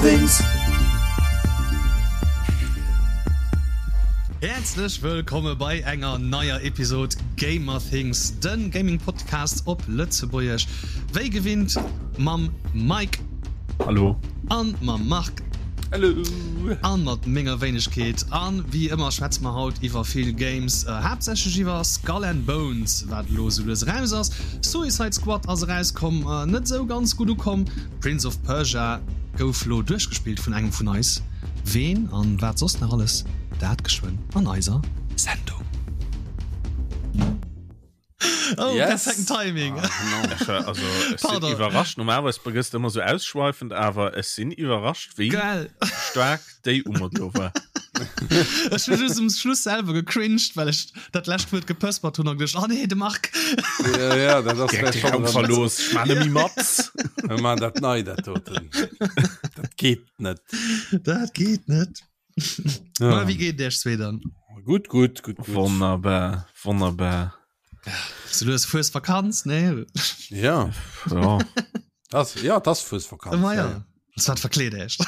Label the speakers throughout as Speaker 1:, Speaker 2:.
Speaker 1: Gamerthings. Häerzlech wëllkomme bei enger neier Episod Gamerthings, den Gaming Podcast op Lëtzebuergesch. Wéi gewinnt mam Mike.
Speaker 2: Hallo.
Speaker 1: An mam Marc.
Speaker 2: Hallo.
Speaker 1: An mat menger Wéinegkeet. An wéi ëmmer schwätze mer haut iwwer vill Games, haaptsächlech iwwer Skull and Bones, wat elo esou lues eraus ass. Suicide Squad ass erauskomm, net esou ganz gutt ukomm. Prince of Persia gouf lo duerchgespillt vun engem vun eis. Ween an wat soss nach alles, dat geschwënn an eiser Sendung. Oh, yes. perfekten Timing.
Speaker 2: Ah, no. Ech war, also, ech sinn iwwerrascht. Normalerweis gëss de ëmmer sou ausschweifend, awer ech sinn iwwerrascht, wéi
Speaker 1: Geil.
Speaker 2: staark déi Ummer do war.
Speaker 1: Ech hu just um Schluss selwer gecringed, well ech dat lescht Wuert gepëspert hunn an geduecht, oh nee, de Marc.
Speaker 3: Ja, ja, dat ass
Speaker 2: Direkt de Raum verlooss. Ech maan net méi mat.
Speaker 3: Mir maan dat nei, dat doten. Dat geet net.
Speaker 1: Dat geet net. Ja. Ma, wéi geet et iech zwee dann?
Speaker 3: Gutt, gutt, gutt,
Speaker 2: gutt. Wonnerbar, wonnerbar.
Speaker 1: So, du hues Fuesvakanz, nee?
Speaker 3: Ja.
Speaker 2: Ja.
Speaker 3: Das, ja, das Fuesvakanz.
Speaker 1: Ma ja. ja. Das wat verkleet echt.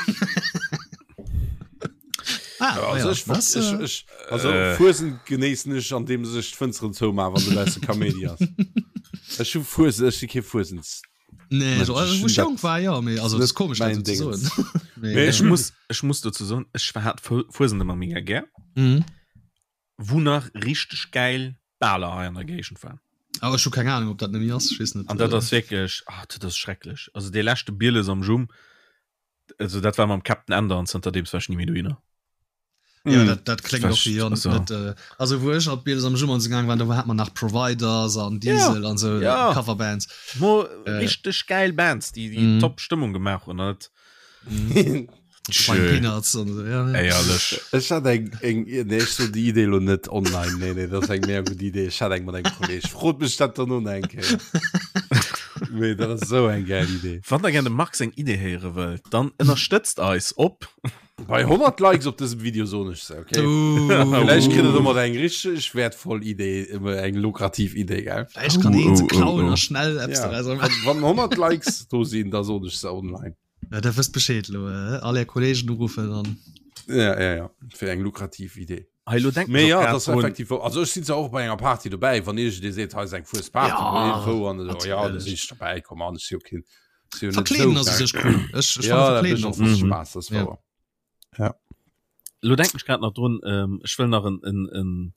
Speaker 3: ah, ja, also, ja. Ich, das, ich, äh, ich, also äh. Fuesen genéissen ech an dem sech d'Fënsteren zouma wann du besse Kaméidi ass. Ech hu Fuesen, ech si kee Fuesens.
Speaker 1: Nee, also, also, wo ich jung war, ja, mee, also, das ist komisch,
Speaker 3: mein
Speaker 1: dat so zu soen.
Speaker 2: Mee, ech muss, ech muss dozou soen, ech hat Fuesent ëmmer mega gär.
Speaker 1: Mhm.
Speaker 2: Wou nach richteg gäil Baler hei an der Géigend waren.
Speaker 1: Awer ech hu keng Ahnung, ob dat net méi ass, ech weess net.
Speaker 2: An dat ass wierklech, ah, dat ass schrecklech. Also dee leschte Bieles am Jumm, also dat war mam Captain Ender an zanterdeems war ech ni méi dohinner.
Speaker 1: Ja,
Speaker 2: mm.
Speaker 1: dat, dat klingt och wéi also. net äh, also wou ech op Bieles am Jumm gaang waren, do hat man nach Providers an Diesel
Speaker 2: ja.
Speaker 1: an so
Speaker 2: ja.
Speaker 1: Coverbands.
Speaker 2: Mo äh, richteg geil Bands, déi déi mm. top Stëmmung gemaach hunn. Net.
Speaker 1: Mm. Peanuts und so, ja,
Speaker 2: ja. Ehrlich.
Speaker 3: Ech hat eng, eng, nee, ech so die Idee lo net online. Nee, nee, dat ass eng mega gut Idee. Ech hat eng mat engem Kolleg. Frot mech dat dann no eng Kéier. Nee, dat ass so eng geil Idee.
Speaker 2: Wann der gern dem Marc seng Idee héiere wëllt, dann ënnerstëtzt eis op
Speaker 3: Bei 100 Likes op dësem Video soen ech se, okay?
Speaker 1: Uh.
Speaker 3: Vielleicht kritt der domat eng richteg wertvoll Idee, eng lukrativ Idee, gell?
Speaker 1: Vielleicht kann een se
Speaker 2: Oh, oh,
Speaker 1: klauen
Speaker 2: oh.
Speaker 1: a schnell Apps
Speaker 3: Ja.
Speaker 1: daraus machen.
Speaker 3: Wann, wann 100 Likes do sinn, da soen ech se online.
Speaker 1: Ja, der wësst Bescheed lo, äh? all är Kollegen uruffen an.
Speaker 3: Ja, ja, ja. Fir eng lukrativ Idee.
Speaker 2: Hei, lo denken
Speaker 3: Mee
Speaker 2: ech
Speaker 3: ja,
Speaker 2: och
Speaker 3: dat
Speaker 2: grad
Speaker 3: ass
Speaker 2: drun.
Speaker 3: effektiv wou. Also ech sinn zwar och bei enger Party dobäi, wann iergendee seet, hei ass eng Fuesparty,
Speaker 1: Ja,
Speaker 3: wo irgendwou an esou, ja, da
Speaker 1: natierlech.
Speaker 3: sinn ech dobäi, komm an, ech si jo keen, si jo net
Speaker 1: Verkleeden
Speaker 3: esou
Speaker 1: ass u
Speaker 3: geil.
Speaker 1: sech cool. Ech, ech
Speaker 3: Ja,
Speaker 1: fanne
Speaker 3: dat
Speaker 1: Verkleeden
Speaker 3: mécht
Speaker 1: och
Speaker 3: och
Speaker 1: flott.
Speaker 2: Mhm.
Speaker 3: Spaass, dat ass
Speaker 1: Ja.
Speaker 3: wouer. Ja.
Speaker 2: Lo denken ech grad nach drun, ähm, ech wëll nach en, en, en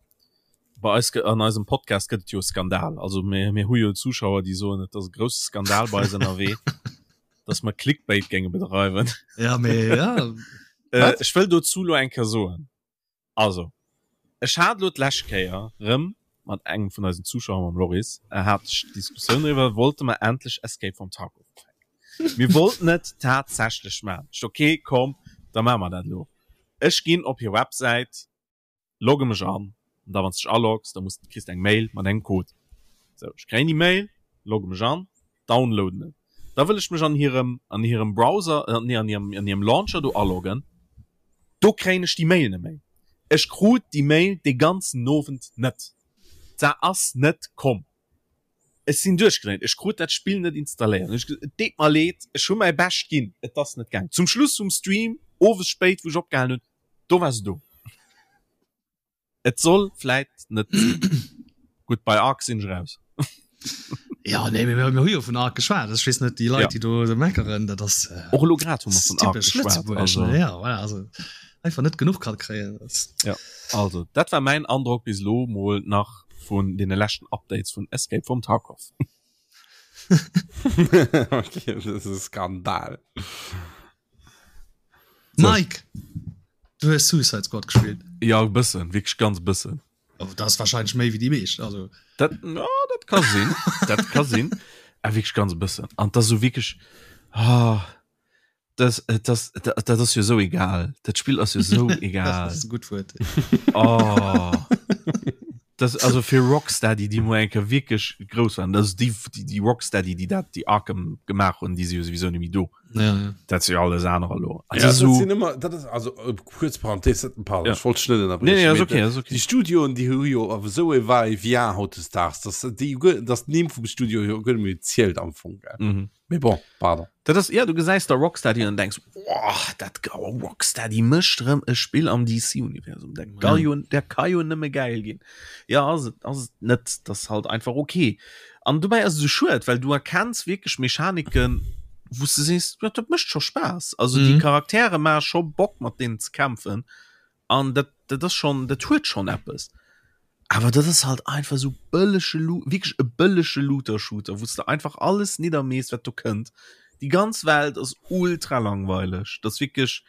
Speaker 2: bei eis an eisem Podcast gëtt et jo e Skandal. Also mir, mir hu jo Zuschauer, déi soen, et ass e grousse Skandal bei eis ënnerwee, dass mer Clickbait géinge bedreiwen.
Speaker 1: Ja, mee ja.
Speaker 2: Äh, ech wëll dozou lo eng Kéier soen, Also, ech hat elo d'lescht Kéier rëm mat engem vun eisen Zuschauer, mam Loris, hat ech d'Diskussioun driwwer, wollte mer endlech Escape from Tarkov ufänken. Mir wollten et tatsächlech maachen. Ech, ok, komm, da maache mer dat elo. Ech ginn op hir Websäit, logge mech an, an da wann s dech aloggs, da muss, kriss de eng Mail mat engem Code. Sou, ech kréien déi Mail, logge mech an, downloaden et. Da wëll ech mech an hirem, an hirem Browser, nee, an hirem, an hirem Launcher do aloggen. Do kréien ech déi Mail net méi. Ech krut déi Mail dee ganzen Owend net. Se ass net komm. Ech sinn duerchgedréint. Ech krut dat Spill net installéiert. Ech gesot, et deet mer leed, ech hu mäi Bescht ginn, et ass net gaangen. Zum Schluss vum Stream, owes spéit, wou ech opgehalen hunn, do war se do. Et soll vläit net sinn. Gutt, bei Ark sinn ech raus.
Speaker 1: Ja, nee, mir, mir hu jo vun Ark geschwat. Ech weess net, déi Leit,
Speaker 2: Ja.
Speaker 1: déi do meckeren, dat ass äh,
Speaker 2: Och elo grad hu mer vun Ark
Speaker 1: typesch
Speaker 2: geschwat.
Speaker 1: Lëtzebuerg.
Speaker 2: Also,
Speaker 1: Ne? Ja, voilà, also einfach net genuch kann kréien. Das,
Speaker 2: ja. Also, dat war mäin Androck bis elo mol nach vun deene leschten Updates vun Escape from Tarkov.
Speaker 3: okay, das ist e Skandal.
Speaker 2: So.
Speaker 1: Mike, du hues Suicide Squad gespielt.
Speaker 2: Ja, e bëssen, wierklech ganz e bëssen.
Speaker 1: Oh, dat ass wahrscheinlech méi wéi déi meescht. Also,
Speaker 2: Dat, ja, dat ka sinn. Dat ka sinn. A wierklech ganz e bëssen. An dat ass esou wierklech, ah, das, äh, das, dat, dat ass jo esou egal. Dat Spill ass jo esou egal.
Speaker 1: Das ass e gutt Wuert.
Speaker 2: Oh. Das, also fir Rocksteady, déi mo eng Kéier wierklech grouss waren, also déi, déi, déi Rocksteady, déi dat, déi Arkham gemaach hunn, déi si jo souwisou net méi do.
Speaker 1: Ja, ja.
Speaker 2: Dat si jo alles anerer elo.
Speaker 3: Ja,
Speaker 2: Also
Speaker 3: dat
Speaker 2: so,
Speaker 3: sinn ëmmer, dat ass, also äh, kuerz Parenthese, dat- pardon,
Speaker 2: Ja.
Speaker 3: ech wollt dech net
Speaker 2: nee,
Speaker 3: ënnerbriechen,
Speaker 2: nee, ass
Speaker 3: mee
Speaker 2: okay, ass okay.
Speaker 3: Déi Studioen, déi hu jo awer esou e Va-et-vient hautdesdaags, dass déi guer, dass d'Nimm vum Studio jo guer net méi zielt am Fong, gell?
Speaker 2: Mhm.
Speaker 3: Mee bon, pardon.
Speaker 2: Dat ass, ja, du gesäis da Rocksteady an denkst, oh. Oh, dat oh, Rocksteady mécht rëm e Spill am DC-Universum. Dat ka jo, dat ka jo nëmme gäil ginn. Ja, ass et, ass et net. Dat ass halt einfach okay. An dobäi ass et esou schued, well du erkenns wierklech Mechaniken, wou s de sees, ja, dat mécht scho Spaass. Also déi Charaktere maache scho Bock, mat deenen ze kämpfen. An dat, dat ass schonn, dat huet schonn eppes. Awer dat ass halt einfach esou bëllege Lu wierklech e bëllege Looter-Shooter, wou s de einfach alles niddermees, wat do kënnt. Déi ganz Welt ass ultra langweileg. Dat ass wierklech,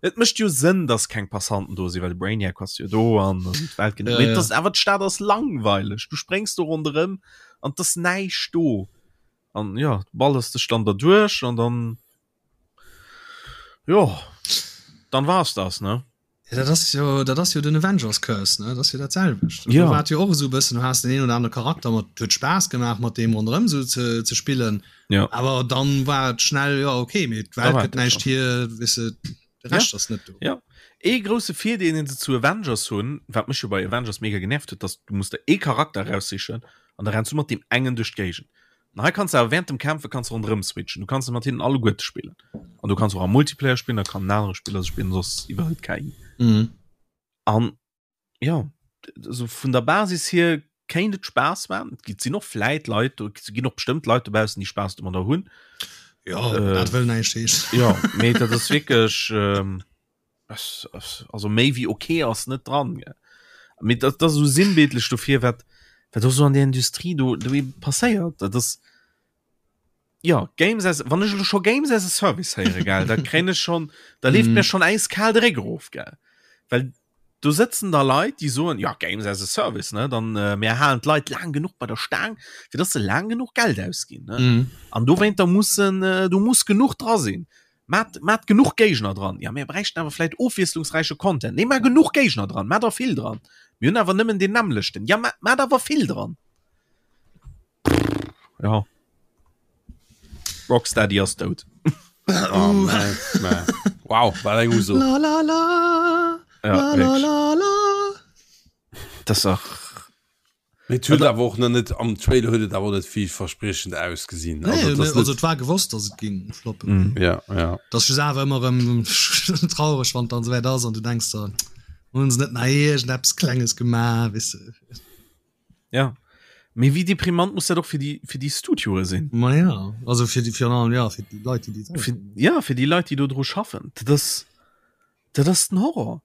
Speaker 2: et mécht jo Sënn, dass keng Passanten do sinn, well de Brainiac ass jo do an d'Welt gëtt. Mee et ass awer, d'Stad ass langweileg. Du spréngs do ronderëm an et ass näischt do. An jo, du ballers dech dann derduerch an dann, jo, dann war es das, ne?
Speaker 1: Ja, dat ass jo, dat ass jo den Avengers Curse, ne? Dat ass jo dat selwecht. Ja. Do war et jo och esou e bëssen, du has den een oder anere Charakter mat, huet Spaass gemaach mat deem ronderëm esou ze, ze spillen.
Speaker 2: Ja.
Speaker 1: Awer dann war et schnell, ja okay, mee d'Welt
Speaker 2: war
Speaker 1: gëtt
Speaker 2: et
Speaker 1: näischt
Speaker 2: schon.
Speaker 1: hier, weess de, de
Speaker 2: Ja.
Speaker 1: Rescht ass net do.
Speaker 2: Ja. Ee grousse Virdeel, deen se zu Avengers hunn, wat mech jo bei Avengers mega genervt huet, dass du muss der ee Charakter eraussichen an da renns du mat deem engen duerch d'Géigend. An hei kanns du awer während dem Kämpfe kanns du ronderëm switchen. Du kanns mat hinnen alleguerte spillen. An du kanns och am Multiplayer spillen, da kann en anere Spiller se spillen, soss iwwerhëlt d'KI.
Speaker 1: Mhm.
Speaker 2: An ja, also vun der Basis hier kéint et Spaass maachen. Et gi sinn och vläit Leit do, et ginn och bestëmmt Leit dobaussen, déi Spaass domadder hunn.
Speaker 1: Ja, äh, dat wëll näischt heeschen.
Speaker 2: Ja, mee dat ass wierklech ähm, also méi wéi okay ass net dran gell. Mee dat, dat ass esou sinnbildlech dofir, wat, wat och sou an der Industrie do, do eben passéiert. Dat ass, ja, Games as, wann ech elo scho Games as a Service héiere, gell, da kréien ech schon, da leeft mm. mir schon äiskal de Réck erof, gell. Well do sëtzen da Leit, déi soen, ja, Games as a Service, ne, dann äh, mir halen d'Leit laang genuch bei der Staang, fir dass se laang genuch Geld ausginn, ne. Mm. An dowéinter mussen, äh, do muss genuch dra sinn. Maat, maat genuch Géigner dran. Ja, mir bräichten awer vläit ofwiesslungsräiche Content. Nee, maach genuch Géigner dran, maach der vill dran. Mir hunn awer nëmmen deen nämmlechten. Ja, maach, maach awer vill dran. Ja. Rocksteady ass dout.
Speaker 3: Oh, man, man. Wow, war eng Uso.
Speaker 1: La la la.
Speaker 2: Ja,
Speaker 1: La la la la.
Speaker 2: Das ist auch
Speaker 3: Mee et huet awer och nach net, am Trailer huet et awer och net villverspriechend ausgesinn.
Speaker 1: Nee,
Speaker 3: Also, et ass
Speaker 1: also
Speaker 3: net,
Speaker 1: et war gewosst, dass et ging floppen.
Speaker 2: Mm.
Speaker 3: ja, ja.
Speaker 1: Dat ass just awer ëmmer erëm traureg, wann et dann esouwäit ass an du denks der, hunn se net nach iergendeppes Klenges gemaach, weess de.
Speaker 2: Ja. Mee wéi deprimant muss dat och fir déi, fir déi Studioe sinn?
Speaker 1: Ma ja, also fir déi, virun allem, ja, fir déi Leit, déi déi
Speaker 2: Fir, ja, fir déi Leit, déi do dru schaffen. Dat ass, dat ass den Horror.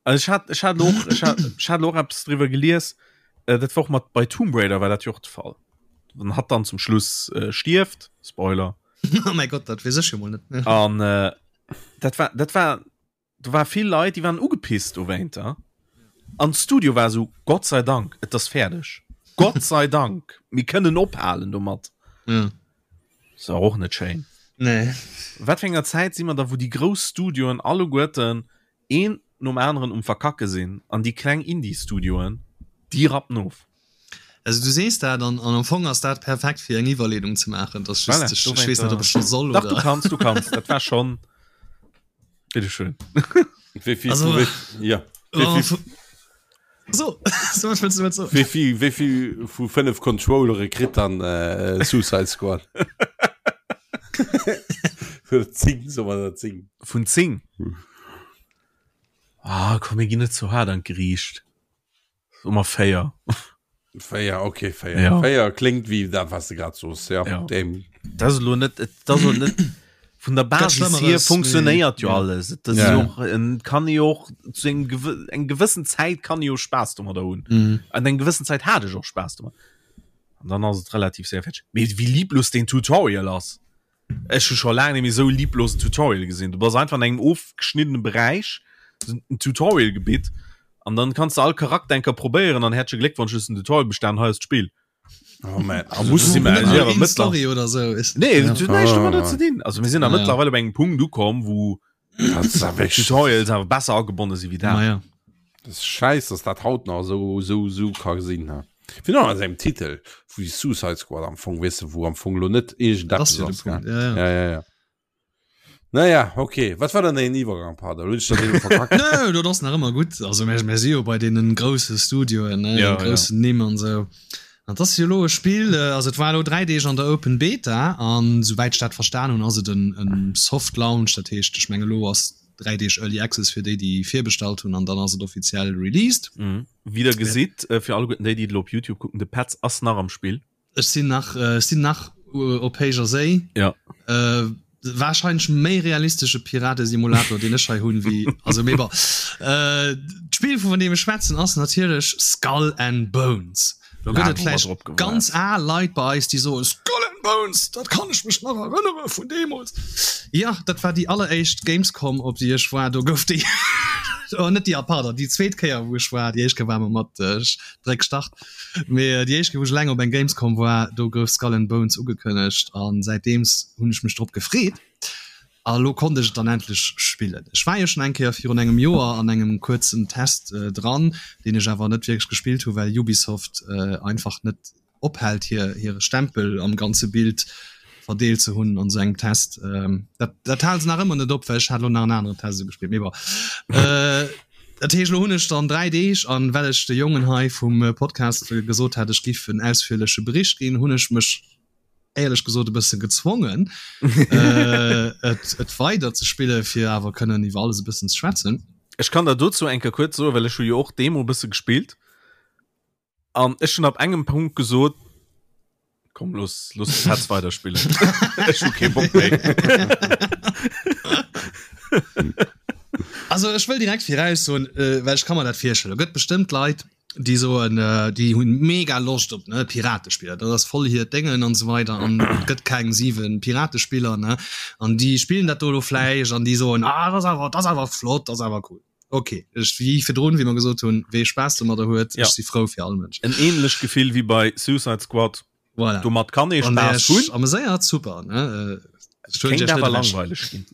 Speaker 2: Also ech hat, ech hat och, ech hat, ech hat och eppes driwwer gelies, äh, dat war och mat bei Tomb Raider war dat jo och de Fall. Wann hatt dann zum Schluss äh, stierft, Spoiler.
Speaker 1: Oh mäi Gott, dat weess ech jo mol net.
Speaker 2: An äh, dat war, dat war, do war vill Leit, déi waren ugepisst dowéinter. An d'Studio war esou, Gott sei Dank, et ass fäerdeg. Gott sei Dank, mir kënnen ophalen domat.
Speaker 1: Ja.
Speaker 2: Ass awer och net schéin.
Speaker 1: Nee.
Speaker 2: Wat fir enger Zäit si mer da, wou déi grouss Studioen alleguerten een nom aneren um Verkacke sinn an déi kleng Indie-Studioen, déi rappen of?
Speaker 1: Also du sees dat an, an am Fong ass dat perfekt fir eng Iwwerleedung ze maachen. Dat ass just,
Speaker 2: Voilà,
Speaker 1: ech, ech
Speaker 2: dowéinter.
Speaker 1: weess net, ob ech scho soll
Speaker 2: Dach, du
Speaker 1: oder.
Speaker 2: kanns, du kanns. Dat war schonn. Bitteschön.
Speaker 3: Wéi vill,
Speaker 1: Also,
Speaker 3: wéi, ja. Wéi
Speaker 1: oh,
Speaker 3: vill,
Speaker 1: vu- So, so wat wëlls du domat soen?
Speaker 3: wéi vill, wéi vill vu 5 Controllere kritt dann äh, Suicide Squad? Oder 10, soe mer der 10.
Speaker 2: Vun 10? Ah, komm, mir ginn net zu haart an d'Geriicht. Soe mer 4.
Speaker 3: 4, okay, 4.
Speaker 2: Ja.
Speaker 3: 4 kléngt wéi dat, wat s de grad soos. Ja,
Speaker 2: Ja.
Speaker 3: dem.
Speaker 2: Dat ass elo net, et ass och net vun der Basis hier
Speaker 1: Schëmmeres,
Speaker 2: funktionéiert jo
Speaker 1: mee, ja.
Speaker 2: alles. Et ass
Speaker 3: Ja.
Speaker 2: jo och, en kann jo och zu engem gewë eng gewëssen Zäit kann jo Spaass domadder hunn.
Speaker 1: Mhm.
Speaker 2: An eng gewëssen Zäit hat ech och Spaass domat. An dann ass et relativ séier fäerdeg. Mee wéi lieblos deen Tutorial ass! Ech hu scho laang net méi esou e lieblosen Tutorial gesinn. Du bass einfach an engem ofgeschniddene Beräich, en Tutorial-Gebitt, an dann kanns de all Charakter eng Kéier probéieren an häerzleche Gléckwonsch, du hues den Tutorial bestan, hei ass d'Spill.
Speaker 3: Oh man.
Speaker 2: A muss si
Speaker 1: Net
Speaker 2: mer
Speaker 1: mal
Speaker 2: awer
Speaker 1: een
Speaker 2: mëttler
Speaker 1: Story oder sou. Ist,
Speaker 2: Nee,
Speaker 1: ja.
Speaker 2: dat huet näischt domadder
Speaker 3: Ah.
Speaker 2: ze dinn. Also mir sinn da
Speaker 1: Ja.
Speaker 2: mëttlerweil op engem Punkt ukomm, wou
Speaker 3: Dat ass awer wierklech-
Speaker 2: Tutorials awer besser agebonne si wéi dat.
Speaker 1: Ma ja.
Speaker 3: Das ist scheiß, dass dat haut nach so, so, so ka gesinn ha. Fir an engem Titel wéi Suicide Squad am Fong weess de, wou am Fong lo net
Speaker 1: Dat ass
Speaker 3: iergendeppes
Speaker 1: jo de
Speaker 3: ass, gell?
Speaker 1: Punkt. Ja, ja.
Speaker 3: Ja, ja, ja. Naja, okay. Wat war dann den Iwwergang, Pader? Hunn ech dat elo verkackt?
Speaker 1: Nö, dat ass nach ëmmer gutt. Also mir, mir si jo bei deenen grousse Studioen, ne,
Speaker 2: Ja,
Speaker 1: den groussen Nimm an sou. Dat ass jo elo e Spill, also et war elo 3 Deeg an der Open Beta an souwäit ech dat verstan hunn, ass et en Soft Launch, dat heescht ech menge elo ass 3 Deeg Early Access fir déi déi virbestallt hunn an dann ass et offiziell released.
Speaker 2: Wéi der gesitt, fir alleguerten déi déi et elo op Youtube kucken, de Petz ass nach am Spill.
Speaker 1: Ech sinn nach, ech sinn nach op héijer Séi.
Speaker 2: Ja.
Speaker 1: Äh, wahrscheinlech méi realistesche Piratesimulator, deen ech hei hunn, wéi, also mee bon. Äh, d'Spill vun deem ech schwätzen ass natierlech Skull and Bones. Do gëtt et vläicht ganz al Leit bei eis, déi soen, Skull and Bones, dat kann ech mech nach erënnere vun deemools. Ja, dat war déi alleréischt Gamescom, op déi ech war. Do gouf déi, oh net déi, pardon, déi zweet Kéier, wou ech war. Déi éischt Kéier war mer mat Dréck Start. Mee déi éischt Kéier wou ech eleng op eng Gamescom war, do gouf Skull and Bones ugekënnegt an säitdeems hunn ech mech drop gefreet a lo konnt ech et dann endlech spillen. Ech war jo schonn eng Kéier virun engem Joer an engem kuerzen Test dran, deen ech awer net wierklech gespillt hu well Ubisoft einfach net ophält hir hire Stempel am ganze Bild verdeelt ze hunn an esou engem Test. Dat dat hale se nach ëmmer net op, well ech hat elo nach en aneren Test esou gespillt, mee bon. Dat heescht, elo hunn ech dann 3 Deeg, an well ech de Jongen hei vum Podcast gesot hat, ech giff en ausführleche Bericht ginn, hunn ech mech éierlech gesot e bësse gezwongen, et et weider ze spillen, fir awer kënnen iwwer alles e bëssen ze schwätzen.
Speaker 2: Ech kann der dozou eng Kéier kuerz soen, well ech hu jo och d'Demo e bësse gespillt. An ech hunn ab engem Punkt gesot, komm los los de Petz weiderspillen. Ech hu kee Bock méi.
Speaker 1: Also ech wëll direkt viraus soen, äh, well ech ka mer dat virstellen, gëtt bestëmmt Leit, déi soen, äh, déi hunn mega Loscht op ne Piratespiller, dat ass voll hiert Déngen an esou weider an et gëtt keng 7 Piratespiller ne an déi spillen dat do elo vläicht an déi soen, ah dat ass awer dat ass awer flott, dat ass awer cool. Ok, ech wéi virdrun, wéi mer gesot hunn, wee Spaass domadder huet,
Speaker 2: ja.
Speaker 1: ech si frou fir all Mënsch.
Speaker 2: En ähnlecht Gefill wéi bei Suicide Squad.
Speaker 1: Voilà.
Speaker 2: Domat kann ee Spaass hunn.
Speaker 1: Ameséiert, super. Ne?
Speaker 2: Äh, Kéint awer langweileg ginn.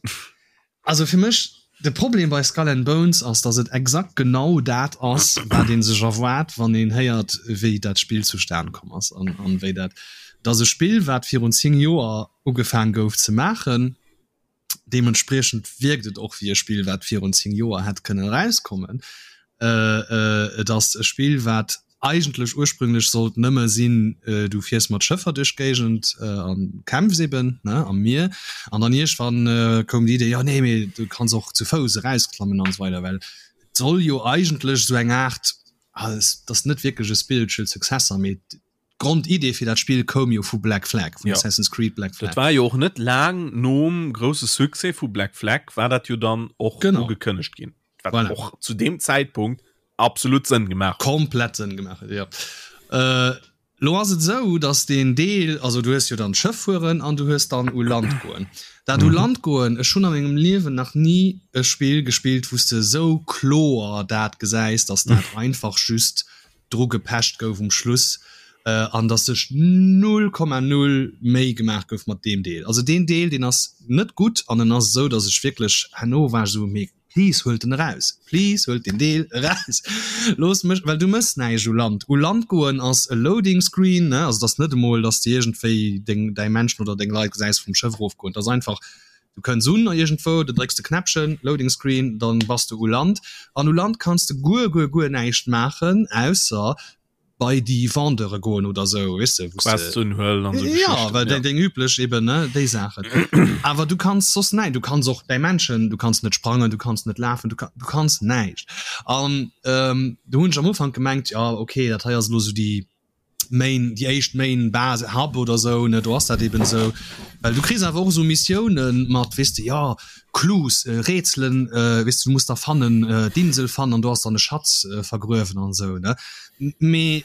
Speaker 1: Also fir mech, de Problem bei Skull and Bones ass, dass et exakt genau dat ass, wat ee sech erwaart, wann een héiert, wéi dat Spill zustan komm ass an, an wéi dat. Et ass e Spill, wat virun 10 Joer ugefaang gouf ze maachen. Deementspriechend wierkt et och wéi e Spill, wat virun 10 Joer hätt kënnen erauskommen. Et ass e Spill, wat eigentlech ursprünglech sollt nëmme sinn, du fiers mat Schëffer duerch d'Géigend a kämpfs eben, ne, am Mier. An dann iergendwann koum déi Idee, jo nee, mee du kanns och zu Fouss erausklammen an esou weider, well et soll jo eigentlech esou eng Aart, et ass net wierklech e spiritual successor, mee D'Grondidee fir dat Spill koum jo vu Black Flag, vun
Speaker 2: ja.
Speaker 1: Assassin's Creed Black Flag.
Speaker 2: Dat war jo och net laang nom grousse Succès vu Black Flag war dat jo dann och
Speaker 1: genau.
Speaker 2: ugekënnegt ginn. Wat
Speaker 1: voilà.
Speaker 2: och zu deem Zäitpunkt absolut Sënn gemaach.
Speaker 1: Komplett Sënn gemaach huet, ja. Äh, lo ass et esou, dass deen Deel, also du hues jo dann d'Schëff fueren an du hues dann u Land goen. Dat u Land goen, ech hunn a mengem Liewen nach ni e Spill gespillt, wou s de esou kloer dat gesäis, dass dat einfach just dru gepecht gouf um Schluss an dass sech 0,0 Méi gemaach gouf mat deem Deel. Also deen Deel deen ass net gutt an en ass esou, dass ech wierklech herno war ech esou, mee please huelt en eraus, please huelt deen Deel eraus, loosst mech, well du mëss näischt u Land. U Land goen ass e Loading Screen, ne, also et ass net emol, dass de iergendwéi deng däi Menschen oder deng Leit gesäis vum Schëff erofgoen, et ass einfach, Du kënns un iergendwou, du drécks de Knäppchen, Loading Screen, dann bass du u Land. An u Land kanns de guer, guer, guer näischt maachen, ausser bei déi Vendeure goen oder sou, weess de, wou s de.
Speaker 2: Quests unhuelen an sou
Speaker 1: Ja,
Speaker 2: Geschichten,
Speaker 1: well
Speaker 2: ja.
Speaker 1: déi, deng üblech eben, ne, déi Saachen. Awer du kanns soss näi-, du kanns och däi Männchen, du kanns net sprangen, du kanns net lafen, du ka-, du kanns näischt. An do hunn ech am Ufank gemengt, jo, okay, dat hei ass elo sou déi. Main, déi éischt Main Base, Hub oder sou, ne, do ass dat eben sou. Well du kriss awer och esou Missiounen mat, weess de, jo, Clues, Rätselen, weess de, du muss da fannen, d'Insel fannen an do ass dann e Schatz vergruewen an esou, ne. Mee,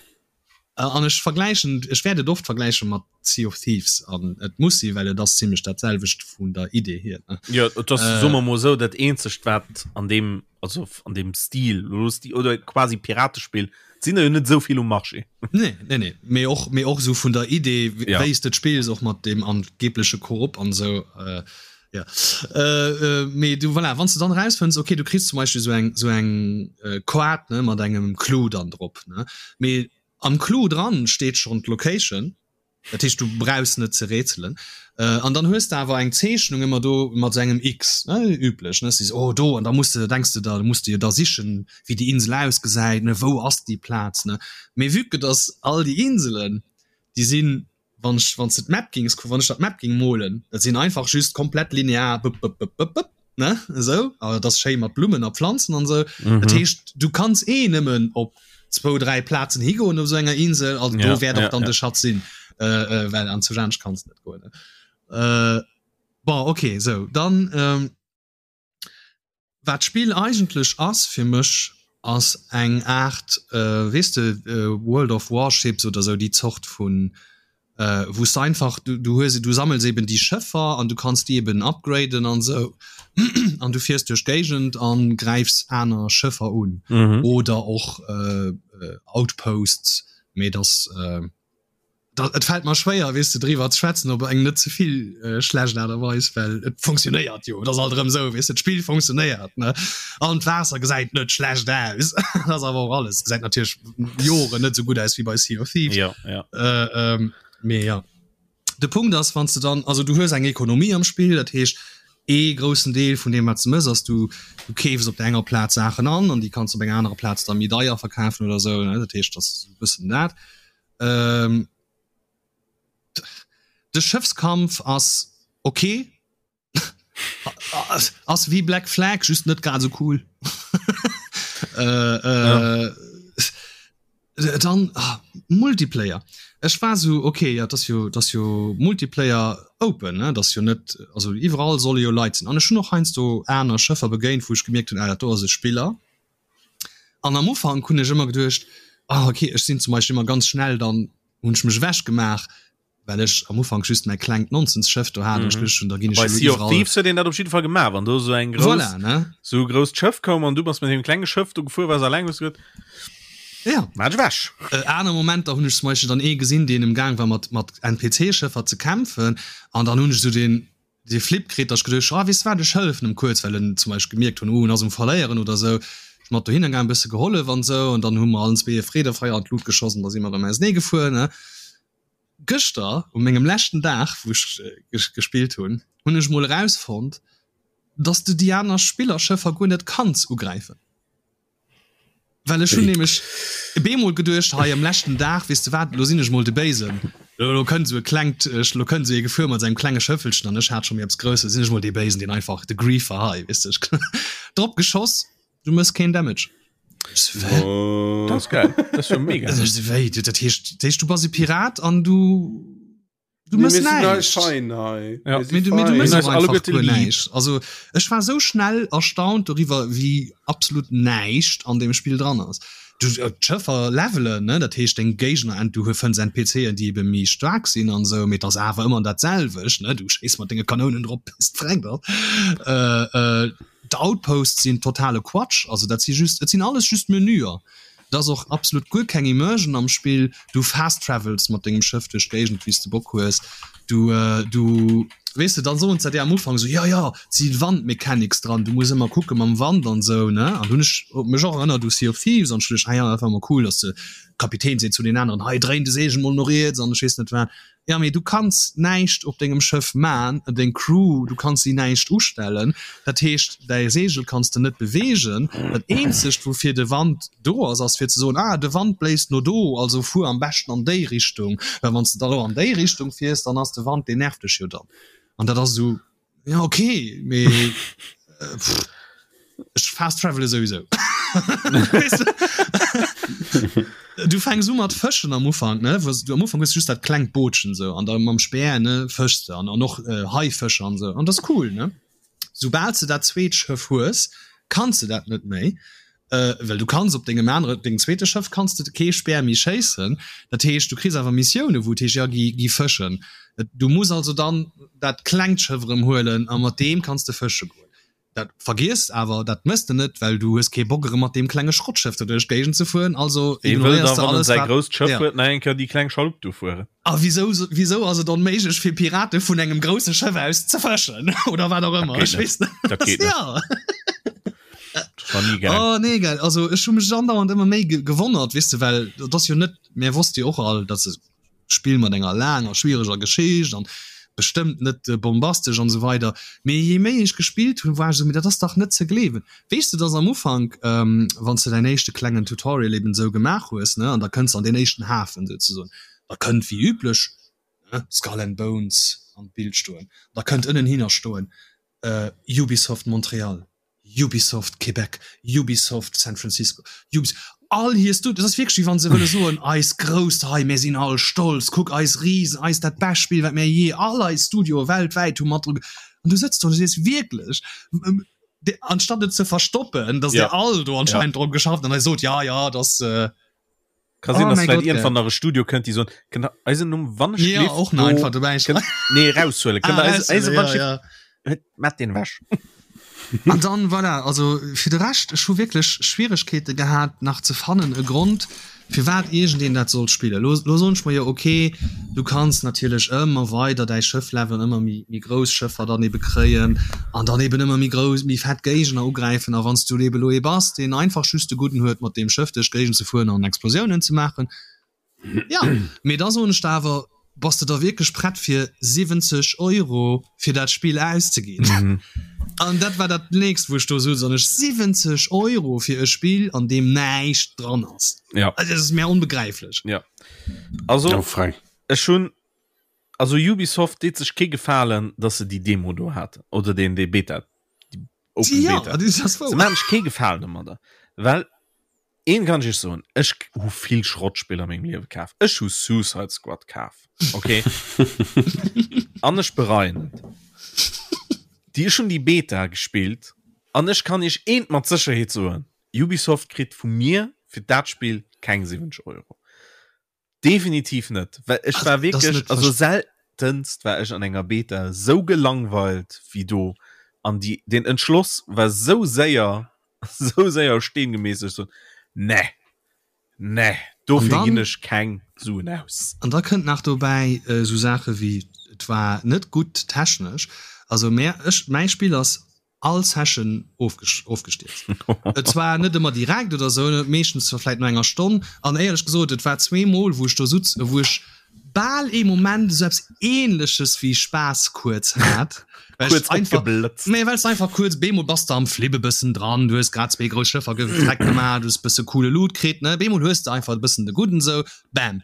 Speaker 1: an ech vergläichen, ech wäert et oft vergläiche mat Sea of Thieves an et muss si well et ass zimmlech dat selwecht vun der Idee hier, ne.
Speaker 2: Jo, et ass, soe mer mol esou, dat eenzegt wat an deem, also an deem Stil, oder quasi Piratespill, sinn der jo net esou vill um Marché.
Speaker 1: Nee, nee, nee. Mee och, mee och esou vun der Idee,
Speaker 2: ja.
Speaker 1: wéi s de et spills, och mat deem angebleche Koop an esou. Äh, ja. Äh, äh, mee du, voilà, wann s de dann erausfënns, okay, du kriss zum Beispill esou eng, esou eng äh, Koart, ne, mat engem Clou dann drop, ne. Mee am Clou dran steet schonn d'Location. Dat heescht, du brauchs net ze rätselen. An dann hues de awer eng Zeechnung ëmmer do mat esou engem X, ne, üblech, ne, sees, oh do, an da muss de, denks de der, muss de jo da sichen, wéi déi Insel ausgesäit, ne, wou ass déi Plaz, ne. Mee vue que dass all déi Inselen, déi sinn, wann ech, wann s de d'Map gings, wann ech der d'Map ging molen, dat sinn einfach just komplett linear, bëpp, bëpp, bëpp, bëpp, bëpp, ne, esou, a dat ass schéi mat Blummen a Pflanzen an esou. Dat heescht, du kanns eh nëmmen op zwou, dräi Plazen higoen op esou enger Insel, also do wäert och dann de Schatz sinn, well an zu anescht kanns de net goen, ne. Bon, okay, esou, dann. Wat d'Spill eigentlech ass fir mech ass eng Aart, weess de, World of Warships oder sou déi Zort vun, wou s de einfach, du hues, du sammels eben déi Schëffer an du kanns déi eben upgraden an sou an du fiers duerch d'Géigend an gräifs aner Schëffer un oder och Outposts, mee dass. Et fält mer schwéier, weess de, driwwer ze schwätzen op eng net ze vill schlecht Aart a Weis, well et funktionéiert jo. Et ass alt erëm esou, weess de, d'Spill funktionéiert, ne? An d'Waasser gesäit net schlecht aus. Dat ass awer och alles. Gesäit natierlech Joren net esou gutt aus wéi bei Sea of Thieves.
Speaker 2: Ja, ja.
Speaker 1: Mee ja. De Punkt ass, wann s de dann, also du hues eng Ekonomie am Spill, dat heescht, ee groussen Deel vun deem, wat s de mëss, ass, du du keefs op der enger Plaz Saachen an an déi kanns de op enger anerer Plaz da méi deier verkafen oder esou, ne? Dat heescht, dat ass e bëssen dat. Ähm, de Schëffskampf ass ok. ass wéi Black Flag, just net grad sou cool. äh, äh, ja. Dann ah, Multiplayer. Ech war so okay, ja, das jo, das jo Multiplayer open, ne? das jo net also iwwerall solle jo Leit sinn. An ech hun och heiansdo aner Schëffer begéint, wou ech gemierkt hunn, ah, dat do ass e Spiller. An am Ufank hunn ech ëmmer geduecht, ah okay, ech sinn zum Beispill ëmmer ganz schnell, dann hunn ech mech ewech gemaach, well ech am Ufank just mäi klengt Nonsense-Schëff do hat an ech geduecht hunn, da ginn ech
Speaker 2: Bei
Speaker 1: elo
Speaker 2: Sea of
Speaker 1: iwwerall.
Speaker 2: Thieves huet een dat op jidde Fall gemaach, wann do esou eng grouss,
Speaker 1: Voilà, ne?
Speaker 2: esou e grousst Schëff koum an du bass mat deem klenge Schëff do gefuer, waars alleng, hues du gesot,
Speaker 1: Ja.
Speaker 2: Maach ech ewech.
Speaker 1: Aner Momenter hunn ech zum Beispill dann ee gesinn, deen emgaang war mat mat NPC-Schëffer ze kämpfen an dann hunn ech esou deen dee Flip kritt, datt ech geduecht hunn, ah weess de wat, ech hëllefen em kuerz, well en zum Beispill gemierkt hunn, oh en ass um Verléieren oder esou. Ech mat dohinner gaang, e bësse gehollef an esou an dann hu mer allen zwee e Freedefeier an d'Lut geschoss an da si mer erëm ausenee gefuer, ne. Gëschter, u mengem leschten Dag, wou ech gespillt hunn, hunn ech mol erausfonnt, datt s de déi aner Spillerschëffer guer net kanns ugräifen. Well ech hunn nämlech bemol geduecht, hei am leschten Dag, weess de wat, elo sinn ech mol de Béisen, elo kënnt esou e klengt, elo kënnt esou ee gefuer mat sengem klenge Schëffelchen an ech hat scho méi eppes Grousses, sinn ech mol dee Béisen, deen einfach de Griefer hei, weess de, ech drop geschoss, du méchs keen Damage. Ech sou, wä?
Speaker 2: Dat ass geil, dat ass jo mega.
Speaker 1: Ech sou, wéi, dat heescht, dat heescht du bass e Pirat an du. Du
Speaker 3: Nee,
Speaker 1: mëss
Speaker 3: mir sinn hei
Speaker 1: näischt.
Speaker 3: fein hei.
Speaker 2: Ja.
Speaker 3: Mir si
Speaker 1: Mee du, mee du
Speaker 3: fein.
Speaker 1: mëss
Speaker 2: Mir
Speaker 1: och
Speaker 2: sinn eis
Speaker 1: einfach
Speaker 2: alleguerte
Speaker 1: guer
Speaker 2: lieb.
Speaker 1: näischt. Also ech war sou schnell erstaunt doriwwer, wéi absolut näischt an deem Spill dran ass. Du, äh, d'Schëffer levelen, ne, dat heescht deng Géigner, ent, du fënns NPCen, déi ebe méi staark sinn an sou, mee et ass awer ëmmer dat selwecht, ne, du schéiss mat denge Kanounen drop bis d'Frenkt ass. Äh, äh, d'Outposts sinn totale Quatsch, also dat si just, et sinn alles just Menüer. Et ass och absolut guer keng Immersion am Spill. Du fast travels mat dengem Schëff duerch d'Géigend wéi s de Bock hues. Du du weess de, dann soen se dir am Ufank esou, jo jo, et si Wandmechanics dran, du muss ëmmer kucke mam Wand an esou, ne? An hunn ech mech och erënnert u Sea of Thieves an ech duecht, ah jo, dat war ëmmer cool, dass de Kapitän seet zu den aneren, hei dréin de Seegel mol no riets an ech weess net wat. Ja mee du kanns näischt op dengem Schëff man, deng Crew, du kanns si näischt ustellen, dat heescht däi Seegel kanns de net beweegen. Dat eenzegt woufir de Wand do ass, ass fir ze soen, ah de Wand bléist no do, also fuer am beschten an déi Richtung, well wann s de da lo an déi Richtung fiers, dann ass de Wand, deen nervt dech jo dann. An dat ass esou, Ja okay mee ech fast travele souwisou. Du fänks u mat fëschen am Ufank ne wou du am Ufank hues just dat klengt Bootchen sou an da mam Speer ne fëschs de an an och äh, Haifëscher an sou an dat ass cool ne. Soubal s de dat zweet Schëff hues, kanns de dat net méi. Well du kanns op dengem anere, dengem zweete Schëff kanns de kee Speer méi schéissen. Dat heescht, du kriss awer Missioune wou et heescht, jo gi, gi fëschen. Du muss also dann dat klengt Schëff erëm huelen a mat deem kanns de fësche goen. Dat vergiess awer, dat mëss de net, well du hues kee Bock erëm mat deem klenge Schrottschëff do duerch d'Géigend ze fueren. Also
Speaker 2: Wee wëll
Speaker 1: ignoréiers
Speaker 2: da,
Speaker 1: de
Speaker 2: wann en
Speaker 1: alles
Speaker 2: säi
Speaker 1: wat,
Speaker 2: grousst Schëff
Speaker 1: ja.
Speaker 2: huet, nach eng Kéier déi kleng Schalupp do fueren?
Speaker 1: A wisou, wisou ass et onméiglech fir Pirate vun engem grousse Schëff aus ze fëschen oder wat och
Speaker 2: Dat
Speaker 1: ëmmer?
Speaker 2: geet
Speaker 1: Ech
Speaker 2: net.
Speaker 1: weess net.
Speaker 2: Dat geet net.
Speaker 1: Ja.
Speaker 2: Dat war ni gaang.
Speaker 1: Oh nee gell, also ech hu mech andauernd ëmmer méi ge gewonnert, weess de, well dat ass jo net, mär wosste jo och all, dass e Spill mat enger laanger schwiereger Geschicht an. Bestëmmt net bombastesch an esou weider. Mee je méi ech gespillt hunn, war ech esou, mee dat ass dach net ze gleewen. Weess de, dass am Ufank, wann s de däin éischte klengen Tutorial eben esou gemaach hues, ne, an da kënns de an deen éischten Hafen souzesoen, da kënnt wéi üblech, ne, Skull and Bones an d'Bild stoen, da kënnt ënnenhinner stoen, Ubisoft Montreal. Ubisoft Québec, Ubisoft San Francisco, Ubis all hir Studios, dat ass wierklech wéi wann se wëlle soen, eis grousst hei, mir sinn all stolz, kuck eis Risen, eis dat bescht Spill wat mir jee, all eis Studioe weltwäit hu mat dru ge an du sëtz do an du sees wierklech, anstatt et ze verstoppen, datt dir all do anscheinend drop geschafft an da sot, ja ja, dat
Speaker 2: Ka sinn, oh dass vielleicht irgendwann nach e Studio kënnt, déi soen, kënnt der eisen Numm wann ech
Speaker 1: ja, och nach einfach dobäi
Speaker 2: schreiwen. Nee, raushuelen. Kënnt ah, eise, eise, ja, ja. Mat den wäsch.
Speaker 1: An dann voilà, also fir de Rescht ech hu wierklech Schwieregkeete gehat nach ze fannen e Grond firwat iergendeen dat sollt spillen. Lo, lo soen ech mer jo okay, du kanns natierlech ëmmer weider däi Schëff levelen, ëmmer méi, méi grouss Schëffer dann ebe kréien an dann eben ëmmer méi grouss, méi fett Géigner ugräifen. A wann s du ebe lo ee bass, deen einfach just de Gudden huet, mat deem Schëff duerch d'Géigend ze fueren an Explosiounen ze maachen, ja, mee da soen ech der awer, bass de da wierklech prett fir 70 Euro fir dat Spill auszeginn? An dat war dat nächst, wou ech do souz, an ech 70 Euro fir e Spill, an deem näischt dran ass,
Speaker 2: Ja.
Speaker 1: also dat ass mir onbegräiflech.
Speaker 2: Ja. Also,
Speaker 3: Ja, Frank.
Speaker 2: ech hunn Also Ubisoft deet sech kee Gefalen, dass se déi Demo do haten oder deen dee Beta, déi Open
Speaker 1: Ja,
Speaker 2: Beta.
Speaker 1: dat ass
Speaker 2: Se
Speaker 1: wouer.
Speaker 2: maachen sech kee Gefalen domadder, well een kann ech iech soen, ech hu vill Schrottspiller a mengem Liewe kaf. Ech hu Suicide Squad kaf, okay? An ech bereien et. Déi ech hunn déi Beta gespillt an ech kann iech eent mat Sécherheet soen, Ubisoft kritt vu mir fir dat Spill keng 70 Euro. Definitiv net, well ech war wierklech, also seltenst war ech an enger Beta sou gelangweilt wéi do an déi den Entschloss war sou séier, sou séier a Steen gemeesselt, ech sot, ne, ne, dofir ginn ech keng Suen aus.
Speaker 1: An da kënnt nach dobäi esou Saache wéi, et war net gutt technesch, also mär, ech, mäi Spill ass all Session ofgestierzt. Et war net ëmmer direkt oder sou, meeschtens zwar vläit no enger Stonn. An éierlech gesot, et war zweemol, wou ech do sutz, wou ech bal ee Moment esou eppes Ähnleches wéi Spaass kuerz hat, well ech
Speaker 2: Kuerz
Speaker 1: einfach,
Speaker 2: opgeblëtzt.
Speaker 1: nee, well s de einfach kuerz, bemol bass de am Flip e bëssen dran, du hues grad zwee grouss Schëffer gefreckt gemaach, du hues e bësse coole Loot kritt, ne, bemol hues de einfach e bëssen de Gudden esou, bam,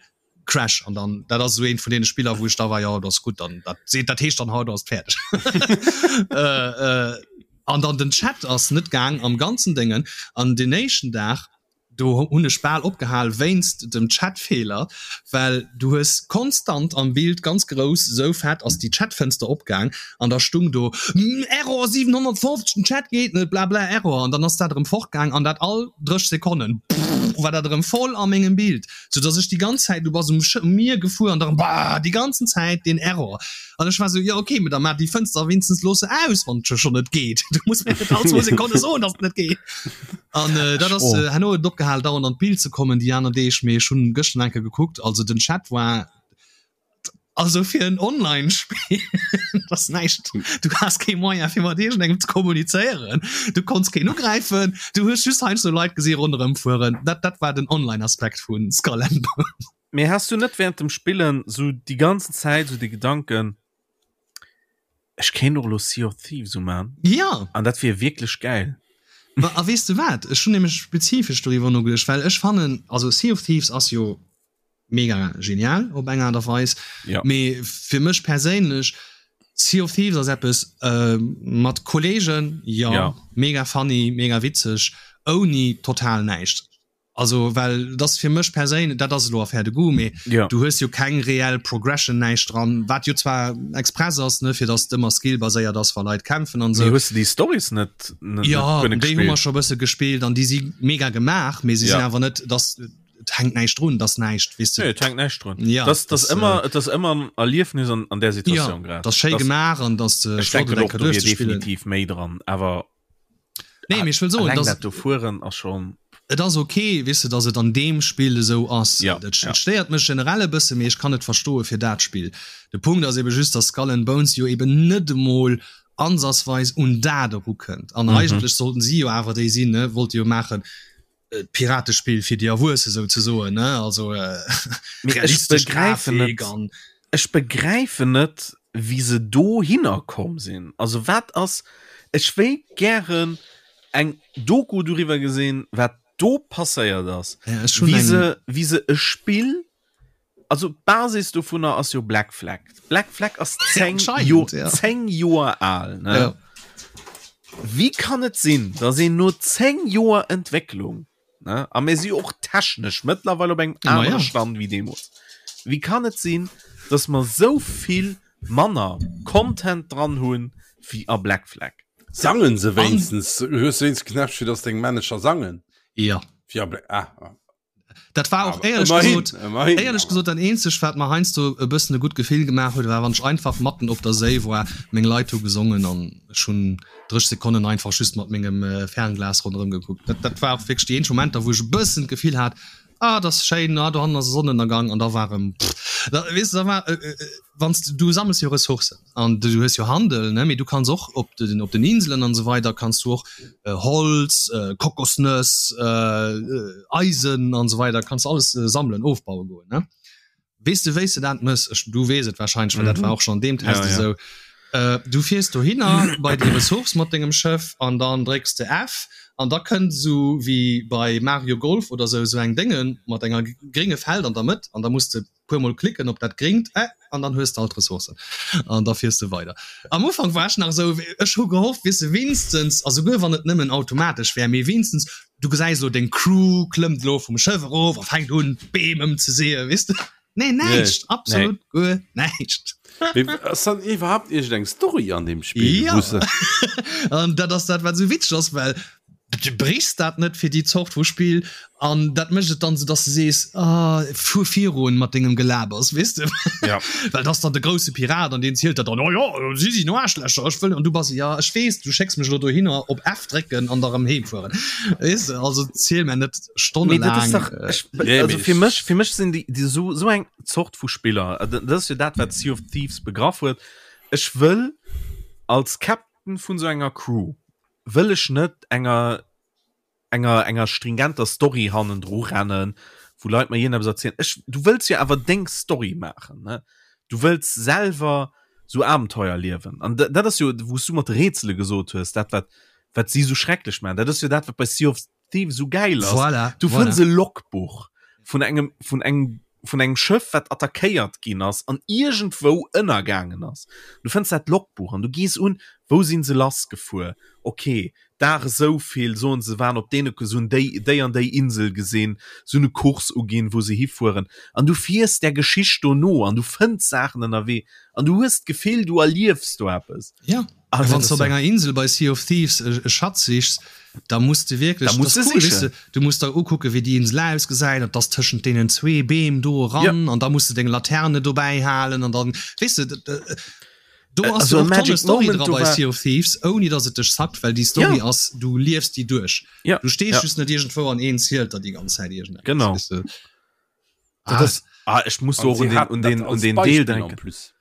Speaker 1: Crash an dann dat ass esou eent vun deene Spiller wou ech da war jo dat ass gutt dann dat seet dat heescht dann haut ass et fäerdeg äh, äh, an dann den Chat ass net gaang am ganzen Déngen an den éischten Dag do hunn ech bal opgehal wéinst dem Chatfeeler well du hues konstant am Bild ganz grouss esou fett ass déi Chatfënster opgaang an da stung do Error 750 den Chat geet net blabla Error an dann ass dat erëm fortgaang an dat all 30 Sekonnen war dat erëm voll a mengem Bild. sou dass ech déi ganz Zäit, du bass um Mier gefuer an dann bah déi ganzen Zäit deen Error an ech war sou jo okay, mee da maach déi Fënster wéinstens looss se aus wann et scho net geet, du muss mir net all zwou Sekonne soen dass et net geet an dat ass herno huet et opgehal dauernd an d'Bild ze kommen déi aner Deeg, mee ech hunn gëschter eng Kéier gekuckt, also den Chat war Also fir en Online-Spill ass näischt. Du has kee Moyen fir mat iergendengem ze kommunizéieren. Du konns keen ugräifen. Du hues just heiansdo Leit gesi ronderëm fueren. Dat, dat war den Online-Aspekt vu Skull and Bones.
Speaker 2: Mee has du net während dem Spillen sou déi ganzen Zäit sou de Gedanken, ech kéint och elo Sea of Thieves uman?
Speaker 1: Ja.
Speaker 2: An dat wier wierklech gäil.
Speaker 1: Ma a weess de wat? Ech hunn nämlech spezifesch doriwwer nogeduecht, well ech fannen, also Sea of Thieves ass jo mega genial op eng Aart a Weis.
Speaker 2: Ja.
Speaker 1: Mee fir mech perséinlech, Sea of Thieves ass eppes äh, mat Kollegen, ja,
Speaker 2: Ja.
Speaker 1: mega funny, mega witzeg, ouni total näischt. Also well das fir mech perséinlech, dat ass elo Affaire de goût, mee
Speaker 2: Ja.
Speaker 1: du hues jo keng reell Progression, näischt dran, wat jo zwar express ass, ne, fir dass et ëmmer skillbaséiert ass, wa Leit kämpfen an
Speaker 2: Mee
Speaker 1: esou.
Speaker 2: hues de déi Stories net, net,
Speaker 1: Ja,
Speaker 2: net guer net
Speaker 1: déi hu mer
Speaker 2: gespillt?
Speaker 1: scho bësse gespillt an déi si mega gemaach, mee se
Speaker 2: Ja.
Speaker 1: sinn awer net, dass et hänkt näischt drun, dass näischt, weess de.
Speaker 2: Nee, et hänkt näischt drun.
Speaker 1: Ja,
Speaker 2: das, das,
Speaker 1: das,
Speaker 2: ëmmer,
Speaker 1: äh,
Speaker 2: et ass ëmmer en Erliefnis an, an der Situatioun
Speaker 1: ja,
Speaker 2: grad.
Speaker 1: Das schéi
Speaker 2: Das-
Speaker 1: gemaach an dass de
Speaker 2: Ech denken och, do wier definitiv méi dran, awer
Speaker 1: Nee, mee ech wëll soen,
Speaker 2: alleng
Speaker 1: dass
Speaker 2: dat do fueren ass schon.
Speaker 1: et ass okay, weess de, dass et an deem Spill esou ass.
Speaker 2: Ja,
Speaker 1: Et
Speaker 2: ja.
Speaker 1: et stéiert mech generell e bësse, mee ech kann et verstoe fir dat Spill. De Punkt ass ebe just, dass Skull and Bones jo eben net emol ansatzweis un dat erukënnt. An
Speaker 2: Mhm.
Speaker 1: eigentlech sollten si jo awer déi sinn, ne, wollte jo maachen, Piratespill fir déi Erwuesse souzesoen, ne? Also
Speaker 2: Mee ech
Speaker 1: realistesch
Speaker 2: begräifen
Speaker 1: Grafik
Speaker 2: net,
Speaker 1: an
Speaker 2: ech begräifen net, Wéi se dohinner komm sinn. Also wat ass, ech wéilt gären eng Doku doriwwer gesinn, wat do passéiert ass,
Speaker 1: Ja, ech hunn
Speaker 2: wéi
Speaker 1: eng.
Speaker 2: se, wéi se e Spill, also d'Basis dovunner ass jo Black Flag. Black Flag ass 10 Jo,
Speaker 1: Anscheinend, ja.
Speaker 2: 10 Joer al, ne?
Speaker 1: Ja.
Speaker 2: Wéi kann et sinn, datt een no 10 Joer Entwécklung, Ne? A mir si och technesch mëttlerweil op engem
Speaker 1: Ma
Speaker 2: anere
Speaker 1: ja.
Speaker 2: Stand wéi deemools. Wéi kann et sinn, dass mer sou vill manner Content dran hunn wéi a Black Flag?
Speaker 3: Sangen se
Speaker 1: An
Speaker 3: wéinstens? Hues du wéinstens Knäppche, dass deng Manager sangen?
Speaker 1: Ja.
Speaker 3: Wéi a Black, ah, ah.
Speaker 1: Dat war och
Speaker 3: Awer
Speaker 1: éierlech
Speaker 3: ëmmerhin,
Speaker 1: gesot,
Speaker 3: ëmmerhin
Speaker 1: éierlech
Speaker 3: awer.
Speaker 1: gesot dat eenzegt wat mer heiansdo e bëssen e gutt Gefill gemaach huet, war wann ech einfach matten op der Séi war, meng Leit hu gesongen an ech hunn 30 Sekonnen einfach just mat mengem Fernglas ronderëm gekuckt. Dat, dat war och wierklech déi eenzeg Momenter, wou ech e bëssen d'Gefill hat, ah, dat ass schéin, ah, dohannen ass e Sonnenënnergang an da war erëm, pff, da, weess de, da war, wann s de, du sammels jo Ressourcen an du hues jo Handel, ne, mee du kanns och op den, op den Inselen an esou weider kanns du och Holz, Kokosnëss, Eisen an esou weider kanns alles sammelen, ofbaue goen, ne. Weess de wéis de dat mëss? Ech, du weess et wahrscheinlech, well dat war och schon an deem Test
Speaker 2: Ja, ja.
Speaker 1: esou. Äh, du fiers dohinner bei déi Ressource mat dengem Schëff an dann drécks de F an da kënnt esou wéi bei Mario Golf oder esou esou eng Dénge mat enger grénge Feld an der Mëtt an da muss de puer mol klicken op dat gréngt Ä an dann hues de all d'Ressourcen an da fiers de weider. Am Ufank war ech nach esou, ech hu gehofft, weess de, wéinstens, a souguer wann et nëmmen automatesch wär, mee wéinstens Du gesäis elo, deng Crew klëmmt elo vum Schëff erof a fänkt un, d'Beem ëmzeseeën, weess de? Nee, näischt, absolut guer näischt.
Speaker 3: Mee ass dann iwwerhaapt iergendeng Story an deem Spill?
Speaker 1: Ja,
Speaker 3: wou se.
Speaker 1: An dat ass dat, wat esou witzeg ass, well du brichs dat net fir déi Zort vu Spill an dat mécht et dann esou, dass de sees, ah, fuer virun mat dengem Gelabers, weess de?
Speaker 2: Ja.
Speaker 1: Well dat ass dann de grousse Pirat an deen zielt der dann, oh jo, si sinn Aarschlächer, ech wëll, an du bass, ja, ech weess, du schécks mech elo dohinner op F drécken an da rëm heem fueren, weess de, also ziel mär net
Speaker 2: Mee dat ass
Speaker 1: stonnelaang.
Speaker 2: dach, ech,
Speaker 3: Nee,
Speaker 2: also
Speaker 3: mee
Speaker 2: fir
Speaker 3: ech.
Speaker 2: mech, fir mech sinn déi, déi sou, sou eng Zort vu Spiller, äh, dat ass jo dat, wat Sea of Thieves begraff huet, ech wëll als Captain vun sou enger Crew, wëll ech net enger, enger enger stringenter Story hannendru rennen, wou Leit mer iergendeppes erzielen. Ech, du wëlls jo awer deng Story maachen, ne? Du wëlls selwer sou Abenteuer liewen. An dat ass jo, wou s du mat de Rätsele gesot hues, dat wat wat si sou schrecklech maachen. Dat ass jo dat, wat bei Sea of Thieves sou gäil ass.
Speaker 1: Voilà,
Speaker 2: Du
Speaker 1: voilà.
Speaker 2: fënns e Logbuch vun engem vun engem vun engem Schëff, wat attackéiert ginn ass an iergendwou ënnergaangen ass. Du fënns dat Logbuch an du gees un, wou sinn se lassgefuer? Okay, Dag esou vill, soen se waren op deene, se hunn déi, déi an déi Insel gesinn, se hunn e Kurs uginn, wou se hifueren. An du fiers där Geschicht do no an du fënns Saachen ënnerwee an du hues d'Gefill, du erliefs do eppes.
Speaker 1: Ja,
Speaker 2: A
Speaker 1: a
Speaker 2: dat
Speaker 1: wann s
Speaker 2: ass
Speaker 1: de op
Speaker 2: jo.
Speaker 1: enger Insel bei Sea of Thieves e e Schatz sichs, da muss de
Speaker 2: Da
Speaker 1: wierklech, dat
Speaker 2: muss
Speaker 1: ass
Speaker 2: de
Speaker 1: cool, weess
Speaker 2: sichen.
Speaker 1: de, du muss der ukucke wéi déi Insel ausgesäit an 't ass tëschent deenen zwee Beem do
Speaker 2: Ja.
Speaker 1: eran an da muss de deng Laterne dobäi halen an dann, weess de, Do ass
Speaker 2: Also
Speaker 1: jo och
Speaker 2: Magic
Speaker 1: tonne Story
Speaker 2: Moment
Speaker 1: dra
Speaker 2: do
Speaker 1: bei
Speaker 2: war
Speaker 1: Sea of Thieves, ouni datt et dech zackt, well déi Story
Speaker 2: Ja.
Speaker 1: ass, du liefs déi duerch.
Speaker 2: Ja,
Speaker 1: Du stees
Speaker 2: ja.
Speaker 1: just net iergendwou an een zielt der déi ganz Zäit iergendeppes,
Speaker 2: Genau.
Speaker 1: weess de.
Speaker 2: Dat
Speaker 1: Ah.
Speaker 2: ass, ah, ech muss do
Speaker 3: An
Speaker 2: och
Speaker 3: si
Speaker 2: un den,
Speaker 3: haten
Speaker 2: un
Speaker 3: dat
Speaker 2: den, un
Speaker 3: als
Speaker 2: den Deel
Speaker 3: Beispill en
Speaker 2: denken.
Speaker 3: plus.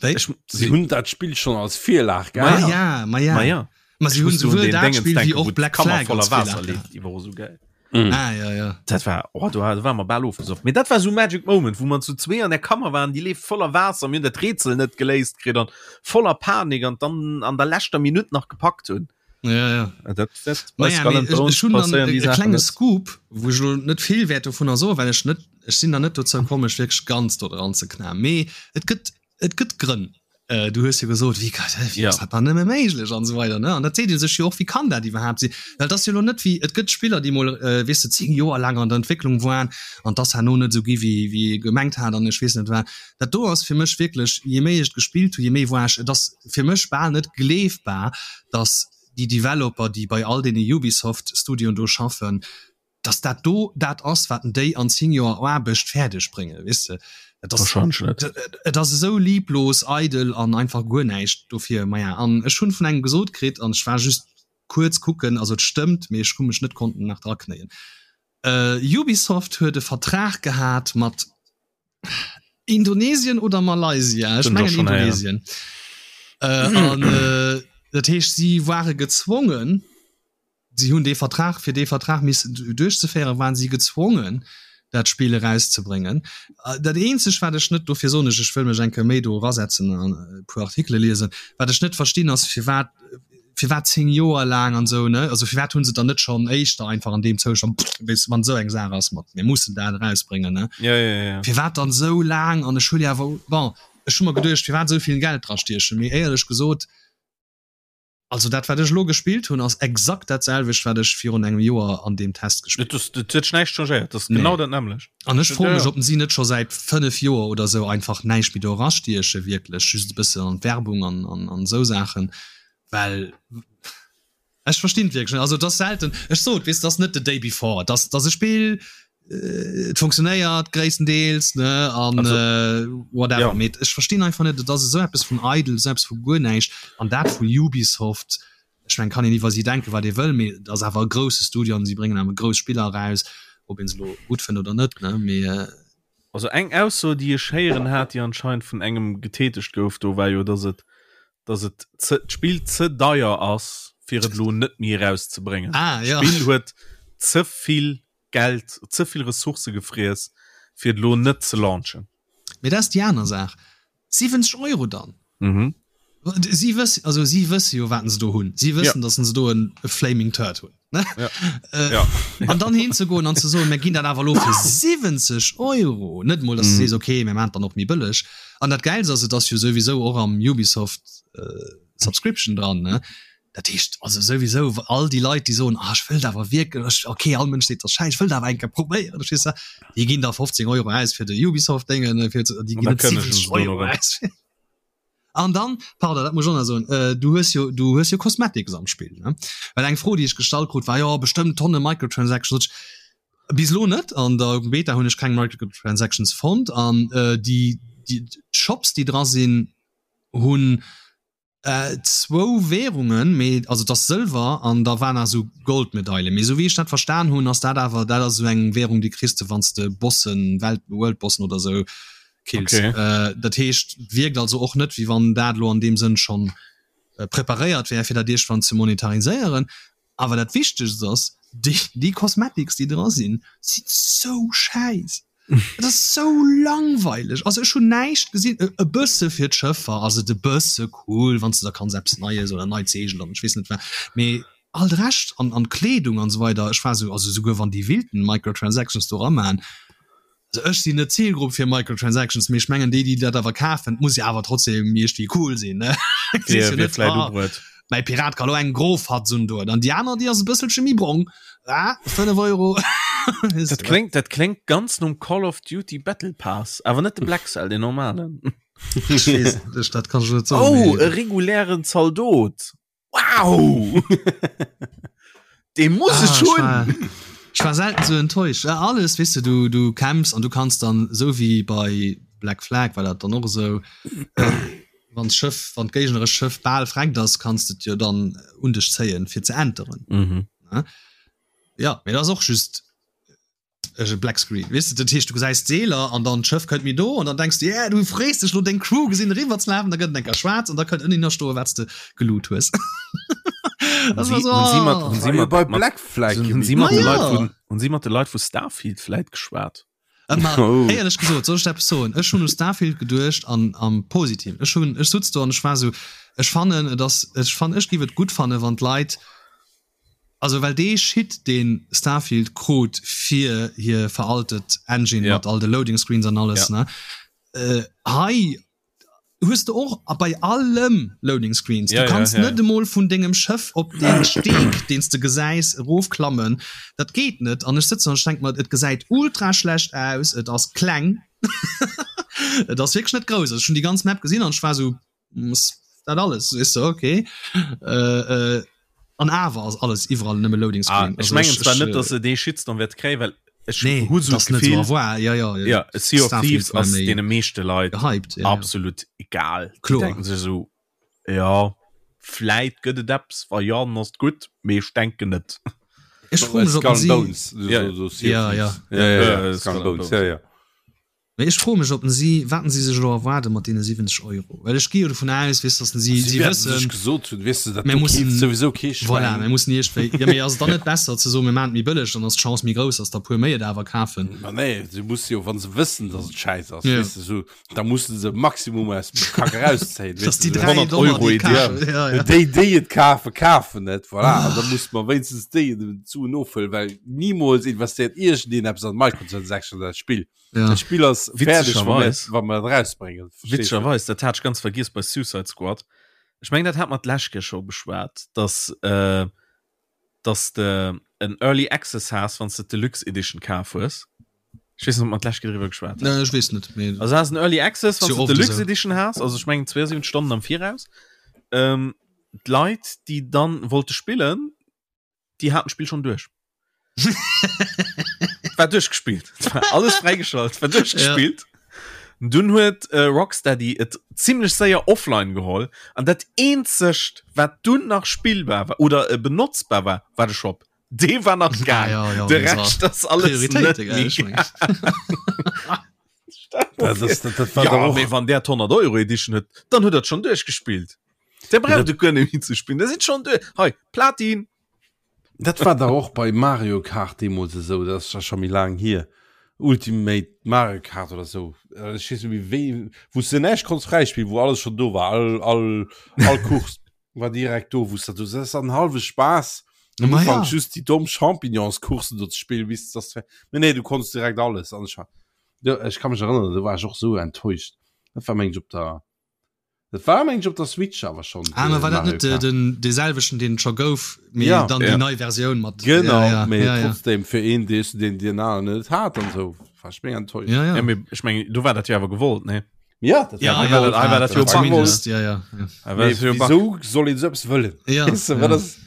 Speaker 1: Wéi?
Speaker 2: Ech,
Speaker 3: Si
Speaker 2: si,
Speaker 3: hunn dat Spill schonn als Virlag
Speaker 2: Ma
Speaker 1: Ma
Speaker 3: gehat.
Speaker 1: ja, ma ja.
Speaker 2: ma ja.
Speaker 1: Ma si
Speaker 2: Ech
Speaker 1: hunn
Speaker 2: muss do un
Speaker 1: souwuel
Speaker 2: den
Speaker 1: dat
Speaker 2: Dingens
Speaker 1: Spill wéi
Speaker 2: denken,
Speaker 1: och
Speaker 2: wou
Speaker 1: Black
Speaker 2: d'Kammer
Speaker 1: Flag
Speaker 2: voller
Speaker 1: als
Speaker 2: Waasser
Speaker 1: Virlag
Speaker 2: leeft,
Speaker 1: gehat.
Speaker 2: déi war och sou gäil.
Speaker 3: Mm.
Speaker 1: Ah, ja, ja.
Speaker 2: Dat war, oh, do, do war mer bal ofgesoff. Mee dat war sou Magic Moment, wou mer zu zwee an der Kammer waren, déi leeft voller Waasser, mir hunn dat Rätsel net geléist kritt an voller Panik an dann an der leschter Minutt nach gepackt hunn.
Speaker 1: Ja, ja.
Speaker 2: Dat, dat bei
Speaker 1: Naja,
Speaker 2: Skull
Speaker 1: mee
Speaker 2: and
Speaker 1: ech,
Speaker 2: Bones
Speaker 1: ech hunn dann
Speaker 2: passéieren
Speaker 1: e,
Speaker 2: déi
Speaker 1: e
Speaker 2: Saachen
Speaker 1: klenge
Speaker 2: net.
Speaker 1: Scoop, wou ech elo net vill wäert dovunner soen, well ech net, ech sinn nach net dozou komm, mech wierklech ganz do dran ze knaen. Mee et gëtt, et gëtt Grënn. Äh, du hues jo gesot, wéi ka, wéi
Speaker 2: Ja.
Speaker 1: ass dat dann nëmme méiglech an esou weider, ne? An dat seet ee sech jo och, wéi kann dat iwwerhaapt sinn? Well et ass jo elo net wéi, et gëtt Spiller, déi mol, äh, weess de, 10 Joer laang an der Entwécklung waren an 't ass herno net esou gi wéi, wéi ee gemengt hat an ech weess net wat. Dat do ass fir mech wierklech, je méi ech et gespillt hu, je méi war ech, et ass fir mech bal net gleefbar, datt déi Developer, déi bei all deene Ubisoft-Studioen do schaffen, dass dat do dat ass, wat déi an 10 Joer Aarbecht fäerdeg bréngen, weess de. Et ass,
Speaker 2: Wahrscheinlech net.
Speaker 1: et ass esou lieblos, eidel an einfach guer näischt dofir. Maja, an ech hunn vun engem gesot kritt, an ech war just kuerz kucken, also et stëmmt, mee ech hu mech net konnten nach draknéien, Ubisoft huet e Vertrag gehat mat Indonesien oder Malaysia, ech
Speaker 2: Hunn ech och
Speaker 1: mengen
Speaker 2: schonn héieren.
Speaker 1: Indonesien, an dat heescht, si ware gezwongen, Si hunn dee Vertrag, fir dee Vertrag missen duerchzeféieren, waren si gezwongen, dat Spill erauszebréngen. Dat eenzegt wat ech net, dofir soen ech, ech wëll mech eng Kéier méi do erasetzen an e puer Artikele liesen, wat ech net verstinn ass firwat firwat 10 Joer laang an esou ne, also firwat hunn se dann net schonn éischter einfach an deem Zoustand, weess de, wann esou eng Saach ass mat mir mussen dat erausbréngen ne,
Speaker 2: ja, ja, ja.
Speaker 1: firwat dann esou laang an ech hu jo awer, bon ech hu mer geduecht firwat esou vill Geld drastiechen, mee éierlech gesot, Also dat wat ech elo gespillt hunn ass exakt dat selwecht wat ech virun engem Joer an deem Test
Speaker 2: gespillt hunn. Et huet sech näischt changéiert, dat ass genau dat nämmlecht.
Speaker 1: An ech froe mech ob si net scho säit 5 Joer oder sou einfach näischt méi do erastieche wierklech, just e bëssen an d'Werbung an an esou Saachen, well ech verstinn et wierklech net. Also et ass selten, ech sot weess et ass net The Day Before, et ass et ass e Spill, et funktionéiert gréisstendeels ne an äh, whatever ja. mee ech verstinn einfach net et ass esou eppes vun eidel esou eppes vu guer näischt an dat vu Ubisoft ech meng kann een iwwer si denke wat ee wëll mee et ass awer e grousse Studio an si bréngen awer grouss Spiller eraus ob een se lo gutt fënnt oder net ne mee äh,
Speaker 2: Also eng Ausso déi ech héieren hat déi anscheinend vun engem getätegt gouf do war jo dass et dass et ze d'Spill ze deier ass fir et lo net méi erauszebréngen.
Speaker 1: Ah, ja.
Speaker 2: D'Spill huet ze vill Geld, ze vill Ressourcë gefriess, fir et elo net ze launchen.
Speaker 1: Mee dat ass déi aner Saach. 70 Euro dann? Mhm. Si wëss, also si wësse jo, wat se do hunn. Si wëssen, ja. datt se do en e Flaming Turd hunn. Ne?
Speaker 2: Ja. Äh, ja.
Speaker 1: An dann hinzegoen an ze soen, mir ginn dat awer elo fir 70 Euro. Net mol, datt du mm. sees, okay, mir maachen dann och méi bëlleg. An dat Gäilst ass, et ass jo souwisou och am Ubisoft äh, Subscription dran. Ne? Dat heescht also souwisou all déi Leit, déi soen, ah ech wëllt awer wierklech, okay all Mënsch seet dat ass schäiss, ech wëllt awer eng Kéier probéieren, verstees de, déi ginn da 15 Euro aus fir de Ubisoft-Déngen, fir ze, déi ginn net 70 Euro aus. An dann, pardon, dat muss ech och nach soen, du hues jo, du hues jo Cosmetics am Spill, ne? Well eng Fro, déi ech gestallt krut, war, jo bestëmmt Tonne Microtransactions. Sot ech, bis elo net, an der Beta hunn ech keng Microtransactions fonnt an déi, déi d'Shops, déi dra sinn, hunn Zwou Währungen, mee also et ass Sëlwer an da war nach esou Goldmedaile. Mee esou wéi ech dat verstan hunn, ass dat awer dat ass esou eng Währung, déi kriss de wann s de Bossen, Welt Worldbossen oder esou kills.
Speaker 2: Okay.
Speaker 1: Dat heescht, et wierkt also och net, wéi wann dat elo an deem Sënn schonn preparéiert wär, fir dat iergendwann ze monetariséieren. Awer dat Wichtegst ass, déi, déi Cosmetics, déi dra sinn, sinn sou schäiss. Et ass sou langweileg. Also ech hunn näischt gesinn, e, e bësse fir d'Schëffer ass et e bësse cool, wann s de da kanns eppes Neies oder neit Seegel an ech weess net wat, mee all de Rescht an, an d'Kleedung an esou weider, ech war sou, also souguer wann déi wilden Microtransactions do eramaan, Also ech sinn net d'Zilgrupp fir Microtransactions, mee ech mengen déi déi dat awer kafen, muss jo awer trotzdem iergendwéi cool sinn ne.
Speaker 2: Wier wier vläit ubruet.
Speaker 1: Mäi Pirat ka lo eng gro Fatz undoen an déi aner déi ass e bësselche méi brong, ah 5 Euro.
Speaker 2: Dat kléngt dat kléngt ganz nom Call of Duty Battle Pass, awer net de Black Cell, deen normalen.
Speaker 1: Ech weess net, ech dat kann ech net soen.
Speaker 2: Oh, e regulären Zaldot! Wow! Dee muss
Speaker 1: ah,
Speaker 2: ech hunn!
Speaker 1: Ech war selten sou enttäuscht. Ja, alles, weess de, du, du kämpfs an du kanns dann, sou wéi bei Black Flag war dat dann och esou, äh, wann d'Schëff, wann d'géignerescht Schëff bal vreckt ass, kanns de et jo dann un dech zéien, fir ze enteren.
Speaker 2: Mhm.
Speaker 1: Ja, mee dat ass och just e Black Screen weess de, dat heescht du gesäis d'Seeler an dann d'Schëff kënnt méi do an dann denks du yeah, du frees dech lo deng Crew gesinn eriwwer ze lafen, da gëtt et eng Kéier schwaarz an da kënnt ënninner stoe wat s de geloot hues.
Speaker 2: Hunn si, hunn si mat, hunn si
Speaker 3: mat,
Speaker 2: bei
Speaker 3: Black Flag
Speaker 2: hunn si mat de Leit vun, hunn si mat de Leit vu Starfield vläit geschwat?
Speaker 1: Ma oh. Éierlech gesot, soll ech der eppes soen? Ech hunn u Starfield geduecht an am Positiven. Ech hunn, ech sutz do an ech war sou, ech fannen et ass, ech fann, ech giff et gutt fanne wann d'Leit, Also well dee Shit deen Starfield krut fir hir veraltet Engine mat all de Loading Screens an alles ne hei hues de och a bei allem Loading Screens. Du kanns net emol vun dengem Schëff op dee Steek deen s de gesäis erofklammen, dat geet net. An ech sëtzen an ech denk mer et gesäit ultra schlecht aus, et ass kleng, et ass wierklech net grouss. Also ech hunn déi ganz Map gesinn an ech war esou dat alles ist so okay äh, äh, an awer ass alles iwwerall nëmme Loading
Speaker 2: Screen. Ah, ech mengen zwar net, dass se dee Shitstorm wäert kréien, well
Speaker 1: ech nee, hu sou
Speaker 2: d'Gefill,
Speaker 1: ja, ja,
Speaker 2: ja, ja, Sea of Thieves ass deene meeschte Leit
Speaker 1: gehypt, ja, ja.
Speaker 2: absolut egal.
Speaker 1: Kloer.
Speaker 2: Déi denken sech sou, ja, vläit gëtt et eppes, wa jo, dann ass et gutt, mee ech denken net.
Speaker 1: Ech froe mech, ob
Speaker 3: Skull and
Speaker 1: si
Speaker 3: Bones,
Speaker 2: Ja.
Speaker 3: so, so Sea of
Speaker 1: Ja, ja.
Speaker 3: Thieves. Ja, ja, ja,
Speaker 2: Äh,
Speaker 3: Skull and Bones, ja, ja.
Speaker 1: Mee ech froe mech, ob si, wat si sech elo erwaarde mat deene 70 Euro. Well ech gi jo dovun aus, weess, datt si, si wëssen,
Speaker 3: sech gesot hunn, weess de, dat
Speaker 1: mir
Speaker 3: do
Speaker 1: mussen,
Speaker 3: keeft souwisou kee
Speaker 1: voilà,
Speaker 3: Schwäin.
Speaker 1: mir mussen iergendwéi, jo, mee ass et dann net besser ze soen, mir maachen et méi bëlleg, dann ass d'Chance méi grouss, datt der e puer méi et awer kafen?
Speaker 3: Ma nee, se musse jo, wa se wëssen, datt et schäiss ass,
Speaker 1: Ja.
Speaker 3: weess de, sou, da musse se Maximum aus dem Kack erauszéien,
Speaker 1: Datt
Speaker 3: weess
Speaker 1: déi
Speaker 3: de, sou
Speaker 1: 3
Speaker 3: 100
Speaker 1: Dollar,
Speaker 3: Euro
Speaker 1: déi et
Speaker 3: Edition.
Speaker 1: kafen, ja, ja.
Speaker 3: Déi, déi et kafen, kafen et, voilà. An da musse mer wéinstens déi d'Suen ofhuelen, well nimools investéiert iergendeen eppes an Microtransactions an dat Spill.
Speaker 1: Ja.
Speaker 3: Dat Spill ass fäerdeg, wa mir,
Speaker 2: Witzegerweis.
Speaker 3: wa mir et rausbréngen. Verstees du?
Speaker 2: Witzegerweis, dat hat ech ganz vergiess bei Suicide Squad. Ech mengen, dat hat mer d'lescht Kéier scho beschwat, dass, äh, dass de en Early Access has, wann s de d'Deluxe Edition kaf hues. Ech weess net, ob mer d'lescht Kéier driwwer geschwat
Speaker 1: Nee, ech weess net, mee
Speaker 2: Also has en Early Access, wann
Speaker 1: Ist
Speaker 2: s
Speaker 1: jo
Speaker 2: de
Speaker 1: oft
Speaker 2: d'Deluxe
Speaker 1: esou.
Speaker 2: Edition has, also ech mengen 72 Stonnen am Viraus. Ähm, d'Leit, déi dann wollte spillen, déi haten d'Spill schon duerch. War duerchgespillt. War alles fräigeschalt, war duerchgespillt. Ja. Dunn huet äh, Rocksteady et ziemlech séier offline geholl an dat eenzegt wat dunn nach spillbar war oder äh, benotzbar war, war de Shop. Dee war nach gaang.
Speaker 1: Ah, ja, ja,
Speaker 2: de
Speaker 1: das
Speaker 2: Rescht
Speaker 1: war
Speaker 2: ass alles net
Speaker 1: Prioritéite, gell,
Speaker 2: méi
Speaker 1: ech mengen.
Speaker 3: Das, das, das, das war
Speaker 2: Ja,
Speaker 3: doch och,
Speaker 2: mee wann der 100 Euro Edition huet, dann huet dat schon duerchgespillt. Der braucht du guer net méi ze spillen, der sinn schon duerch. Hei, Platin!
Speaker 3: Dat war dach och bei Mario Kart deemools esou, dat ass scho méi laang hier, Ultimate Mario Kart oder esou, ech weess net méi wéi, wou s de näischt konns fräispillen, wou alles schonn do war, all, all, all Course war direkt do, wou s de do, dat ass an hallwe Spaass am
Speaker 1: Ma
Speaker 3: Ufank
Speaker 1: ja.
Speaker 3: just déi domm Champignonscoursen do ze spillen, bis dass de, mee nee, du konns direkt alles an ech war, jo, ech ka mech erënneren, do war ech och esou enttäuscht, dat war meng ech op der. Dat war meng ech op der Switch awer schon.
Speaker 1: Ah, ma war dat net
Speaker 3: Mario Kart.
Speaker 1: den dee selwechten deen et scho gouf, mee
Speaker 3: Ja.
Speaker 1: dann
Speaker 2: Ja.
Speaker 1: déi nei Versioun mat
Speaker 3: Genau,
Speaker 1: ja, ja,
Speaker 3: mee
Speaker 1: ja, ja.
Speaker 3: trotzdem fir een dee den deen aneren net hat an sou war ech mega enttäuscht.
Speaker 1: Ja, ja.
Speaker 2: Ja, mee ech mengen, do war dat jo awer gewollt, nee?
Speaker 3: Ja, dat
Speaker 1: Ja,
Speaker 3: war
Speaker 1: ja,
Speaker 2: war dat- hei war dat jo
Speaker 1: ja, zumindest, ja, ja, ja.
Speaker 2: Hei war
Speaker 3: Mee
Speaker 2: dat jo Bug.
Speaker 3: wieso soll een sou eppes wëllen?
Speaker 1: Ja,
Speaker 3: Weess de, wat
Speaker 1: ja.
Speaker 3: ass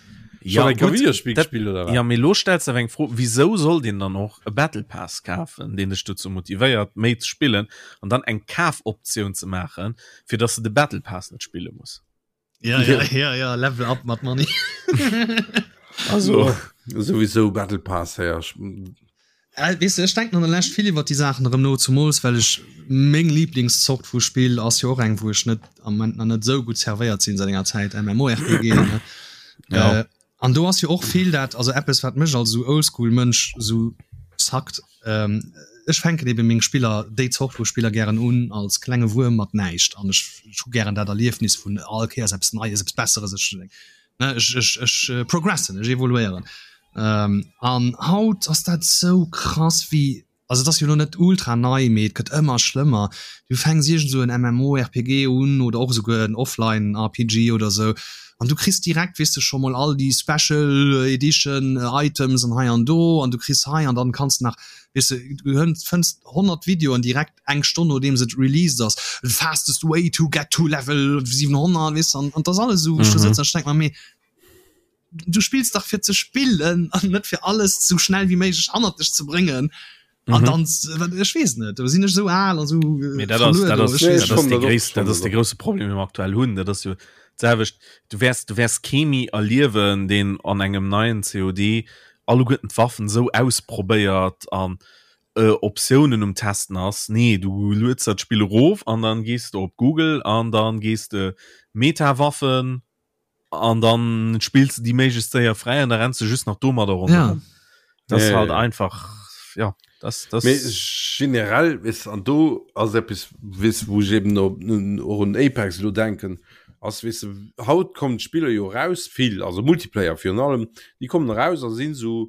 Speaker 2: Ja,
Speaker 3: schon eng
Speaker 2: gut,
Speaker 3: Videospiel
Speaker 2: dat-
Speaker 3: gespielt oder wat?
Speaker 2: Ja, mee lo stells de awer eng Fro, wieso soll deen dann och e Battle Pass kafen, deen dech dozou motivéiert, méi ze spillen an dann eng Kafoptioun ze maachen, fir dass de de Battle Pass net spille muss?
Speaker 1: Ja, ja, ja, ja, Level up mat Money.
Speaker 2: Also,
Speaker 3: Ja, sowieso Battle Pass her.
Speaker 1: Äh, weess de, ech denken an der Lescht vill iwwer déi Saachen erëm no, zumools well ech meng Lieblingszort vu Spill ass jo och eng, wou ech net am Moment nach net esou gutt servéiert sinn säit enger Zäit, MMORPG, ne?
Speaker 2: Ja.
Speaker 1: Äh, an do ass jo och vill dat, also eppes wat mech als esou Oldschool-Mënsch esou sackt, ähm, ech fänken ebe meng Spiller, déi Zort vu Spiller gären un als klenge Wuerm mat näischt an ech hu gären dat Erliefnis vun all Kéiers eppes Neies, eppes Besseres, ech ne, ech, ech, ech progressen, ech evoluéieren. Ähm, an haut ass dat sou krass wéi, also et ass jo lo net ultra nei, mee et gëtt ëmmer schlëmmer. Du fänks iergend sou en MMORPG un oder och esouguer en Offline RPG oder sou an du kriss direkt, weess de, scho mol all déi Special Edition Items an hei an do an du kriss hei an dann kanns de nach, weess de, du fënns 100 Videoen direkt eng Stonn nodeems et released ass, the fastest way to get to level 700, weess de, an an et ass alles esou, wou ech do sëtzen an ech denk mer, mee du spills dach fir ze spillen an net fir alles sou schnell wéi méiglech hannert dech ze bréngen. An dann, ech weess net, do sinn ech esou al an esou
Speaker 2: Mee dat ass,
Speaker 1: verluer
Speaker 2: dat
Speaker 1: do,
Speaker 2: ass,
Speaker 1: ech weess
Speaker 2: dat ass
Speaker 1: net.
Speaker 2: de gréisst, dat ass de grousse Problem, dee mer aktuell hunn. Dat ass jo d'selwecht, du wäers, du wäers kee méi erliewen, deen an engem neien COD alleguerten d'Waffen esou ausprobéiert an Optiounen um Testen ass. Nee, du lueds der d'Spill erof an dann gees de op Google an dann gees de Meta-Waffen an dann spills de déi méiglechst séier fräi an da renns de just nach domadder ronderëm.
Speaker 1: Ja.
Speaker 2: Das
Speaker 3: Ja,
Speaker 2: ist halt
Speaker 3: ja, ja.
Speaker 2: einfach ja das das
Speaker 3: Mee generell weess an do ass eppes weess wou ech eben op och un Apex elo denken ass weess de haut kommen d'Spiller jo eraus vill also Multiplayer virun allem déi kommen eraus a sinn esou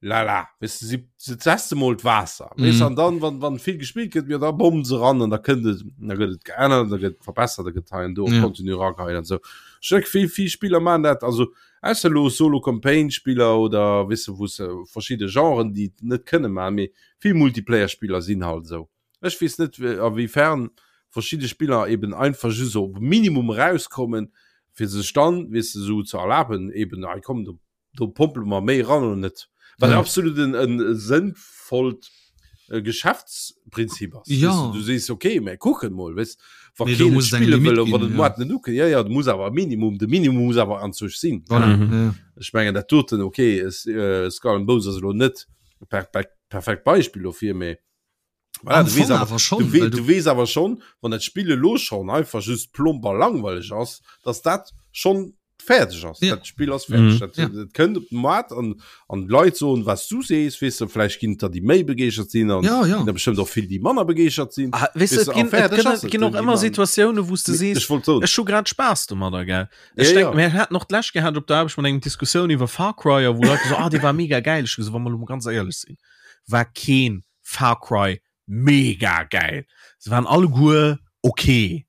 Speaker 3: lala weess de si se teste mol d'Waasser weess
Speaker 1: Mhm.
Speaker 3: an dann wann wann vill gespillt gëtt jo da bommen se ran an da kënnt et da gëtt et geännert da gëtt et verbessert da gëtt hei an do
Speaker 1: Ja.
Speaker 3: Contenu erageheien an esou ech denke vill vill Spiller maachen dat also ausser elo Solo Campaign Spiller oder weess de wou se verschidde Genren déi et net kënne maachen mee vill Multiplayer Spiller sinn halt esou ech weess net a wéi fern verschidde Spiller eben einfach just op Minimum erauskommen fir sech dann weess de esou ze erlaben eben hei komm do do pompele mer méi ran oder net wat
Speaker 1: ja.
Speaker 3: absolut en, en sënnvollt äh, Geschäftsprinzip ass
Speaker 1: ja.
Speaker 3: weißt du, du sees okay mä kucken mol weißt, wa
Speaker 1: nee,
Speaker 3: keen
Speaker 1: spille
Speaker 3: wëll wann
Speaker 1: ginn,
Speaker 3: ja. net uke ja, ja, du muss awer Minimum de Minimum muss awer an sech sinn
Speaker 1: voilà.
Speaker 2: mhm.
Speaker 1: ja.
Speaker 3: Ech mengen dat doten okay es, äh, Skull and Bones ass elo net per, per, perfekt Beispiel dofir mee. Voilà, du weess awer schon, du, we du weess awer schon, wann dat Spill elo schon einfach just plomp a langweileg ass, dass dat schon fäerdeg ass. Ja. Dat Spill ass fäerdeg. Mhm. Dat, ja. dat kënnt op den Markt an, an d'Leit soen, was du sees, weess du, vläicht ginn et der, déi méi begeeschert sinn an
Speaker 1: ja, ja.
Speaker 3: der bestimmt och vill, déi manner begeeschert sinn.
Speaker 2: Ah, weess du, et ginn, et ginn, et ginn och ëmmer Situatiounen, wou s du sees,
Speaker 3: ech wollt soen,
Speaker 2: ech hu grad Spaass domadder, gell. Ech
Speaker 3: ja,
Speaker 2: denk,
Speaker 3: ja.
Speaker 2: mir haten och d'lescht gehat op der Aarbecht mat engem Diskussioun iwwer Far Cry, a wou Leit so, ah, dee war mega geil. Ech hu gesot, wa mer elo mol ganz éierlech sinn, war keen Far Cry mega geil. Se waren alleguer okay.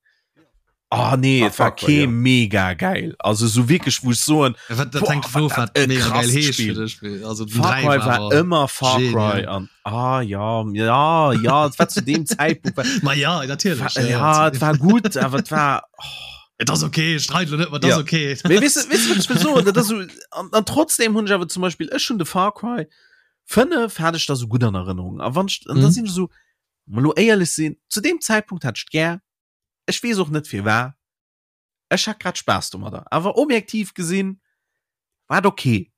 Speaker 2: Ah nee,
Speaker 3: Ah,
Speaker 2: et war
Speaker 3: Far Cry,
Speaker 2: kee
Speaker 3: ja.
Speaker 2: mega geil. Also so wierklech, wou ech soen,
Speaker 1: Ja, wat, dat
Speaker 2: boah,
Speaker 1: hänkt
Speaker 2: war
Speaker 1: of,
Speaker 2: dat
Speaker 1: wat
Speaker 2: e
Speaker 1: mega geil
Speaker 2: krasst
Speaker 1: heescht
Speaker 2: Spiel.
Speaker 1: fir dech. Well, Also den
Speaker 2: Far
Speaker 1: 3
Speaker 2: Cry
Speaker 1: war
Speaker 2: war
Speaker 1: awer
Speaker 2: ëmmer Far Cry
Speaker 1: genial.
Speaker 2: an ah ja, ja, ja, et war zu deem Zäitpunkt war,
Speaker 1: Ma ja, natierlech.
Speaker 2: war,
Speaker 1: Ja, ja,
Speaker 2: ja, et war gutt, awer et war oh.
Speaker 1: Et ass okay, ech streit lo net, ma et ass
Speaker 2: Ja.
Speaker 1: okay.
Speaker 2: Mee weess du, weess du, wat ech wëll soen? Dat ass so, an, an trotzdem hunn ech awer zum Beispill, ech hunn de Far Cry 5 hat ech da sou gutt an Erënnerung. A wann ech, an da
Speaker 1: Mhm.
Speaker 2: sinn ech esou, mol lo éierlech sinn, zu deem Zäitpunkt hat ech et gär, ech weess och net firwat, ech hat grad Spaass domadder. Awer objektiv gesinn war et okay.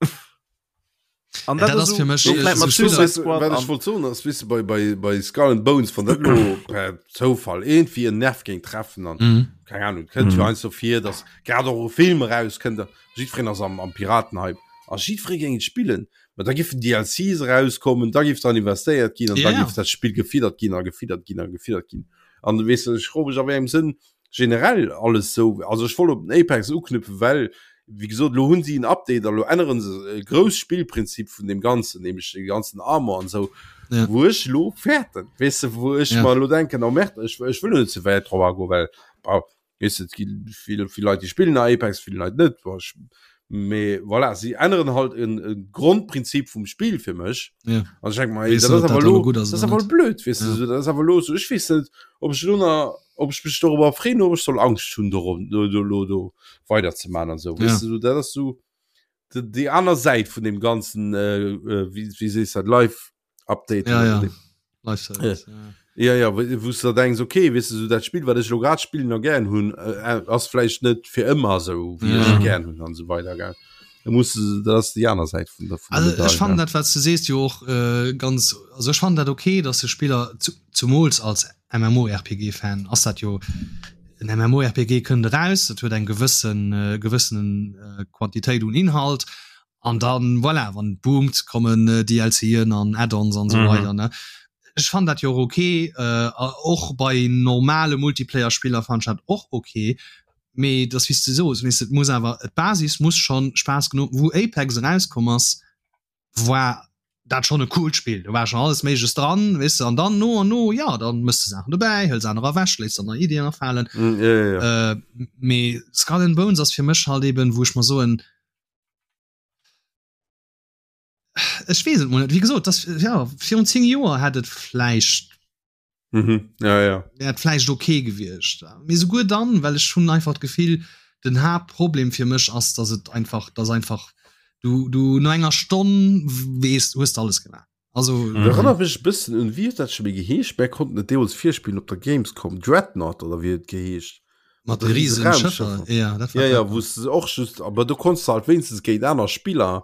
Speaker 2: An
Speaker 1: Ja,
Speaker 2: dat
Speaker 1: dat
Speaker 2: ass
Speaker 1: ass
Speaker 2: esou,
Speaker 1: fir mech,
Speaker 2: do
Speaker 1: äh,
Speaker 2: vläit
Speaker 1: sou
Speaker 2: mat
Speaker 1: Spiller-
Speaker 2: Suicide
Speaker 3: Weißt du,
Speaker 2: Squad
Speaker 3: wat ech
Speaker 2: an
Speaker 3: wollt soen ass, weess du, bei, bei, bei Skull and Bones, wann dat lo per Zoufall irgendwie en Nerv géing treffen an
Speaker 1: Mhm.
Speaker 3: keng Ahnung, et kënnt jo
Speaker 2: Mhm.
Speaker 3: heiansdo vir, dass grad och e Film erauskënnt a jiddwereen ass am, am Piratenhype a jiddweree géing et spillen, ma da giffen DLCs erauskommen, da giff dran investéiert ginn an
Speaker 1: Ja,
Speaker 3: da
Speaker 1: ja.
Speaker 3: giff dat Spill gefiddert ginn a gefiddert ginn a gefiddert ginn. An weess du, ech froe mech a wéi engem Sënn generell alles sou, also ech wollt op den Apex uknüpfen, well wéi gesot, elo hunn si en Update a lo änneren se e grousst Spillprinzip vun deem Ganzen, nämlech de ganzen Armor an esou,
Speaker 1: Ja.
Speaker 3: wou ech elo fäerten, weess de, wou ech
Speaker 1: Ja.
Speaker 3: mer elo denken, oh merde, ech, ech wëll elo net ze wäit drop agoen, well bon, weess de, et gi vill, vill Leit, déi spillen Apex, vill Leit net, bon, ech, mee voilà, si änneren halt en, e Grondprinzip vum Spill fir mech.
Speaker 1: Ja.
Speaker 3: An ech denk mer, ey,
Speaker 1: Weess
Speaker 3: dat
Speaker 1: net,
Speaker 3: ass
Speaker 1: ob dat
Speaker 3: awer
Speaker 1: elo
Speaker 3: elo,
Speaker 1: gutt ass
Speaker 3: dat ass
Speaker 1: oder
Speaker 3: awer
Speaker 1: net.
Speaker 3: blöd, weess de,
Speaker 1: Ja.
Speaker 3: sou, dat ass awer elo sou, ech weess net, ob ech elo nach, ob ech mech dorobber freeën, ob ech soll Angscht hunn dorum, do, do, lo do weiderzemaachen an sou, weess
Speaker 1: Ja.
Speaker 3: de, sou, dat ass sou de, déi aner Säit vun deem ganzen, äh, äh, wéi, wéi sees dat, Live Update
Speaker 1: Ja,
Speaker 3: oder
Speaker 1: ja.
Speaker 3: dem.
Speaker 1: Live Service, ja.
Speaker 3: Ja, ja, wou s du da denks, okay, weess de, sou dat Spill, wat ech elo grad spillen a gären hunn, äh, ass vläicht net fir ëmmer sou, wéi ech
Speaker 1: Ja.
Speaker 3: et gären hunn an esou weider, gell. Da muss de, dat ass déi aner Säit vun der, vun der
Speaker 1: Also ech
Speaker 3: Medail,
Speaker 1: fannen
Speaker 3: gell.
Speaker 1: dat, wat s du sees, jo och äh, ganz, also ech fannen dat okay, dass de Spiller, zu, zumools als MMORPG-Fan ass dat jo, en MMORPG kënnt eraus, dat huet eng gewëssen, äh, gewëssen äh, Quantitéit un Inhalt an dann, voilà, wann et boomt, kommen äh, DLCen an Add-ons an esou
Speaker 2: Mhm.
Speaker 1: weider, ne. Ech fannen dat jo och okay, äh, och bei normale Multiplayer-Spiller fannen ech dat och okay, mee dass wéi s de soos, weess de, et muss awer, d'Basis muss schonn Spaass genuch, wou Apex erauskomm ass, war dat schonn e coolt Spill, do war schonn alles Méigleches dran, weess de, an dann no an no, jo, dann mëss de Saachen dobäi, hëls anerer ewech, léiss der nei Iddien afalen.
Speaker 3: Mm, ja, ja, ja.
Speaker 1: Äh, mee Skull and Bones ass fir mech halt eben, wou ech mer soen, ech weess et mol net, wéi gesot, dass, ja, virun 10 Joer hätt et vläicht
Speaker 3: Mhm. Ja, ja.
Speaker 1: wär et vläicht okay gewiescht. Mee souguer dann, well ech hunn einfach d'Gefill, den Haaptproblem fir mech ass, dass et einfach, dass einfach du, du no enger Stonn weess, hues de alles gemaach. Also
Speaker 3: Mhm. Erënnert mech e bëssen un, wéi huet dat scho méi geheescht? Mär konnten et deemools virspillen op der Gamescom, Dreadnought oder wéi huet et geheescht?
Speaker 1: mat
Speaker 3: Mat
Speaker 1: de
Speaker 3: de riese
Speaker 1: riesen Schëffer.
Speaker 3: Raumschëffer.
Speaker 1: Ja, dat war
Speaker 3: Ja, ja,
Speaker 1: Dreadnought.
Speaker 3: wou s de och just, aber do konntest de halt wéinstens géint aner Spiller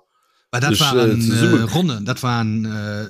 Speaker 1: Well dat
Speaker 3: dech, äh,
Speaker 1: waren
Speaker 3: zesumme
Speaker 1: äh, Ronnen, dat waren äh,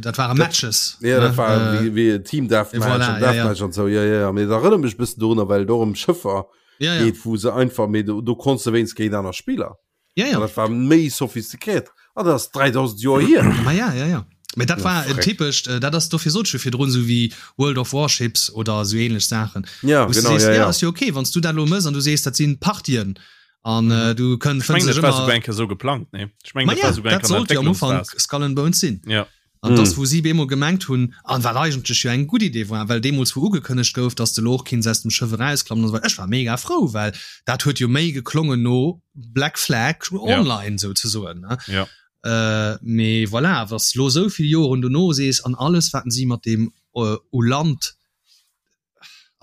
Speaker 1: dat waren Matches.
Speaker 3: Ja, dat
Speaker 1: ne?
Speaker 3: war
Speaker 1: Äh,
Speaker 3: wéi, wéi e Team Deathmatch
Speaker 1: voilà,
Speaker 3: an
Speaker 1: ja, ja.
Speaker 3: Deathmatch an sou. Ja, ja, ja. Mee dat erënnert mech e bëssen dorunner, well et och ëm Schëffer
Speaker 1: ja, ja.
Speaker 3: geet, wou se einfach, mee do, do konntest de wéinst géint aner Spiller.
Speaker 1: Ja, ja.
Speaker 3: An dat war méi sophistiquéiert. An dat ass 3000 Joer hier.
Speaker 1: Ma ja, ja, ja. Mee dat
Speaker 3: Ja,
Speaker 1: war en
Speaker 3: freck.
Speaker 1: typescht, äh, dat ass dofir sot ech jo virdrun, sou wéi World of Warships oder sou ähnlech Saachen.
Speaker 3: Ja,
Speaker 1: Wou s du
Speaker 3: genau,
Speaker 1: sees,
Speaker 3: ja,
Speaker 1: ja,
Speaker 3: ja.
Speaker 1: ass jo okay, wann s du dat elo mëss an du sees, dat sinn Partien an äh, du kënn
Speaker 2: Ech mengen,
Speaker 1: fënns
Speaker 2: dat
Speaker 1: dech
Speaker 2: war
Speaker 1: ëmmer
Speaker 2: souguer eng Kéier sou geplangt, nee? Ech mengen,
Speaker 1: Ma
Speaker 2: dat
Speaker 1: ja,
Speaker 2: war souguer eng
Speaker 1: dat
Speaker 2: Kéier an der
Speaker 1: sollt jo am Ufank
Speaker 2: Entwécklungsphas.
Speaker 1: Skull and Bones sinn.
Speaker 2: Ja.
Speaker 1: An dass
Speaker 3: Mm.
Speaker 1: wou si bemol gemengt hunn, an wat eigentlech jo eng gutt Idee war, well deemools wou ugekënnegt gouf, dass de lo och kinns aus dem Schëff erausklammen an esou weider, ech war mega frou, well dat huet jo méi geklongen no Black Flag
Speaker 2: Ja.
Speaker 1: Online souzesoen, ne?
Speaker 2: Ja.
Speaker 1: Äh, mee voilà, wa s lo esou vill Joren dono sees, an alles wat si mat deem u Land,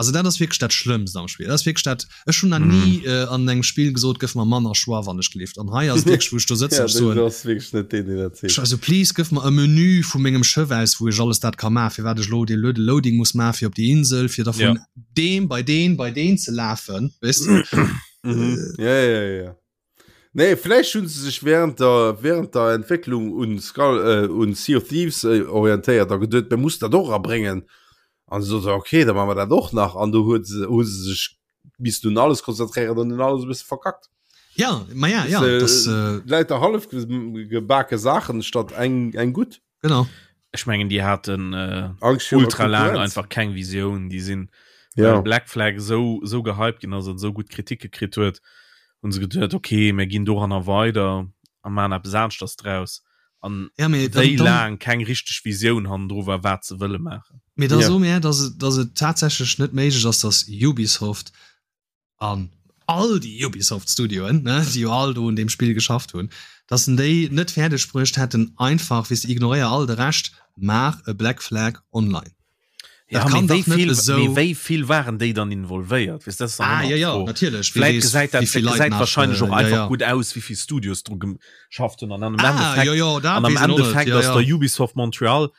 Speaker 1: Also dat ass wierklech dat Schlëmmst am Spill. Dat ass wierklech dat, ech hunn nach ni äh, an engem Spill gesot, gëff mer manner Choix, wann ech gelift. An hei ass et wierklech, wou ech do sëtzen,
Speaker 3: Ja,
Speaker 1: ech soen,
Speaker 3: du ass wierklech net deen, deen dat seet.
Speaker 1: also please, gëff mer e Menü vu mengem Schëff aus, wou ech alles dat ka maachen, firwat ech elo dee blöde Loading muss maachen, fir op déi Insel, fir da vun
Speaker 2: Ja.
Speaker 1: deem bei deen bei deen ze lafen, weess de?
Speaker 3: Mhm. Ja, ja, ja, ja. Nee, vläicht hunn se sech während der, während der Entwécklung un Skull, äh, un Sea of Thieves äh, orientéiert a geduet, mir muss dat och erabréngen. An se soten, okay, da maache mer dat och nach. An do huet se, hu se sech missten un alles konzentréieren an hunn alles e bësse verkackt.
Speaker 1: Ja, ma ja, ja,
Speaker 3: Äh,
Speaker 1: das, äh,
Speaker 3: Lauter hallef ge- gebake Saachen statt eng, eng gutt.
Speaker 1: genau.
Speaker 2: Ech mengen déi haten äh,
Speaker 3: Angst virun der
Speaker 2: ultra laang
Speaker 3: Konkurrenz.
Speaker 2: einfach keng Visioun. Déi sinn
Speaker 3: Ja.
Speaker 2: well Black Flag esou esou gehypt ginn ass an esou gutt Kritike kritt huet, hunn se geduet, okay, mir ginn doranner weider a maachen eppes aneschters draus. An
Speaker 1: Ja, mee dann,
Speaker 2: wéi
Speaker 1: dann,
Speaker 2: laang keng richteg Visioun hannendru war, wat se wëlle maachen.
Speaker 1: mee da
Speaker 3: Ja.
Speaker 1: so mir, dass et, dass et tatsächlech net méiglech ass, dass Ubisoft an all déi Ubisoft Studioen, ne, déi jo all do un deem Spill geschafft hunn, dass en déi net fäerdeg bruecht hätten, einfach, weess de, ignoréier all de Rescht, maach e Black Flag Online.
Speaker 2: Ja,
Speaker 1: Dat kann
Speaker 2: mee wéi
Speaker 1: dach net
Speaker 2: vill,
Speaker 1: esou.
Speaker 2: mee wéi vill waren déi dann involvéiert? Weess, dat ass dann
Speaker 1: Ah,
Speaker 2: ëmmer
Speaker 1: ja, ja,
Speaker 2: d'Fro.
Speaker 1: natierlech, wie
Speaker 2: Vläit
Speaker 1: weess,
Speaker 2: gesäit dat,
Speaker 1: wéi vill
Speaker 2: dat
Speaker 1: Leit
Speaker 2: gesäit
Speaker 1: nach,
Speaker 2: wahrscheinlech och
Speaker 1: äh, ja,
Speaker 2: einfach
Speaker 1: ja.
Speaker 2: gutt aus, wéi vill Studios dru geschafft hunn. An am
Speaker 1: Ah,
Speaker 2: Endeffekt,
Speaker 1: jo, jo, dat
Speaker 2: an am
Speaker 1: weess een och net,
Speaker 2: Endeffekt
Speaker 1: ja,
Speaker 2: ass
Speaker 1: ja.
Speaker 2: der Ubisoft Montreal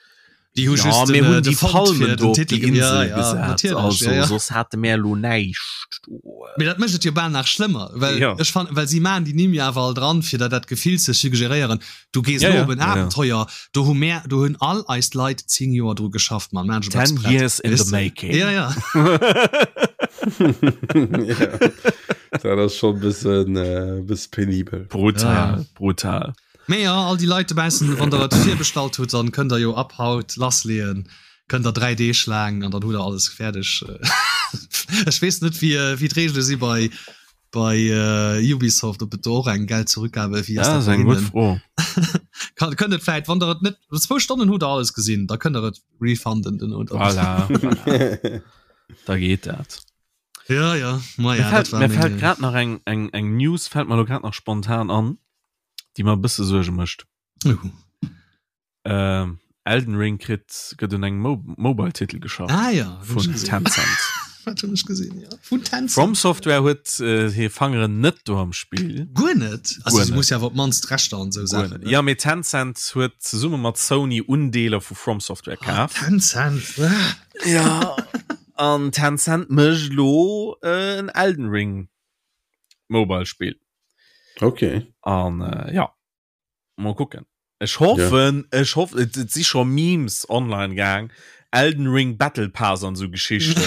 Speaker 1: Déi hu
Speaker 2: Ja,
Speaker 1: just
Speaker 2: mir
Speaker 1: den,
Speaker 2: hunn
Speaker 1: äh, de
Speaker 2: déi
Speaker 1: Font
Speaker 2: Palmen
Speaker 1: fir
Speaker 2: do
Speaker 1: den
Speaker 2: op
Speaker 1: Titel
Speaker 2: déi
Speaker 1: ge- ja,
Speaker 2: Insel
Speaker 1: ja,
Speaker 2: gesat,
Speaker 1: natierlech,
Speaker 2: also
Speaker 1: ja, ja.
Speaker 2: soss hate mär elo näischt do.
Speaker 1: Mee dat mécht et jo bal nach schlëmmer, well
Speaker 2: Ja.
Speaker 1: ech fannen, well si maachen déi Nimm jo awer all dran, fir der dat Gefill ze suggeréieren, du gees
Speaker 2: Ja,
Speaker 1: elo
Speaker 2: ja,
Speaker 1: op en
Speaker 2: ja, ja.
Speaker 1: Abenteuer, do hu mär, do hunn all eis Leit 10 Joer dru geschafft, Mann, maachen ech eppes
Speaker 2: Ten
Speaker 1: prett,
Speaker 2: years in
Speaker 1: weess
Speaker 2: the
Speaker 1: de?
Speaker 2: making.
Speaker 1: Ja, ja.
Speaker 3: ja. Dat
Speaker 1: ass
Speaker 3: schon bëssen äh, bësse penibel.
Speaker 2: Brutal,
Speaker 1: Ja, ja.
Speaker 2: brutal.
Speaker 1: Mee jo, all déi Leit dobaussen, wann der et virbestallt hutt, dann kënnt der jo ab haut lassleeën, kënnt der 3 Deeg laang an dann hutt der alles fäerdeg. Ech weess net wéi wéi d'Reegele si bei bei Ubisoft, ob et do och eng Geld-Zurückgabe, wéi ass
Speaker 2: Dat
Speaker 1: dat
Speaker 2: ass
Speaker 1: bei
Speaker 2: eng gutt
Speaker 1: hinnen?
Speaker 2: Fro.
Speaker 1: Kann kënnt et vläit, wann der et net, zwou Stonnen hutt der alles gesinn, da kënnt der et refunden duerno dann.
Speaker 2: Voilà, voilà. Da geet dat.
Speaker 1: Ja, ja, ma
Speaker 2: Mir
Speaker 1: ja, dat
Speaker 2: fält,
Speaker 1: war
Speaker 2: mir fält
Speaker 1: meng.
Speaker 2: grad nach eng, eng, eng News fält mer elo grad nach spontan an. déi mer e bësse Suerge mécht.
Speaker 1: Uh.
Speaker 2: Ähm, Elden Ring kritt gëtt un engem Mo Mobile-Titel geschafft.
Speaker 1: Ah ja,
Speaker 2: vun Tencent.
Speaker 1: Wat hunn ech gesinn, ja. Vun Tencent.
Speaker 2: From Software huet äh, hir Fangeren net do am Spill.
Speaker 1: Guer net? Also si muss ja awer op d'mannst d'Rechter an esou Saachen.
Speaker 2: Ja, mee Tencent huet zesumme mat Sony Undeeler vu From Software
Speaker 1: ah,
Speaker 2: kaf.
Speaker 1: Tencent. Ah.
Speaker 2: Ja. An Tencent mécht lo äh, en Elden Ring Mobile Spill.
Speaker 3: Okay.
Speaker 2: An äh, ja mal gucken. Ech hoffen ja. ech hoffe et, et si scho Memes online gang. Elden Ring Battle Pass an so Geschichten.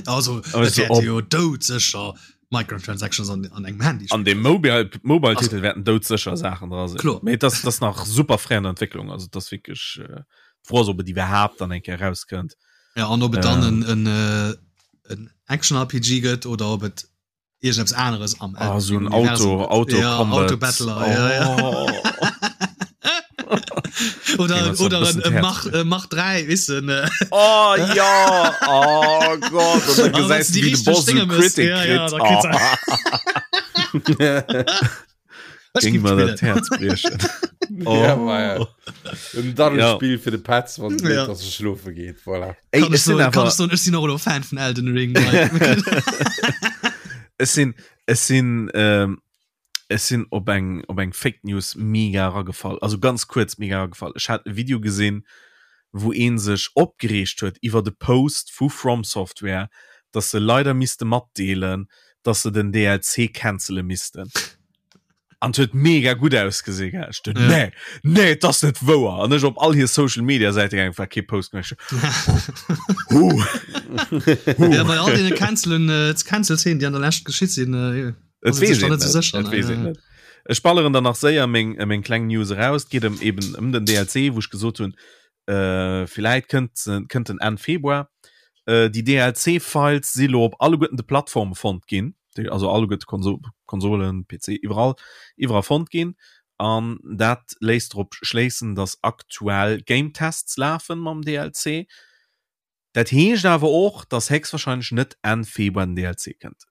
Speaker 1: also, also ob, jo dout sécher Microtransactions an, an engem Handy.
Speaker 2: An dem Mobile Mobile Titel werden dout sécher Sachen dra sinn.
Speaker 1: Klar.
Speaker 2: Mee das das nach super fréi an der Entwicklung, also das wirklich äh, d'Fro ass, ob et iwwerhaapt dann eng Kéier rauskënnt.
Speaker 1: Ja, an ob et dann en, en, äh, en Action RPG gëtt oder ob et irgendeppes aneres am
Speaker 2: ah, so ein Auto Auto
Speaker 1: ja, Auto Battler oh. ja, ja. oder oder ein, ein Mach äh, Mach 3 wissen äh.
Speaker 2: oh ja oh Gott und dann gesäis du, wie de Boss so Critic
Speaker 1: ja, ja,
Speaker 2: kritt. Oh. Ging mir dat Herz briechen.
Speaker 3: Oh. Ja, ja. En Daddelspiel ja. fir de Petz, wann ja. dass e schlofe geet. Voilà.
Speaker 2: Ey,
Speaker 1: kann
Speaker 2: ech sinn
Speaker 1: awer kann ech sinn och elo Fan vun Elden Ring.
Speaker 2: Ech sinn ech sinn ähm, ech sinn op eng op eng Fake News mega ragefall. Also ganz kuerz mega ragefall. Ech hat e Video gesinn, wou een sech opgereegt huet iwwer de Post vu From Software, dass se leider misste matdeelen, dass se den DLC cancele missten. An et huet mega gutt ausgesinn, gell. Ech duet,
Speaker 1: Ja.
Speaker 2: nee, nee, et ass net wouer. An ech op all hir Social Media Säite gaangen, war kee Post méi. Ech Huh. Huh.
Speaker 1: Ja, bei all deene Cancelen, äh, Cancel-Szenen, déi an der Lescht geschitt sinn, äh,
Speaker 2: Et
Speaker 1: ass et
Speaker 2: weess
Speaker 1: sech dann
Speaker 2: een
Speaker 1: net
Speaker 2: net.
Speaker 1: sou sécher,
Speaker 2: Et
Speaker 1: ne?
Speaker 2: weess een
Speaker 1: Ja.
Speaker 2: net. Ech balleren dann nach séier meng, äh, meng kleng News eraus. Et geet ëm eben ëm den DLC, wou ech gesot hunn, äh, villäit kënnt, kënnt en Enn Februar. Äh, déi DLC-Files si lo op alleguerten de Plattforme fonnt ginn. déi also alleguerte Konso Konsolen, PC, iwwerall, iwwerall fonnt ginn. An dat léisst drop schléissen, dass aktuell Game Tests lafen mam DLC. Dat heescht awer och, dass héchstwahrscheinlech net Enn Februar den DLC kënnt.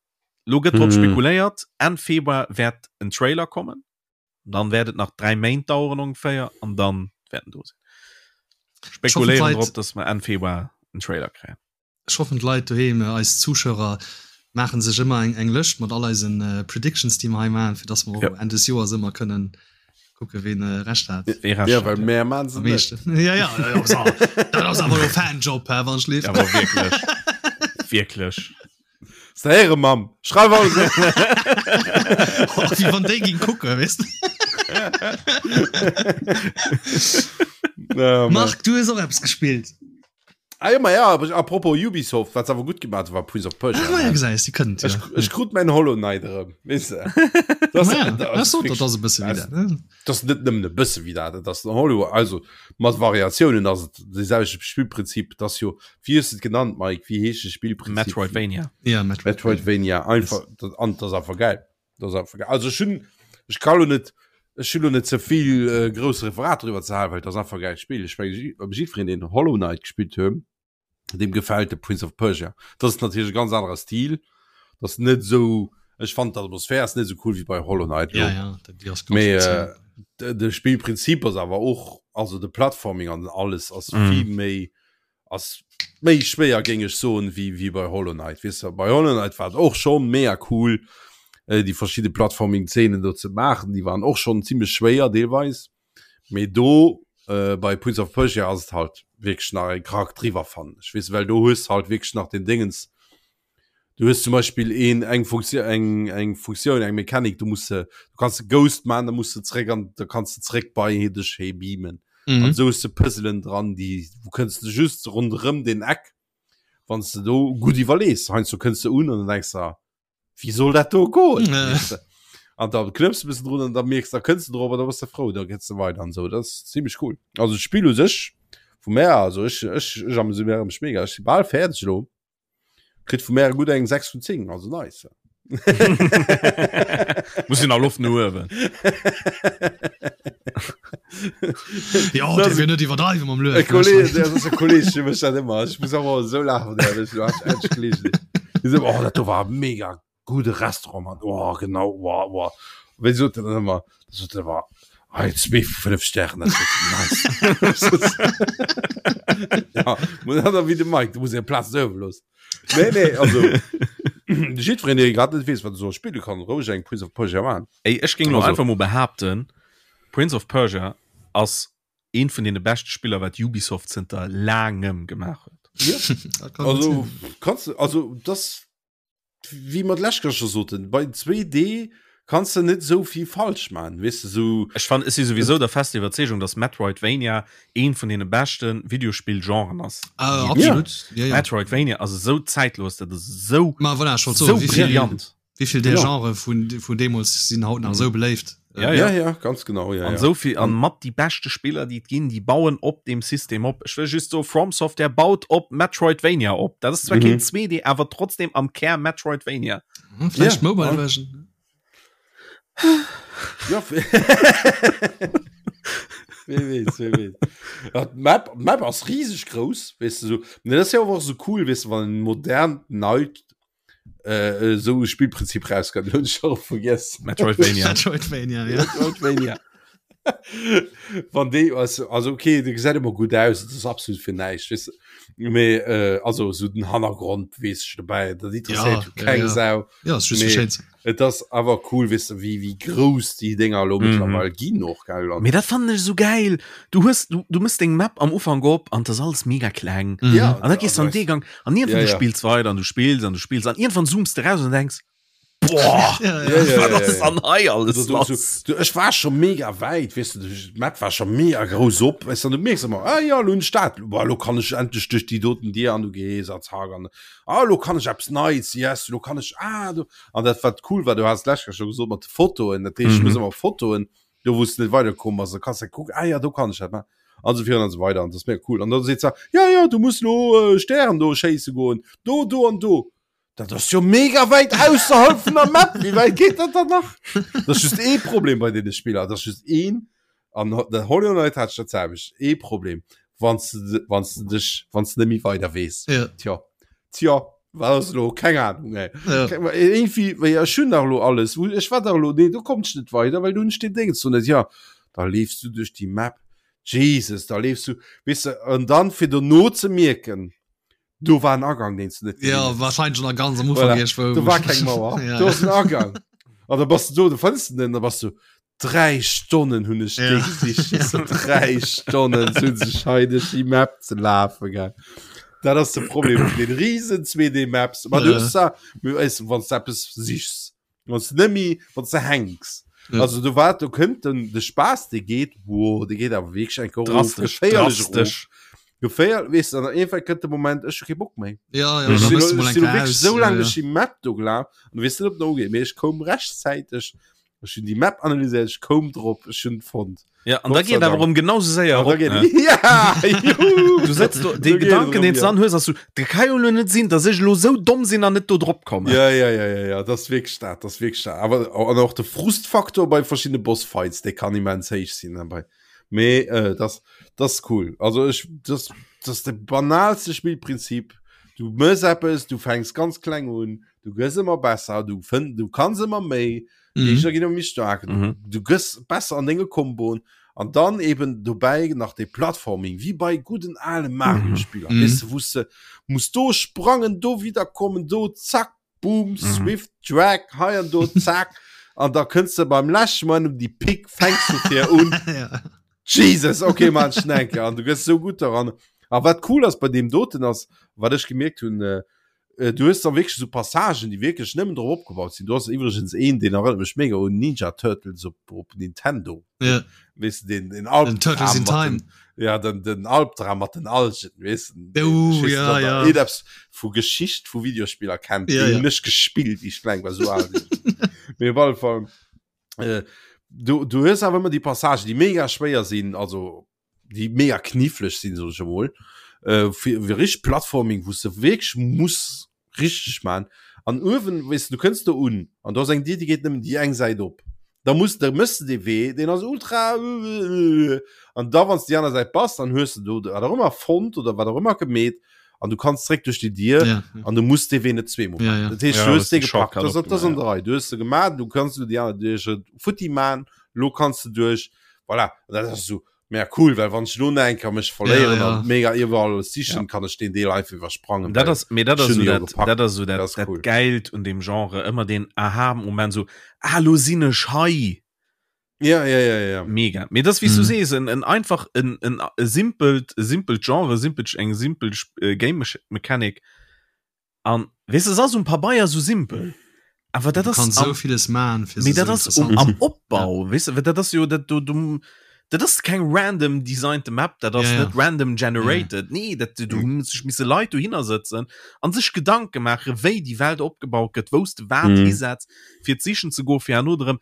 Speaker 2: Lo gëtt drop
Speaker 3: Mhm.
Speaker 2: spekuléiert, Enn Februar wäert en Trailer kommen, dann wäert et nach 3 Méint daueren ongeféier an dann wäert en do sinn. Spekuléieren
Speaker 1: d'Leit-
Speaker 2: drop, dass mer Enn Februar en Trailer kréien.
Speaker 1: Ech hoffen d'Leit doheem, eis Zuschauer, maachen sech ëmmer eng eng Lëscht mat all eisen Predictions déi mer hei maachen, fir dass mer och
Speaker 2: Ja.
Speaker 1: Enn des Joers ëmmer kënnen kucke ween Recht hat.
Speaker 2: Wee Recht
Speaker 3: Ja,
Speaker 2: hat,
Speaker 3: well
Speaker 2: ja.
Speaker 3: mär maan se
Speaker 1: Am
Speaker 3: net.
Speaker 1: meeschten. Ja, ja, ja, ja, so. Dat ass awer elo Fanjob, hä, wann ech
Speaker 2: Ja,
Speaker 1: lift.
Speaker 2: awer wierklech. Wierklech.
Speaker 3: Séiere Mamm, schreif alles op.
Speaker 1: Oh, wéi wann déi ging kucken, weess de.
Speaker 3: Ja, Mann.
Speaker 1: Marc, du hues och eppes gespillt.
Speaker 3: Ah, ja, ma ja, aber apropos Ubisoft, wat se awer gutt gemaach huet, war Prince of Persia.
Speaker 1: Ah, ma ja, gesäis, déi kënnen et,
Speaker 3: Ech,
Speaker 1: ja.
Speaker 3: ech krut mäin Hollow Knight erëm, weess de. Das,
Speaker 1: Ma ja,
Speaker 3: das,
Speaker 1: das sot, dat ass e bësse wéi dat, ne?
Speaker 3: Das ass net nëmmen e bësse wéi dat, et ass den Hollow, also mat Variatiounen ass et de selwechte Spillprinzip, et ass jo, wéi hues de et genannt, Mike, wéi heescht de Spillprinzip?
Speaker 2: Metroidvania.
Speaker 1: Ja, Metroidvania.
Speaker 3: Metroidvania, einfach, dat, an dat ass einfach geil. Dat ass einfach geil. Also ech hunn, ech ka lo net, ech hunn lo net ze vill äh, grouss Referat driwwer ze halen, well et ass einfach e geilt Spill. Ech menge jiddwereen, deen Hollow Knight gespillt huet, deem gefält de Prince of Persia. Dat ass natierlech e ganz anere Stil. Dat ass net esou, ech fannen d'Atmosphär ass net esou cool wéi bei Hollow Knight
Speaker 1: Ja, ja, dat déi ass ganz
Speaker 3: Mee
Speaker 1: speziell.
Speaker 3: äh, de, de Spillprinzip ass awer och, also de Platforming an alles ass
Speaker 2: Mm.
Speaker 3: vill méi ass méi schwéier géing ech soen wéi wéi bei Hollow Knight. Weess de, bei Hollow Knight war et och schonn mega cool äh, déi verschidde Platforming-Zeenen do ze maachen, déi waren och schonn zimmlech schwéier deelweis. Mee do äh, bei Prince of Persia ass et halt wierklech nach e Krack driwwer fannen ech, weess de, well do hues halt wierklech nach den Déngens, du hues zum Beispill een eng Funktioun eng eng Funktioun eng Mechanik, du muss se du kanns de Ghost man, da muss de zréck an da kanns de zréck bei dech hee beamen.
Speaker 1: Mhm.
Speaker 3: An sou hues de Puzzelen dran, déi wou kënns de just ronderëm den Eck, wann s de do gutt iwwerlees. Heiansdo kënns de un an dann denks de, wéi soll dat do goen?
Speaker 1: Ja.
Speaker 3: Weess de? An da knëpps de bëssen drun an da mierks da kënns de drop an da bass de frou, da gees de weider an sou. Dat ass zimmlech cool. Also d'Spill u sech vu mär, also ech ech ech ameséiere mech mega. Ech si bal fäerdeg elo. Kritt vu mär gutt eng 6 vun 10, also nice.
Speaker 2: Muss een nach Loft no uewen.
Speaker 1: Ja,
Speaker 3: Das-
Speaker 1: der will net iwwerdreiwen mam Luef.
Speaker 3: E Kolleg, dat ass e Kolleg, dee mécht dat ëmmer. Ech muss awer esou laachen, der, ech du hast endlech gelesen. Die so, oh, dat do war mega gute Restaurant, Mann. Oh, genau, oh, oh. Wéi sot en dann ëmmer? Da sot en ëmmer, ah, zwee vu fënnef Stären, dat ass nice. Ja, muss dat wéi de Mike, du muss eng Plaz uewe loossen. Nee, nee, also jiddwereen, dee grad net weess, wat e soll spille kann, roueg eng Prince of Persia maachen.
Speaker 2: Ey, ech géing lo
Speaker 3: Also.
Speaker 2: einfach mol behaapten, Prince of Persia ass eent vun deene beschte Spiller, wat Ubisoft zënter laangem gemaach huet.
Speaker 3: Ja.
Speaker 1: Dat kann gut
Speaker 3: Also
Speaker 1: sinn.
Speaker 3: kannst du, also das wéi mer d'lescht Kéier scho soten, bei 2D kanns de net esou vill falsch man, weess de, sou.
Speaker 2: Ech fannen, ech si souwisou der fester Iwwerzeegung, dass Metroidvania eent vun deene beschte Videospill-Genren ass.
Speaker 1: Ah,
Speaker 2: déi et ginn.
Speaker 1: absolut. Ja, ja.
Speaker 2: Metroidvania ass esou zeitlos, dat ass esou,
Speaker 1: Ma voilà, ech wollt
Speaker 2: esou
Speaker 1: soen, wéi vill,
Speaker 2: brillant.
Speaker 1: wéi vill där
Speaker 3: Genau.
Speaker 1: Genre vun, vun deemools sinn haut nach esou beléift.
Speaker 2: Ja,
Speaker 3: Ja, ja, ganz genau, ja,
Speaker 2: An
Speaker 3: ja.
Speaker 2: esou vill, an mat déi beschte Spiller, déi et ginn, déi bauen op deem System op. Ech wëll just soen, From Software baut op Metroidvania op. Dat ass zwar
Speaker 3: Mhm.
Speaker 2: keen 2D, awer trotzdem am Kär Metroidvania.
Speaker 1: Hm, Vläicht
Speaker 3: Ja,
Speaker 1: Mobile
Speaker 3: ja.
Speaker 1: Version.
Speaker 3: Ja, Wie weess, wie weess. Ja, d'Map, d'Map ass rieseg grouss, weess de, so. Nee, dat ass ja och esou cool, weess de, wann en modernt, neit äh, esou e Spillprinzip rauskënnt. Hunn ech scho vergiess.
Speaker 2: Metroidvania.
Speaker 1: Metroidvania, ja.
Speaker 3: Metroidvania. Wann déi also, also okay, de gesäit ëmmer gutt aus, dat ass absolut fir näischt, weess de. Mee äh, also esou den Hannergrond weess ech dobäi, dat interesséiert
Speaker 1: Ja,
Speaker 3: jo keng
Speaker 1: ja, ja.
Speaker 3: Sau.
Speaker 1: Ja, ass just
Speaker 3: Mee
Speaker 1: fir schéin ze.
Speaker 3: Et ass awer cool, weess de, wéi, wéi grouss déi Dénger elo
Speaker 2: Mhm.
Speaker 3: mëttlerweil ginn och, gell? An
Speaker 2: Mee dat fannen ech esou gäil. Du hues, du, du mëss deng Map am Ufank op an 't ass alles mega kleng.
Speaker 1: Mhm.
Speaker 3: ja,
Speaker 2: An da gees du an dee Gang an iergendwann
Speaker 3: Ja,
Speaker 2: du
Speaker 3: ja.
Speaker 2: spills weider an du spills an du spills an iergendwann zooms de raus an denks, boah,
Speaker 1: Ja,
Speaker 3: Ja,
Speaker 1: ja.
Speaker 3: ja,
Speaker 2: wat
Speaker 3: ja,
Speaker 2: ass
Speaker 3: ja.
Speaker 2: an hei alles
Speaker 3: Du, du,
Speaker 2: lass?
Speaker 3: du, ech war scho mega wäit, weess de, d'Map war scho mega grouss op, weess de, an du mierks ëmmer, ah ja, lo hunn ech dat, boah, lo kann ech endlech duerch déi doten Dier an du gees a zack an ah, lo kann ech eppes Neits, yes, lo kann ech, ah, do. An dat wat cool war, du has d'lescht Kéier scho gesot mat de Fotoen, dat heescht, du muss
Speaker 2: Mhm.
Speaker 3: ëmmer Fotoen, do wou s de net weiderkomm bass, da kanns de kucken, ah ja, do kann ech dat maachen an esou virun an esou weider an dat ass mega cool. An da seet se, ja, ja, du muss lo äh, Stären do schéisse goen, do, do an do. Dat ass jo mega wäit ausserhalb vun der Map, wéi wäit geet dat dann nach? Dat ass just ee Problem bei deene Spiller, dat ass just een, an der Hollow Knight hat ech dat selwecht, ee Problem, wann s de, wann s de dech, wann s de net méi weider weess.
Speaker 1: Ja.
Speaker 3: Tja, tja, wat ass elo? Keng Ahnung, ey.
Speaker 1: Ja.
Speaker 3: Irgendwie, wéi ech hunn dach elo alles, wou ech war dach elo, nee, do kommt ech net weider, well do hunn ech deen Déngens do net. Ja, da leefs du duerch déi Map, Jesus, da leefs du, weess de, an dann fir dono ze mierken, do war en Agang, deen s du net gesinn
Speaker 1: Ja,
Speaker 3: hues.
Speaker 1: wahrscheinlich schon ganz am Ufank
Speaker 3: Voilà.
Speaker 1: irgendwo.
Speaker 3: Do war keng Mauer,
Speaker 1: Ja,
Speaker 3: do
Speaker 1: ja.
Speaker 3: ass en Agang. An da bass du do, du fënns den, da bass du, Dräi Stonnen hunn ech
Speaker 1: Ja.
Speaker 3: déi gesicht. Dräi Stonnen sinn sech hei duerch déi Map ze lafen, gell. Dat ass de Problem vun den riesen 2D Maps. Ma du hues zwar, wann s de eppes sichs, wann s de net méi, wann s de hänks.
Speaker 1: Ja.
Speaker 3: Also do war, do kënnt den, de Spaass, dee geet, wow, dee geet awer wierklech eng Kéier erof,
Speaker 2: Drastesch,
Speaker 3: geféierlech erof.
Speaker 2: drastesch.
Speaker 3: Geféier, weess de, an irgendwann kënnt de Moment, ech hu kee Bock méi.
Speaker 1: Ja, ja,
Speaker 3: Ech
Speaker 1: da
Speaker 3: sinn
Speaker 1: bist du
Speaker 3: elo,
Speaker 1: mal
Speaker 3: ech
Speaker 1: eng
Speaker 3: sinn elo
Speaker 1: Kéier
Speaker 3: wierklech
Speaker 1: aus.
Speaker 3: esou
Speaker 1: Ja,
Speaker 3: laang
Speaker 1: ja.
Speaker 3: duerch déi Map do gelaf an du weess net, ob en ugeet, mee ech koum rechtzäiteg, ech hunn déi Map analyséiert, ech koum drop, ech hunn et fonnt.
Speaker 2: Ja, an da
Speaker 3: Gott sei
Speaker 2: geet awer
Speaker 3: Dank.
Speaker 2: erëm genau sou séier
Speaker 3: An da
Speaker 2: erop,
Speaker 3: geet
Speaker 2: ne?
Speaker 3: Ja, juhu!
Speaker 2: Du sëtz do, dee
Speaker 3: Do geet et
Speaker 2: Gedanken,
Speaker 3: erëm,
Speaker 2: deen s
Speaker 3: ja.
Speaker 2: du dann hues, ass so, dat ka jo elo net sinn, dass ech elo sou domm sinn an net do drop kommen.
Speaker 3: Ja, ja, ja, ja, ja, dat ass wierklech dat, dat ass wierklech dat. Awer an och de Frustfaktor bei verschiddene Bossfights, dee kann immens héich sinn dabei. Mee äh, das, das ist cool. Also ech, das, das ist de banalste Spielprinzip. Du mëss eppes, du fänks ganz kleng un, du gëss ëmmer besser, du fënn, du kanns ëmmer méi,
Speaker 1: Mhm.
Speaker 3: Géigner ginn ëmmer méi staark, du,
Speaker 2: Mhm.
Speaker 3: du gëss besser an denge Komboen an dann eben dobäi nach de Platforming, wie bei gudden ale Mario-Spiller,
Speaker 1: Mhm.
Speaker 3: weess de, wou s de muss do sprangen, do wiederkommen, do zack, boom,
Speaker 2: Mhm.
Speaker 3: Swift, Drag, hei an do, zack. An da kënns de beim leschte Moment um déi Pick, fänks du fir un.
Speaker 1: ja.
Speaker 3: Jesus, okay, man, schnenke. An du gëss so gutt daran. A wat cool ass bei deem doten ass, wat ech gemierkt hunn, äh, äh, du hues dann wierklech so Passagen, déi wierklech nëmmen drop opgebaut sinn. Du hast iwwregens een, deen erënnert mech mega un Ninja Turtles op, op Nintendo.
Speaker 1: Ja.
Speaker 3: Weess de, den, den
Speaker 1: Den
Speaker 3: Albdram
Speaker 1: Turtles in
Speaker 3: mat
Speaker 1: Time.
Speaker 3: den, ja, den, den Albdram mat den Algen, weess de.
Speaker 1: Oh,
Speaker 3: Ich weess
Speaker 1: ja,
Speaker 3: net, ob
Speaker 1: ja.
Speaker 3: der eppes vu Geschicht vu Videospiller kennt.
Speaker 1: Ja,
Speaker 3: Den
Speaker 1: ja.
Speaker 3: hunn ech gespillt, ich kleng war, so al sinn ech. Mee op alle Fall, äh, du, du hues awer ëmmer déi Passagen, déi mega schwéier sinn, also déi mega kniffleg sinn, sot ech emol, äh, fir, fir richtig Platforming, wou s de wierklech muss richtig man. An uewen, weess de, du kënns do un an do ass eng Dier, déi geet nëmmen déi eng Säit op. Da muss, da mëss de dee Wee, deen ass ultra an da wann s de déi aner Säit bass, dann hues de do wat och ëmmer fonnt oder wat och ëmmer gemeet an du kanns zréck duerch déi Dier
Speaker 1: Ja,
Speaker 3: an du muss dee Wee net zweemol
Speaker 1: Ja,
Speaker 3: man.
Speaker 1: ja.
Speaker 3: Dat heescht,
Speaker 2: Ja,
Speaker 3: du
Speaker 2: das
Speaker 3: hues dee
Speaker 2: ist den
Speaker 3: gepackt,
Speaker 2: Shortcut
Speaker 3: das, das ass an
Speaker 2: opgemaach,
Speaker 3: der Rei. Du hues se gemaat, du kanns du déi aner duerch futti man, lo kanns de duerch, voilà. An dat ass esou mega cool, well wann ech lo nach eng Kéier mech verléieren
Speaker 1: Ja, ja.
Speaker 3: an mega iwwerall sichen, kann ech deen Deel einfach iwwersprangen.
Speaker 2: Dat
Speaker 3: well
Speaker 2: ass, mee dat
Speaker 3: ech
Speaker 2: ass
Speaker 3: hunn
Speaker 2: so
Speaker 3: jo
Speaker 2: dat,
Speaker 3: gepackt.
Speaker 2: dat ass so dat,
Speaker 3: Dat ass
Speaker 2: dat
Speaker 3: cool.
Speaker 2: Geilt un dem Genre, ëmmer den Aha-Moment, so, ah, lo sinn ech hei.
Speaker 3: Ja, ja, ja, ja.
Speaker 2: Mega. Mee das, wéi s du
Speaker 1: Mhm.
Speaker 2: sees, en, en einfach, en, en, e simpelt, e simpelt Genre, simpelt, eng simpel äh, Game Mechanic. An, weess de, es ass um Pabeier sou simpel, awer dat
Speaker 1: Du
Speaker 2: ass
Speaker 1: kanns
Speaker 2: am,
Speaker 1: sou villes man fir
Speaker 2: mee
Speaker 1: se
Speaker 2: dat
Speaker 1: sou
Speaker 2: ass um,
Speaker 1: interessant.
Speaker 2: am Opbau, weess de, well dat ass jo dat do, du, dat ass keng random designte Map, dat ass
Speaker 1: Ja, ja.
Speaker 2: net random generated, nee, dat do hu sech misse Leit dohinner sëtzen an sech Gedanke maache wéi déi Welt opgebaut gëtt, wou s de wat
Speaker 3: Mhm.
Speaker 2: hisetz, fir d'Sichen ze goen, fir herno erëm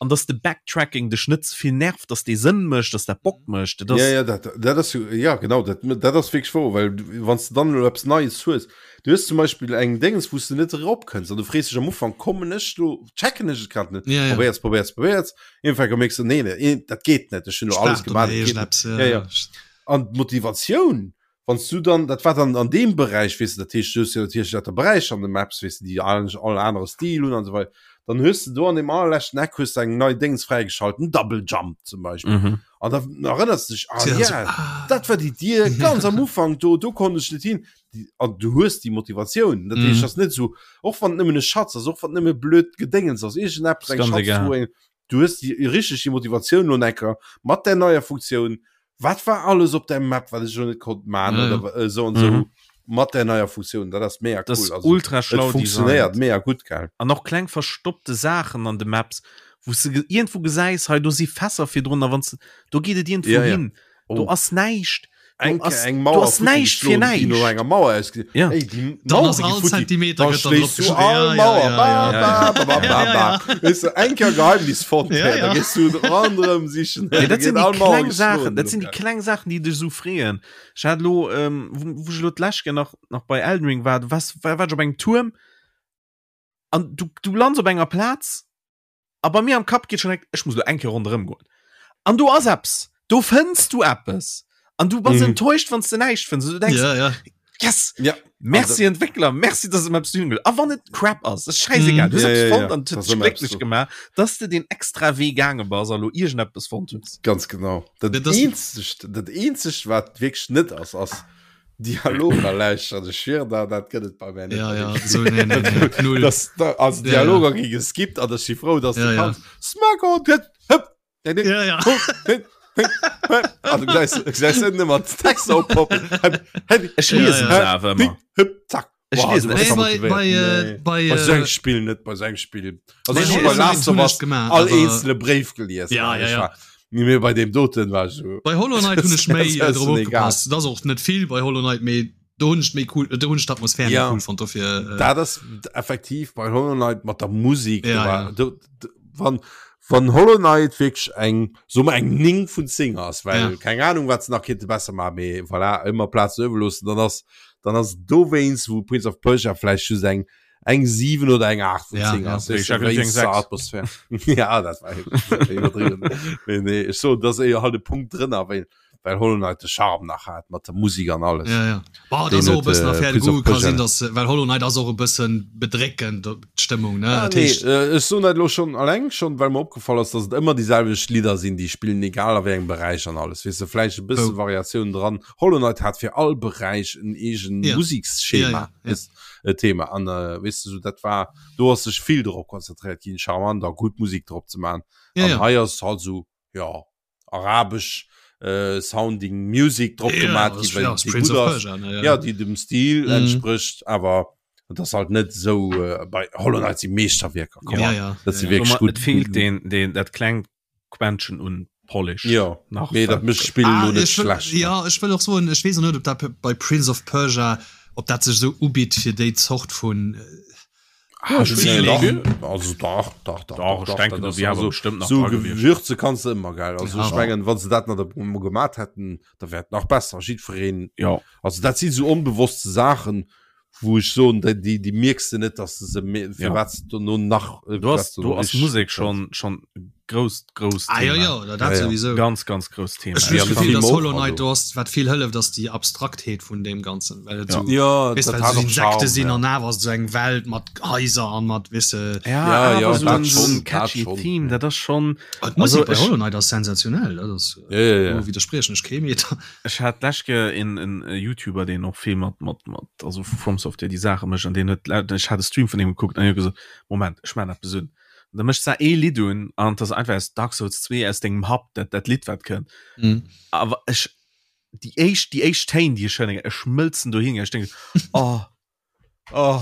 Speaker 2: an dass de Backtracking dech net ze vill nervt, dass dee Sënn mécht, dass dat Bock mécht. Dat ass,
Speaker 3: Ja, ja, dat, dat ass jo, ja, genau, dat, dat ass wierklech wouer, well du, wann s de dann elo eppes Neies hues, du hues zum Beispill eng Déngens, wou s de net eropkënns an du frees dech am Ufank, kommen ech do, checken ech et grad net,
Speaker 1: Ja, ja.
Speaker 3: probéiers, probéiers, probéiers, iergendwann mierks de, nee, nee, dat geet net, ech hunn elo alles
Speaker 1: Start oder
Speaker 3: gemaach, dat geet net.
Speaker 1: iergendeppes,
Speaker 3: Ja, ja.
Speaker 1: ja.
Speaker 3: An d'Motivatioun, wann s du dann, dat war dann an deem Beräich, weess de, dat heescht, du hues jo natierlech lauter Beräicher an de Maps, weess de, déi all, all anere Stil hunn an esou weider, dann hues de do an deem allerleschten Eck hues de eng nei Déngs fräigeschalt, en Double Jump zum Beispill.
Speaker 2: Mhm.
Speaker 3: An da erënners de dech, ah
Speaker 1: Ja,
Speaker 3: ja,
Speaker 1: so, ah.
Speaker 3: dat war déi Dier ganz am Ufank do, do konnt ech net hin. Déi, an du hues déi Motivatioun, dat heescht,
Speaker 1: Mhm.
Speaker 3: ass net esou, och wann et nëmmen e Schatz ass, och wann et nëmme blöd Gedéngens ass, iergendeppes,
Speaker 2: Ist
Speaker 3: eng
Speaker 2: ganz
Speaker 3: Schatztruhe,
Speaker 2: egal.
Speaker 3: eng, du hues déi richteg déi Motivatioun lo necker mat där neier Funktioun, wat war alles op der Map, wat ech lo net konnt man
Speaker 1: Ja, ja.
Speaker 3: oder esou an esou
Speaker 2: Mhm.
Speaker 3: mat der neier Funktioun, dat ass mega
Speaker 2: Das
Speaker 3: cool.
Speaker 2: ist
Speaker 3: Also,
Speaker 2: ultra
Speaker 3: et
Speaker 2: schlau
Speaker 3: funktionéiert
Speaker 2: designt.
Speaker 3: mega gutt, gell?
Speaker 2: An och kleng verstoppte Saachen an de Maps, wou s de ge- iergendwou gesäis, hei do si Fässer virdrun, a wann s do geet et iergendwou
Speaker 3: Ja, ja.
Speaker 2: hin. Do
Speaker 3: Oh.
Speaker 2: ass näischt. Do
Speaker 3: Eng,
Speaker 2: ass,
Speaker 3: eng
Speaker 2: do
Speaker 3: Mauer
Speaker 2: ass näischt fir
Speaker 3: déi no
Speaker 2: näischt.
Speaker 3: enger Mauer ausgesinn.
Speaker 2: Ja.
Speaker 3: Ey, déi
Speaker 1: Dann
Speaker 3: Mauer
Speaker 1: ass
Speaker 3: gi
Speaker 1: all
Speaker 3: futti.
Speaker 1: Zentimeter
Speaker 3: Dann
Speaker 1: gëtt dann
Speaker 3: schléiss du
Speaker 1: drop
Speaker 3: all
Speaker 1: geschriwwen. Ja,
Speaker 3: Mauer.
Speaker 1: ja,
Speaker 3: Ba,
Speaker 1: ja,
Speaker 3: ba, ba, ba,
Speaker 1: ja,
Speaker 3: ba,
Speaker 1: ja,
Speaker 3: ba.
Speaker 1: ja.
Speaker 3: Weess du, eng Kéier Geheimnis fonnt,
Speaker 1: Ja,
Speaker 3: hä, da
Speaker 1: ja.
Speaker 3: gees du ronderëm sichen, hä,
Speaker 2: Nee,
Speaker 3: da
Speaker 2: dat sinn
Speaker 3: ginn
Speaker 2: déi
Speaker 3: all Mauer
Speaker 2: kleng Saachen,
Speaker 3: geschloen.
Speaker 2: dat sinn déi kleng Saachen, déi dech esou freeën. Ech hat elo, ähm, wou, wou ech elo d'lescht Kéier nach, nach bei Elden Ring war, du waars, war, war ech op engem Tuerm an du, du lands op enger Plaz a bei mir am Kapp geet schon direkt, ech muss elo eng Kéier ronderëm goen. An do ass eppes, do fënns du eppes an du bass
Speaker 3: Mhm.
Speaker 2: enttäuscht, wann s de näischt fënns. Du denkst,
Speaker 1: Ja, ja.
Speaker 2: yes,
Speaker 3: Ja.
Speaker 2: merci Entwickler, merci, dass et eppes hunn. A wann et Crap ass, ass scheißegal.
Speaker 1: Mhm.
Speaker 2: Du hues
Speaker 3: Ja,
Speaker 2: eppes
Speaker 3: ja,
Speaker 2: fonnt
Speaker 3: ja.
Speaker 2: an et huet
Speaker 3: Das
Speaker 2: dech
Speaker 3: ëmmer eppes
Speaker 2: glécklech
Speaker 3: do.
Speaker 2: gemaach, dass de den extra Wee gaange bass a lo iergendeppes fonnt hues.
Speaker 3: Ganz genau. Dat
Speaker 1: Ja, das-
Speaker 3: eenzegt, dat eenzegt, wat wierklech net ass, ass Dialoger lauschteren. Ech schwieren der, dat gëtt et bei mir net.
Speaker 1: Ja, ja, so, nee, nee, nee. Null.
Speaker 3: Das, da, also
Speaker 1: Ja, ja.
Speaker 3: Dialoger gi geskippt an ech si frou, dass
Speaker 1: Ja,
Speaker 3: du
Speaker 1: ja.
Speaker 3: kanns. Smack on, hëpp, hëpp, nee, nee,
Speaker 1: Ja, ja.
Speaker 3: ho, nee. Also gesäis gesäis ënne mat Texter oppoppen.
Speaker 2: Ech liesen se awer ëmmer.
Speaker 3: Zack.
Speaker 2: Ech liesen
Speaker 1: Nee, bei, bei, äh, bei,
Speaker 3: Bei
Speaker 1: äh,
Speaker 3: sou engem Spill net, bei sou engem Spill. Also
Speaker 1: Nee,
Speaker 3: ech hu bei
Speaker 1: nee,
Speaker 3: Last of
Speaker 1: hunn ech
Speaker 3: Us
Speaker 1: gemaach,
Speaker 3: all
Speaker 1: awer-
Speaker 3: eenzele Bréif gelies.
Speaker 1: Ja, ja,
Speaker 3: Ech
Speaker 1: ja.
Speaker 3: war- Nee, bei deem doten war ech so.
Speaker 1: Bei Hollow Knight hunn ech méi
Speaker 3: Das
Speaker 1: äh,
Speaker 3: ist
Speaker 1: drop
Speaker 3: egal.
Speaker 1: opgepasst. Dat ass och net vill bei Hollow Knight, mee do hunn ech méi cool, do hunn ech d'Atmosphär méi
Speaker 3: Ja.
Speaker 1: cool fonnt dofir. Äh,
Speaker 3: Dat ass effektiv bei Hollow Knight mat der Musik.
Speaker 1: Ja,
Speaker 3: do war,
Speaker 1: ja.
Speaker 3: do, do, wann, wann Hollow Knight wierklech eng, so mer eng 9 vun 10 ass, well
Speaker 1: Ja.
Speaker 3: keng Ahnung wat se nach kinnte besser maachen, mee voilà, ëmmer Plazen iwwerloossen, dann ass dann ass dowéinst wou Prince of Persia vläicht just eng eng 7 oder eng 8 vun
Speaker 1: Ja,
Speaker 3: 10
Speaker 1: ja.
Speaker 3: ass.
Speaker 2: Ich
Speaker 3: Weess du,
Speaker 2: hab eng
Speaker 3: wéinst der
Speaker 2: 6.
Speaker 3: Atmosphär. ja, dat war iwwerdriwwen. Mee nee, ech soen, dat ass éier halt e Punkt drënner, well well Hollow Knight de Charme nach hat mat der Musik an alles.
Speaker 1: Ja, ja. Boah,
Speaker 3: Den
Speaker 1: das och e
Speaker 3: huet,
Speaker 1: bëssen
Speaker 3: äh,
Speaker 1: Affaire
Speaker 3: Prince of
Speaker 1: Goût ka sinn,
Speaker 3: Persia.
Speaker 1: dass well Hollow Knight ass och e bëssen bedréckend d'Stëmmung ne
Speaker 3: Ah,
Speaker 1: Dat
Speaker 3: nee,
Speaker 1: heescht
Speaker 3: äh, ech soen dat elo schon alleng schon, well mer opgefall ass, dass et ëmmer déi selwecht Lidder sinn, déi spillen, egal a wéi engem Beräich an alles. Weess de, vläicht e bësse
Speaker 1: Oh.
Speaker 3: Variatioun dran. Hollow Knight hat fir all Beräich en eegen
Speaker 1: Ja.
Speaker 3: Museksschema,
Speaker 1: Ja, ja, ja.
Speaker 3: weess, e Thema. An äh, weess de, sou dat war, do ass sech vill drop konzentréiert ginn, charmant a gutt Musik drop ze man.
Speaker 1: Ja,
Speaker 3: An
Speaker 1: ja.
Speaker 3: hei ass halt sou, ja, arabesch äh, sounding Music drop
Speaker 1: Ja,
Speaker 3: gemaat
Speaker 1: das-
Speaker 3: gi, well
Speaker 1: ja, das
Speaker 3: déi
Speaker 1: Prince
Speaker 3: gutt
Speaker 1: of
Speaker 3: ass.
Speaker 1: Persia, ne, ja.
Speaker 3: Ja, déi dem Stil
Speaker 1: Mhm.
Speaker 3: entsprécht, awer et ass halt net sou äh, bei Hollow Knight si Meeschterwierker, come
Speaker 1: Ja,
Speaker 3: on.
Speaker 1: ja.
Speaker 3: Dat si
Speaker 1: ja, ja.
Speaker 3: wierklech
Speaker 2: Guck mal,
Speaker 3: gutt.
Speaker 2: Et feelt den, den, dat klengt Quäntchen un Polish.
Speaker 3: Ja,
Speaker 2: nach.
Speaker 3: mee dat mécht d'Spill
Speaker 1: Ah,
Speaker 3: lo net
Speaker 1: ech wëll,
Speaker 3: schlecht. ne?
Speaker 1: ja, ech wëll och soen, ech weess och net, ob dat bei Prince of Persia, ob dat sech sou ubitt fir déi Zort vun
Speaker 3: Ah, ech
Speaker 1: Feeling.
Speaker 3: dach, also dach, dach, dach,
Speaker 2: Dach, ech
Speaker 3: dach,
Speaker 2: denken,
Speaker 3: dat
Speaker 2: do
Speaker 3: ass
Speaker 2: wier awer
Speaker 3: also
Speaker 2: bestimmt nach
Speaker 3: sou
Speaker 2: dra gewiescht.
Speaker 3: Gewürze kanns de ëmmer geil. Also
Speaker 1: Ja.
Speaker 3: ech mengen, wann se dat nach emol gemat hätten, da wär et nach besser. Jiddwereen,
Speaker 2: Ja.
Speaker 3: also dat si sou onbewosste Saachen, wou ech soen, déi, déi, déi mierks de net, dass de se, me-
Speaker 2: Ja.
Speaker 3: firwat se dono nach, äh,
Speaker 2: Do ass,
Speaker 3: firwat se
Speaker 2: do
Speaker 3: dono
Speaker 2: ass
Speaker 3: richtig
Speaker 2: Musek
Speaker 3: gutt
Speaker 2: schon, schon grousst, grousst
Speaker 1: Ah, ja,
Speaker 2: Thema.
Speaker 1: ja, dat
Speaker 3: Ja, ja.
Speaker 1: sowieso.
Speaker 2: Ganz, ganz grousst Thema.
Speaker 1: Ech hunn
Speaker 3: Ja,
Speaker 1: das
Speaker 3: de
Speaker 1: Gefill,
Speaker 3: Film
Speaker 1: dass
Speaker 3: och,
Speaker 1: Hollow Knight
Speaker 3: also.
Speaker 1: do ass, wat vill hëlleft, ass déi Abstraktheet vun deem Ganzen, well et
Speaker 2: Ja.
Speaker 1: sou,
Speaker 3: Ja,
Speaker 1: weess,
Speaker 3: dat
Speaker 1: well
Speaker 3: hat
Speaker 1: sou
Speaker 3: och
Speaker 1: Insekte
Speaker 3: Charme,
Speaker 1: sinn
Speaker 3: ja.
Speaker 1: an awer ass et sou eng Welt mat Haiser an mat, weess de.
Speaker 2: Ja,
Speaker 3: Ja, ja,
Speaker 2: awer sou
Speaker 3: dat
Speaker 2: en, sou
Speaker 3: schon,
Speaker 2: en
Speaker 3: dat
Speaker 2: catchy
Speaker 3: schon.
Speaker 2: Theme, dat ass schon.
Speaker 1: Ah, d'Musek
Speaker 2: Also
Speaker 1: bei
Speaker 2: ech,
Speaker 1: Hollow Knight ass sensationell, dat ass,
Speaker 3: Ja, ja, ja.
Speaker 1: do widderspriechen ech kee Meter.
Speaker 2: ech hat d'lescht Kéier en, en YouTuber, deen och vill mat, mat, mat, also vu From Software déi Saache mécht an deen huet, ech hat e Stream vun deem gekuckt an hien huet gesot, Moment, ech maachen eppes un. Da mécht se ee Lidd un an dat ass einfach aus Dark Souls 2 aus dengem Hub dat dat Lidd wat kënnt.
Speaker 1: Mhm.
Speaker 2: Awer ech déi éischt déi éischt Téin déi ech hören, ech schmëlzen dohin ech denken oh oh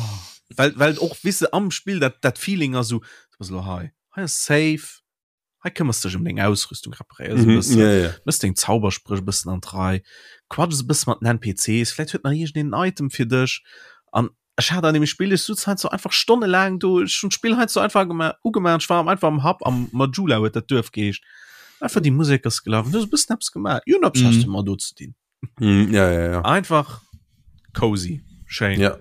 Speaker 2: well well och wisse am Spill dat dat Feeling ass sou du bass elo hei hei ass safe hei këmmers dech ëm deng Ausrüstung reparéiers e
Speaker 3: Mhm,
Speaker 2: bëssen
Speaker 3: ja, ja.
Speaker 2: mëss deng Zauberspréch e bëssen an d'Rei quatschs e bësse mat den NPCs vläit huet nach iergendeen en Item fir dech an Ech hat an dem Spill, ech sutz heiansdo einfach stonnelaang do, ech hunn d'Spill heiansdo einfach gema ugemaach, ech war am einfach am Hub, am Majula huet dat Duerf geheescht, einfach déi Musek ass gelaf, du hues e bëssen eppes gemaach, jo, eppes mm. hast du mal do ze dinn.
Speaker 3: Mm, ja, ja, ja.
Speaker 2: Einfach cozy, schéin.
Speaker 3: Ja.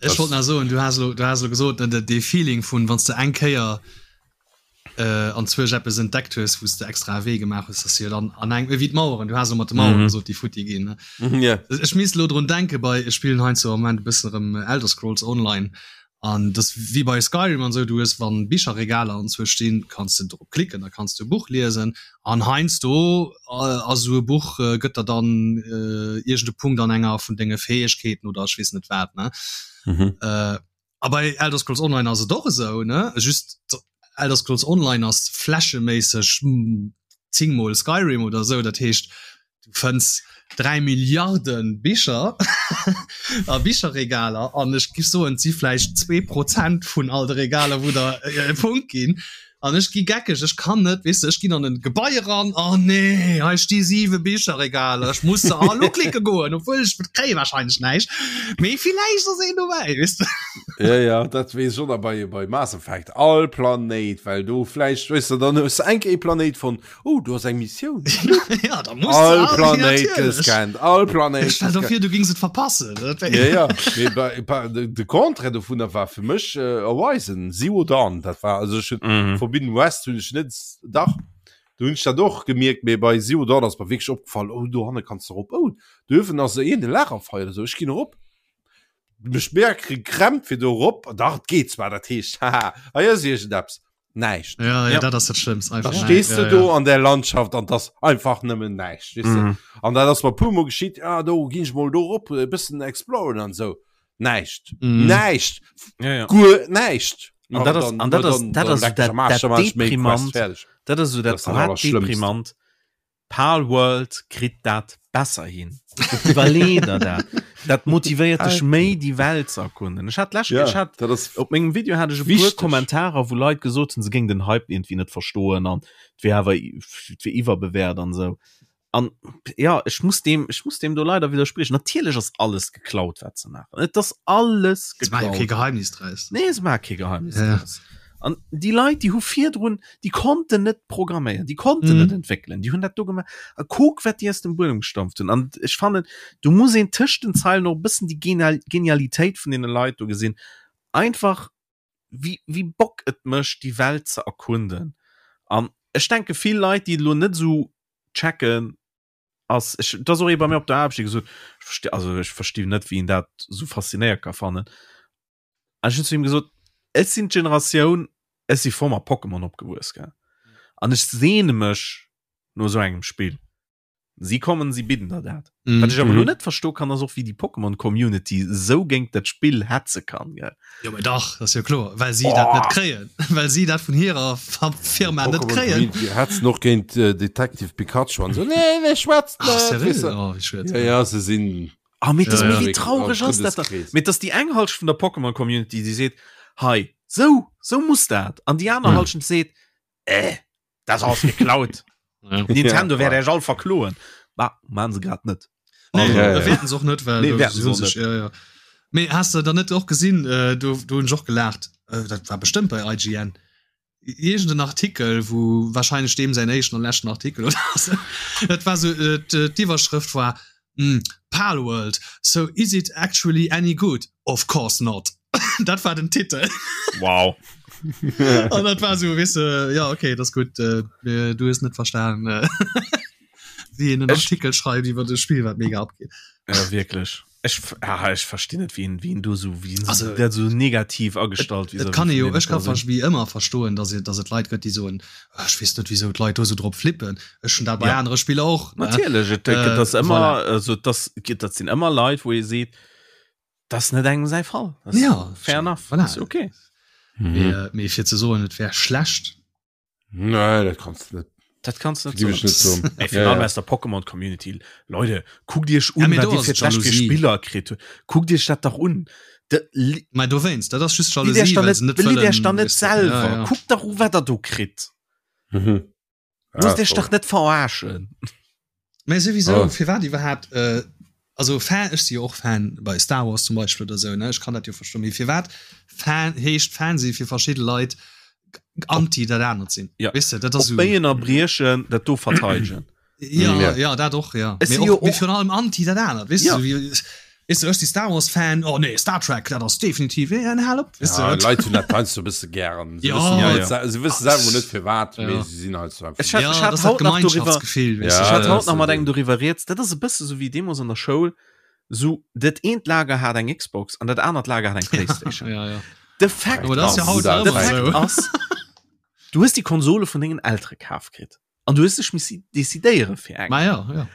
Speaker 1: Ech wollt nach soen, du has lo, du has lo gesot, ne, de, dee Feeling vun, wann s de eng Kéier äh, an zwousch eppes entdeckt hues, wou s de extra e Wee gemaach hues, dass du jo dann an eng, wéi d'Maueren, du has lo mat de Maueren mm -hmm. gesot, déi futti ginn. Ne?
Speaker 3: Mm yeah.
Speaker 1: Ech misst lo drun denke bei, ech spillen heiansdo am Moment e bëssen erëm Elder Scrolls Online an das wéi bei Skyrim an sou, du hues wann Bicherregaler an zwou stinn, kanns de drop klicken, da kanns du e Buch liesen an heiansdo äh, ass sou e Buch äh, gëtt der dann äh, iergend e Punkt an enger vun denge Fäegkeeten oder ech weess net wat ne.
Speaker 3: Mhm.
Speaker 1: Äh, A bei Elder Scrolls Online ass et och esou, ne? Just Elder Scrolls Online ass flächeméisseg 10 mol Skyrim oder esou, dat heescht du fënns 3 Milliarde Bicher a Bicherregaler an ech giff soen, et si vläicht 2 Prozent vun all de Regaler wou der e Punkt ginn. An ech gi geckeg, ech kann net, weess de, ech ginn an en Gebai eran, oh nee, hei sti 7 Bicherregaler, ech muss se all uklicke goen, obwuel ech kréie wahrscheinlech näischt, mee villäicht ass een dobäi, weess de.
Speaker 3: Ja, ja, dat weess ech och nach bei, bei Mass Effect, all Planéit, well do vläicht, weess de, dann hues de enk ee Planéit fonnt, oh, do ass eng Missioun,
Speaker 1: Ja, da muss de
Speaker 3: all
Speaker 1: all,
Speaker 3: Planéit
Speaker 1: natierlech.
Speaker 3: gescannt, all Planéit
Speaker 1: Stell der
Speaker 3: gescannt.
Speaker 1: vir, du gings et verpassen, dat wär.
Speaker 3: Ja, ja, mee bei, bei, de, de Contraire dovunner war fir mech äh, Horizon Zero Dawn, dat war, also ech hunn
Speaker 2: Mhm.
Speaker 3: Forbidden West hunn ech net, dach, do hunn ech dat och gemierkt, mee bei Zero Dawn ass mer wierklech opgefall, oh, dohanne kanns de erop, oh, do uewen ass iergend e Lagerfeuer oder sou, ech ginn erop. Mech mega gekrämpt fir do erop, dach, et geet zwar, dat heescht, haha, hei ass iergendeppes. Näischt.
Speaker 1: Ja, ja,
Speaker 2: Ja.
Speaker 1: dat ass dat Schlëmmst, einfach
Speaker 3: Da
Speaker 1: näischt.
Speaker 3: stees
Speaker 1: Ja,
Speaker 3: du do
Speaker 1: ja.
Speaker 3: an der Landschaft an das einfach nëmmen näischt weess de.
Speaker 2: Mhm.
Speaker 3: An dat ass mer puer mol geschitt, ah do ginn ech mol do rop e bëssen exploren an sou. Näischt.
Speaker 1: Mhm.
Speaker 3: Näischt.
Speaker 2: Ja, ja.
Speaker 3: Guer näischt.
Speaker 2: An dat ass,
Speaker 3: dann-
Speaker 2: an dat ass,
Speaker 3: dann-
Speaker 2: dat
Speaker 3: dann
Speaker 2: ass
Speaker 3: leck
Speaker 2: dat,
Speaker 3: ech am Aarsch,
Speaker 2: dat
Speaker 3: dann mach ech méi Quest
Speaker 2: deprimant,
Speaker 3: fertig.
Speaker 2: dat ass so
Speaker 3: Dat
Speaker 2: dat
Speaker 3: ass dat
Speaker 2: grad
Speaker 3: Allerschlëmmst.
Speaker 2: deprimant. Palworld kritt dat besser hin. Iwwerlee der dat. Dat motivéiert dech méi déi Welt ze erkunden. Ech hat d'lescht, ech hat op mengem Video hat ech e puer Kommentarer wou Leit gesot hunn se géing den Hype iergendwéi net verstoen an et wier awer et wier iwwerbewäert an esou. An ja ech muss deem ech muss deem do leider widderspriechen. Natierlech ass alles geklaut wat se maachen. Et ass alles
Speaker 1: geklaut. Se maache jo kee Geheimnis draus.
Speaker 2: Nee se maache kee Geheimnis draus. An déi Leit déi hu virdrun, déi konnten net programméieren, déi konnten mhm. net entwéckelen, déi hunn dat do gemaach. A kuck wat déi aus dem Buedem gestampft hunn. An ech fannen du muss een tëscht den Zeilen och e bëssen déi Genial Genialitéit vun deene Leit do gesinn. Einfach wéi, wéi Bock et mécht déi Welt ze erkunden. An ech denke vill Leit, déi et elo net esou checken, ass ech dat ass och ee bei mir op der Aarbecht, dee gesot ech versti also ech versti net wéi een dat esou faszinéiert ka fannen. An ech hunn zu him gesot, ech sinn d'Generatioun, ech si voll mat Pokémon opgewuess, gell, an ech sehne mech no esou engem Spill. Si kommen, si bidden der dat. Mm. Wat ech awer elo net verstoe kann, ass och wéi déi Pokémon Community esou géint dat Spill hetze kann, gell.
Speaker 1: Jo mä dach, dat ass jo kloer, well si dat net kréien, well si dat vun hirer Firma net kréien.
Speaker 3: Community hetzen och géint äh, Detective Pikachu an so nee, nee, schwätzt
Speaker 1: Ach,
Speaker 3: net,
Speaker 1: seriö?
Speaker 3: weess de.
Speaker 1: Oh, wéi schued.
Speaker 3: Ja, ja, se sinn
Speaker 2: Ah, mee das,
Speaker 3: Ja,
Speaker 2: mee
Speaker 3: ja.
Speaker 2: wéi traureg ass dat dann? Mee dass déi eng Halschent vun der Pokémon Community, déi seet, hei, sou, sou muss dat, an déi aner
Speaker 1: Ja.
Speaker 2: Halschent seet, äh, dat ass geklaut.
Speaker 1: Ja.
Speaker 2: Nintendo
Speaker 3: Ja,
Speaker 2: wäert Iech all verkloen. Bah, maan se grad net.
Speaker 1: Nee,
Speaker 3: Also, ja, ja.
Speaker 1: wäerten se och net, well
Speaker 2: Nee,
Speaker 1: do
Speaker 2: wäerten se
Speaker 1: si
Speaker 2: och
Speaker 1: sech, ja, ja. Mee has de dann net och gesinn, äh, do, do hunn ech och gelaacht, äh, dat war bestëmmt bei IGN, iergend en Artikel, wou wahrscheinlech deem säin éischten an leschten Artikel oder sou, dat war sou, äh, d'Iwwerschrëft war, hm, Palworld, so is it actually any good? Of course not. Dat war den Titel.
Speaker 2: Wow.
Speaker 1: An dat war sou, weess de, ja okay, dat ass gutt, äh, du hues net verstan, äh, wéi een en Artikel schreift iwwer e Spill, wat mega abgeet.
Speaker 2: Ja, wierklech. Ech, ah, ech verstinn net, wien, wien do so, wien also, der so negativ agestallt
Speaker 1: et, et kann jo ech kann wie ëmmer verstoen, dass et, dass et Leit gëtt, déi soen ah, ech weess net wieso d'Leit do so drop flippen. Ech hun dat bei ja. anere Spiller och.
Speaker 2: Natierlech et, äh, das ëmmer voilà. also das dat sinn ëmmer Leit, wou ee seet das net engem säi Fall.
Speaker 1: Das ja
Speaker 2: fair enough
Speaker 1: voilà.
Speaker 2: Ist okay.
Speaker 1: Mhm. Mee, äh, mee fir ze soen et wär schlecht.
Speaker 3: Nee, dat kannst du net.
Speaker 2: Dat kannst du
Speaker 3: net soen.
Speaker 2: Ey, ja, ja. aus der Pokémon Community. Leute, guckt Iech un,
Speaker 1: ja,
Speaker 2: wat dir fir d'lescht fir Spiller kritt hutt. Guckt Iech dat dach un.
Speaker 1: Mä dowéinst, dat ass just
Speaker 2: Jalousie, well se net wëllen. Iech dann net selwer. Ja, ja. Kuckt dach u, wat der do kritt.
Speaker 3: Mhm.
Speaker 2: Loosst Iech dach net verarschen.
Speaker 1: Mä souwisou, oh. firwat iwwerhaapt, äh, also Fan, ech si jo och Fan bei Star Wars zum Beispill oder sou, ne, ech kann dat jo verstoen, mee firwat Fan heescht Fan si fir verschidde Leit anti dat anert sinn?
Speaker 2: Ja.
Speaker 1: Weess de, dat ass
Speaker 2: Op Béien a Briechen dat do verteidegen.
Speaker 1: Ja, ja, ja dat och, ja.
Speaker 2: Ech
Speaker 1: Mee
Speaker 2: si jo
Speaker 1: och, mee
Speaker 2: och-
Speaker 1: virun allem anti dat anert, weess
Speaker 2: Ja.
Speaker 1: du, wéi, weess du, ech si Star Wars Fan, oh nee, Star Trek, dat ass definitiv, ja, hal op, weess du,
Speaker 3: Ja,
Speaker 1: wat?
Speaker 3: Leit hunn dat heiansdo e bësse gären. Se
Speaker 1: Ja.
Speaker 3: wëssen
Speaker 2: Ja,
Speaker 3: net
Speaker 2: ja.
Speaker 3: se- se wësse selwer net firwat,
Speaker 1: Ja.
Speaker 3: mee se sinn halt so einfach.
Speaker 2: Ech hat,
Speaker 1: Ja,
Speaker 2: ech
Speaker 1: dat
Speaker 2: hat
Speaker 1: ass dat
Speaker 2: haut nach doriwwer,
Speaker 1: Gemeinschaftsgefill, weess
Speaker 3: Ja,
Speaker 1: du.
Speaker 2: ech hat
Speaker 3: dat
Speaker 2: haut
Speaker 3: ass
Speaker 2: nach mat
Speaker 3: esou.
Speaker 2: engem doriwwer rieds, dat ass e bësse sou wéi deemools an der Schoul, sou dat eent Lager hat eng Xbox an dat anert Lager hat eng Playstation.
Speaker 1: Ja, ja.
Speaker 2: De Fakt
Speaker 1: Aber dat ass ja
Speaker 2: ass,
Speaker 1: haut nach
Speaker 2: de
Speaker 1: ëmmer
Speaker 2: Fakt
Speaker 1: esou.
Speaker 2: ass, du hues déi Konsole vun dengen Eltere kaf kritt an du hues dech missi decidéiere fir eng.
Speaker 1: Ma ja, ja.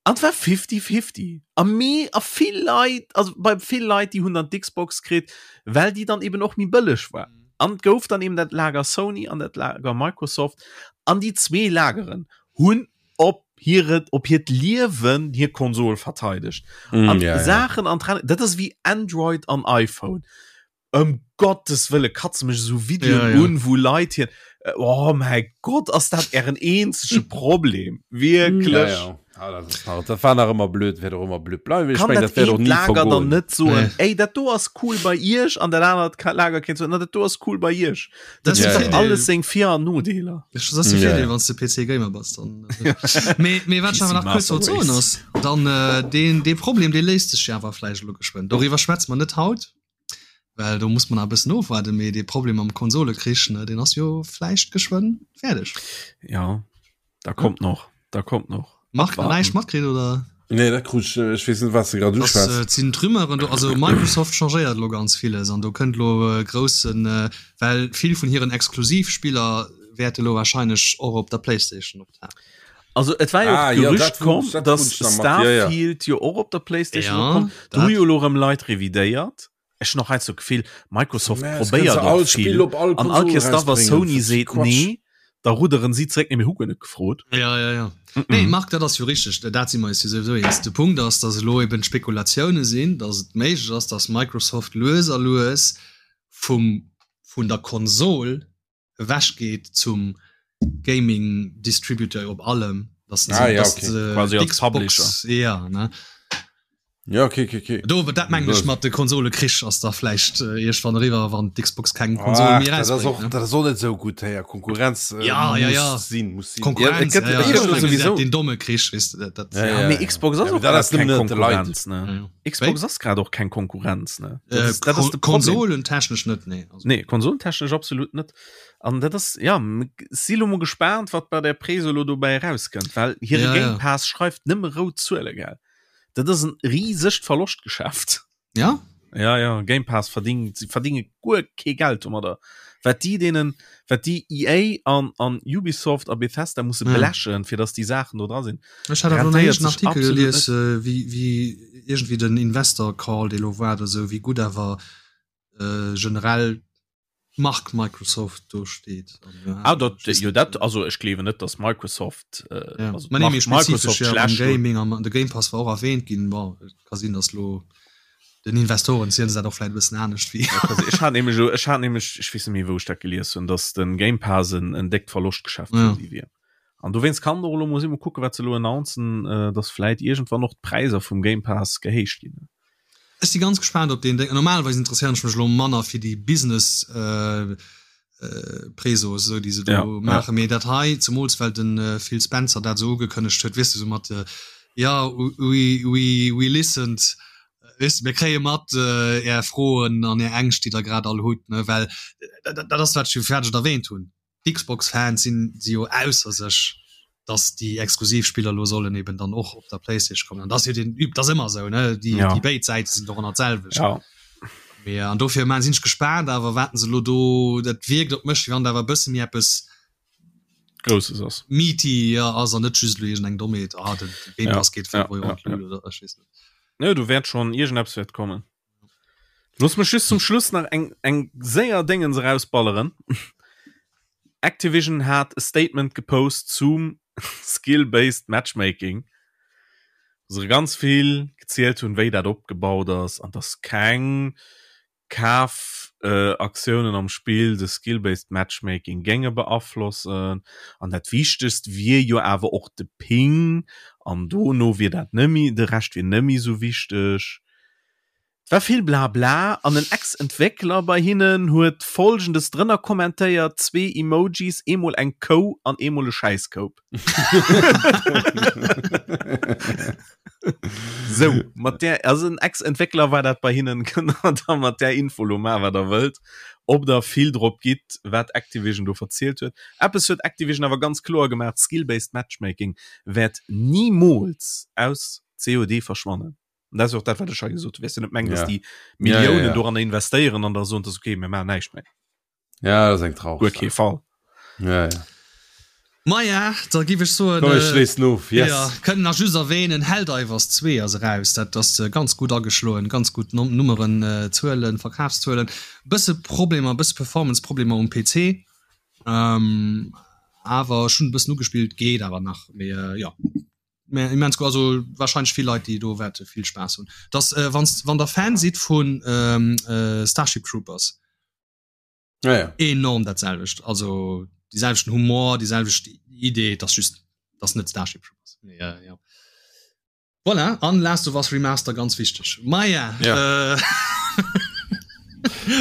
Speaker 2: An et war fifty-fifty. A mee a vill Leit, also bei vill Leit, déi hunn dann d'Xbox kritt, well déi dann eben och méi bëlleg war. An et gouf dann eben dat Lager Sony an dat Lager Microsoft. An déi zwee Lageren hunn op hire, op hiert Liewen hir Konsol verteidegt.
Speaker 3: Mm,
Speaker 2: An
Speaker 3: ja, ja.
Speaker 2: Saachen an Trend, dat ass wéi Android an iPhone. Ëm Gottes Wëlle katze mech esou Videoen
Speaker 1: Ja, ja.
Speaker 2: un, wou Leit hir Oh mäi Gott, ass dat ären eenzege Problem? Wierklech?
Speaker 3: Ja, ja. Ah, dat ass nach, dat war nach ëmmer blöd, wäert och ëmmer blöd bleiwen. Ech
Speaker 2: Kann
Speaker 3: meng,
Speaker 2: dat
Speaker 3: dat wäert och
Speaker 2: eent
Speaker 3: ni
Speaker 2: Lager dann
Speaker 3: vergoen.
Speaker 2: net soen,
Speaker 1: Nee.
Speaker 2: ey, dat do ass cool bei iech, an dat anert ka- Lager kéint soen, na, dat do ass cool bei iech.
Speaker 1: Dat
Speaker 2: Dat
Speaker 1: ass
Speaker 2: huet
Speaker 1: de
Speaker 2: dach
Speaker 1: Virdeel.
Speaker 2: alles seng Vir an Nodeeler.
Speaker 1: Dat ass de
Speaker 3: Ja,
Speaker 1: Virdeel,
Speaker 3: ja.
Speaker 1: wann s de PC Gamer bass dann. Mee, mee wat ech
Speaker 2: PC
Speaker 1: awer nach kuerz
Speaker 2: Master
Speaker 1: wollt soen
Speaker 2: Race.
Speaker 1: ass, dann äh, deen, dee Problem, dee léist sech jo awer vläicht elo geschwënn. Doriwwer schwätze mer net haut, Well do muss man nach e bëssen ofwaarden, mee dee Problem mam Konsolekrich, ne, deen ass jo vläicht geschwënn fäerdeg.
Speaker 2: Ja, da kommt noch, da kommt noch.
Speaker 1: Marc,
Speaker 2: Abwarten.
Speaker 1: näischt matkritt oder?
Speaker 3: Nee, dat krut ech, ech weess net, wat s de grad
Speaker 1: Das
Speaker 3: uschwätz.
Speaker 1: äh, sinn d'Rumeuren do, also Microsoft changéiert elo ganz villes an do kënnt elo e groussen, äh, well vill vun hiren Exklusivspiller wäerte elo wahrscheinlech och op der Playstation optauchen.
Speaker 2: Also et war jo
Speaker 3: Ah,
Speaker 2: och
Speaker 3: ja,
Speaker 2: d'Gerücht
Speaker 3: dat
Speaker 2: komm,
Speaker 3: krut- dat
Speaker 2: dass
Speaker 3: krut ech nach mat, ja, ja.
Speaker 2: Starfield jo och op der Playstation
Speaker 1: Ja,
Speaker 2: kommt. Do
Speaker 1: dat.
Speaker 2: hu jo elo erëm Leit revidéiert. Ech hunn och heiansdo d'Gefill, Microsoft
Speaker 3: Mä es
Speaker 2: probéiert
Speaker 3: kënnt se all
Speaker 2: och vill.
Speaker 3: Spill op all
Speaker 2: An all
Speaker 3: Konsol
Speaker 2: Kéiers da wa
Speaker 3: erausbréngen.
Speaker 2: Sony
Speaker 3: Dat ass
Speaker 2: seet
Speaker 3: Quatsch.
Speaker 2: nee, Da rudderen si zréck, nee mir hu guer net gefrot.
Speaker 1: Ja, ja, ja. Mm -mm. Nee, Marc, dat ass jo richteg, dat si mer eis jo souwisou eens. De Punkt ass, datt elo eben d'Spekulatioune sinn, datt et méiglech ass, datt Microsoft lues a lues vum, vun der Konsol ewech geet zum Gaming Distributeur op allem, datt se,
Speaker 3: ah, ja,
Speaker 1: datt
Speaker 3: okay.
Speaker 1: se
Speaker 2: Quasi als
Speaker 1: d'Xbox,
Speaker 2: Publisher.
Speaker 1: ja, ne.
Speaker 3: Ja, okay, okay, okay.
Speaker 1: Do, dat mengen ech mat de Konsolekrich ass da vläicht äh, iergendwann eriwwer, wann d'Xbox keng Konsol
Speaker 3: Ach,
Speaker 1: méi
Speaker 3: dat ass
Speaker 1: erausbréngt.
Speaker 3: och,
Speaker 1: Ne?
Speaker 3: dat ass och net sou gutt, héier. Konkurrenz äh,
Speaker 1: Ja, ja,
Speaker 3: muss
Speaker 1: ja.
Speaker 3: sinn, muss sinn.
Speaker 1: Konkurrenz,
Speaker 2: Ja, et gëtt-
Speaker 1: ja, ja.
Speaker 2: et gëtt
Speaker 1: Ech mengen,
Speaker 2: sowieso.
Speaker 1: dat den domme Krich, weess de, dat, dat,
Speaker 3: Ja,
Speaker 2: Ja,
Speaker 3: ja,
Speaker 2: mee
Speaker 3: ja.
Speaker 2: Xbox ass
Speaker 3: Ja,
Speaker 2: och
Speaker 3: dat
Speaker 2: grad
Speaker 3: ass
Speaker 2: keng
Speaker 3: nëmmen net de Leit.
Speaker 2: Konkurrenz, ne?
Speaker 1: Ja, ja.
Speaker 2: Xbox ass grad och keng Konkurrenz, ne? Dat
Speaker 1: Äh,
Speaker 2: ass, dat ass de Problem.
Speaker 1: Konsolentechnesch net, nee. Also,
Speaker 2: Nee, konsolentechnesch absolut net. An dat ass, ja, m- si lo mol gespaant, wat bei der Preso lo dobäi erauskënnt, well hire
Speaker 1: Ja, ja.
Speaker 2: Game Pass schreift nëmme rout Zuele, gell? Dat ass en risegt Verloschtgeschäft.
Speaker 1: Ja?
Speaker 2: Ja, ja, Game Pass verdingt, sie verdinge guer kee Geld domadder. Wat déi deenen, wat déi EA an, an Ubisoft a Bethesda musse
Speaker 1: Ja.
Speaker 2: blechen, fir dass déi Saachen do dra sinn.
Speaker 1: Ech hat awer nach
Speaker 2: Rentéiert
Speaker 1: en
Speaker 2: sech
Speaker 1: Artikel
Speaker 2: absolut
Speaker 1: gelies, äh, wéi, wéi iergendwéi den Investor Call, dee lo war oder sou, wéi gutt awer äh, generell d'Mark Microsoft do steet.
Speaker 2: Ah, dat, jo, dat, also ech gleewen net, dass Microsoft, äh,
Speaker 1: ja.
Speaker 2: also
Speaker 1: Ma nee, méi
Speaker 2: d'Mark
Speaker 1: spezifesch
Speaker 2: Microsoft
Speaker 1: ja, am
Speaker 2: schlecht do.
Speaker 1: Gaming, am, de Game Pass war och erwähnt ginn. Bon, et ka sinn, dass lo den Investoren zielen se dat och vläit e bëssen anescht wéi.
Speaker 2: Ja, quasi. Ech hat nämlech, ech hat nämlech, ech weess net méi, wou ech dat gelies hunn, dass den Game Pass en, en déckt Verloschtgeschäft
Speaker 1: Ja.
Speaker 2: fir si wier. An dowéinst kann och elo muss ech mol kucken, wat se elo announcen, äh, dass vläit iergendwann och d'Präisser vum Game Pass gehéicht ginn.
Speaker 1: Ech si ganz gespaant op deen Déng. Normalerweis interesséieren ech mech elo manner fir déi Business äh, äh, Presos, esou déi se do
Speaker 2: Ja, ja.
Speaker 1: maachen, mee dat hei, zemools well den äh, Phil Spencer dat esou ugekënnegt huet, weess de, esou mat äh, ja, we, we, we listened, weess de, mir kréie mat äh, är Froen an är Ängscht, déi der grad all hutt, ne, well dat, dat ass wat ech jo fäerdeg erwähnt hunn. D'Xbox-Fans sinn si jo ausser sech, dass déi exklusiv Spiller lo sollen eben dann och op der PlayStation kommen. An das jo den üb, das ëmmer esou, ne? Déi,
Speaker 2: Ja.
Speaker 1: déi béid Säite sinn doranner d'selwecht.
Speaker 2: Ja.
Speaker 1: Mee an dofir man sinn ech gespaant, awer waten se lo do, dat wierkt op mech, wéi wann da awer e bësse méi eppes
Speaker 2: Grousses ass.
Speaker 1: meaty ja, ass an net just lo iergend eng Dommheet, ah, den Game
Speaker 2: Ja,
Speaker 1: Pass geet 5
Speaker 2: ja,
Speaker 1: Euro
Speaker 2: ja,
Speaker 1: an d'Lut oder ech weess net.
Speaker 2: Ne, do wäert schon iergendeppes wäert kommen. Looss mech just zum Schluss nach eng, eng séier Déngens erausballeren. Activision hat e Statement gepost zum Skill-Based Matchmaking, wou se ganz vill gezielt hunn, wéi dat opgebaut ass an dass keng Kafaktiounen am Spill de Skill-Based Matchmaking géinge beaflossen. An dat Wichtegst wier jo awer och de Ping an dono wier dat nëmmi, de Rescht wier nëmmi sou wichteg. Et war vill Blabla an en Ex-Entwéckler bei hinnen huet Folgendes drënner kommentéiert, zwee Emojis, eemol eng Kou an eemol e Schäisskoup. Sou, mat där, also en Ex-Entwéckler war dat bei hinnen, kënnt der da mat där Info lo maachen, wat der wëllt, ob der vill drop gitt, wat Activision do verzielt huet. Eppes huet Activision awer ganz kloer gemaach, Skill-based Matchmaking wäert nimools aus COD verschwannen. Und das ist och dat wat ech hei gesot hunn. Weess du net mengen, dass
Speaker 3: Ja.
Speaker 2: déi
Speaker 3: Ja,
Speaker 2: Milliounen
Speaker 3: ja, ja.
Speaker 2: doranner investéieren an da soen, dass okay, mir maachen näischt méi.
Speaker 3: Ja, das ist eng traureg
Speaker 2: Guer kee
Speaker 3: Saach.
Speaker 2: Fall.
Speaker 3: Ja, ja.
Speaker 1: Maja, da giff ech soen,
Speaker 3: Komm, ech schléissen of. Yes.
Speaker 1: Ja, kënnen nach just erwähnen, Helldivers 2 ass eraus. Dat ass ganz gutt ageschloen, ganz gutt Nummeren, Zuelen, Verkafszuelen. Bësse Problemer, bësse Performance-Problemer um PC. Awer ech hunn e bëssen ugespillt, geet awer nach. Mee jo. Mä immens gutt, also wahrscheinlech vill Leit déi do wäerte vill Spaass hunn. Dass äh, wanns, wann der Fan sidd vun ähm, äh, Starship Troopers.
Speaker 3: Ja, ja.
Speaker 1: Enorm dat selwecht, also déi selwechten Humor, déi selwecht Idee, dass just dass net Starship Troopers. Mee, äh, ja. Voilà, an Last of Us Remaster ganz wichteg. Maja
Speaker 3: ja.
Speaker 1: äh,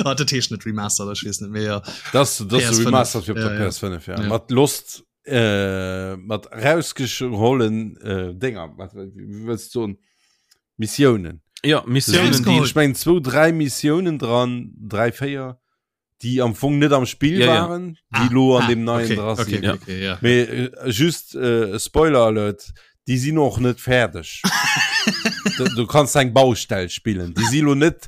Speaker 1: ah, dat heescht net Remaster, ech weess net méi. Ja.
Speaker 3: Das, das
Speaker 1: PS5.
Speaker 3: Remastered fir op der
Speaker 1: Ja, ja.
Speaker 3: PS5 ja.
Speaker 1: Ja.
Speaker 3: Mat Lost äh, mat rausgehollen äh, Dinger wat, wie wëlls du soen Missiounen
Speaker 2: Ja, Missiounen, déi
Speaker 1: Rausgeholl.
Speaker 3: ich meng 2 3 Missiounen dran 3 4 déi am Fong net am Spiel
Speaker 2: Ja, ja.
Speaker 3: waren déi lo an dem neien
Speaker 1: okay,
Speaker 3: dra
Speaker 1: okay,
Speaker 3: sinn
Speaker 1: okay, okay, ja.
Speaker 3: Mee äh, just äh, Spoiler Alert déi sinn och net fäerdeg du, du kannst eng Baustell spillen déi si lo net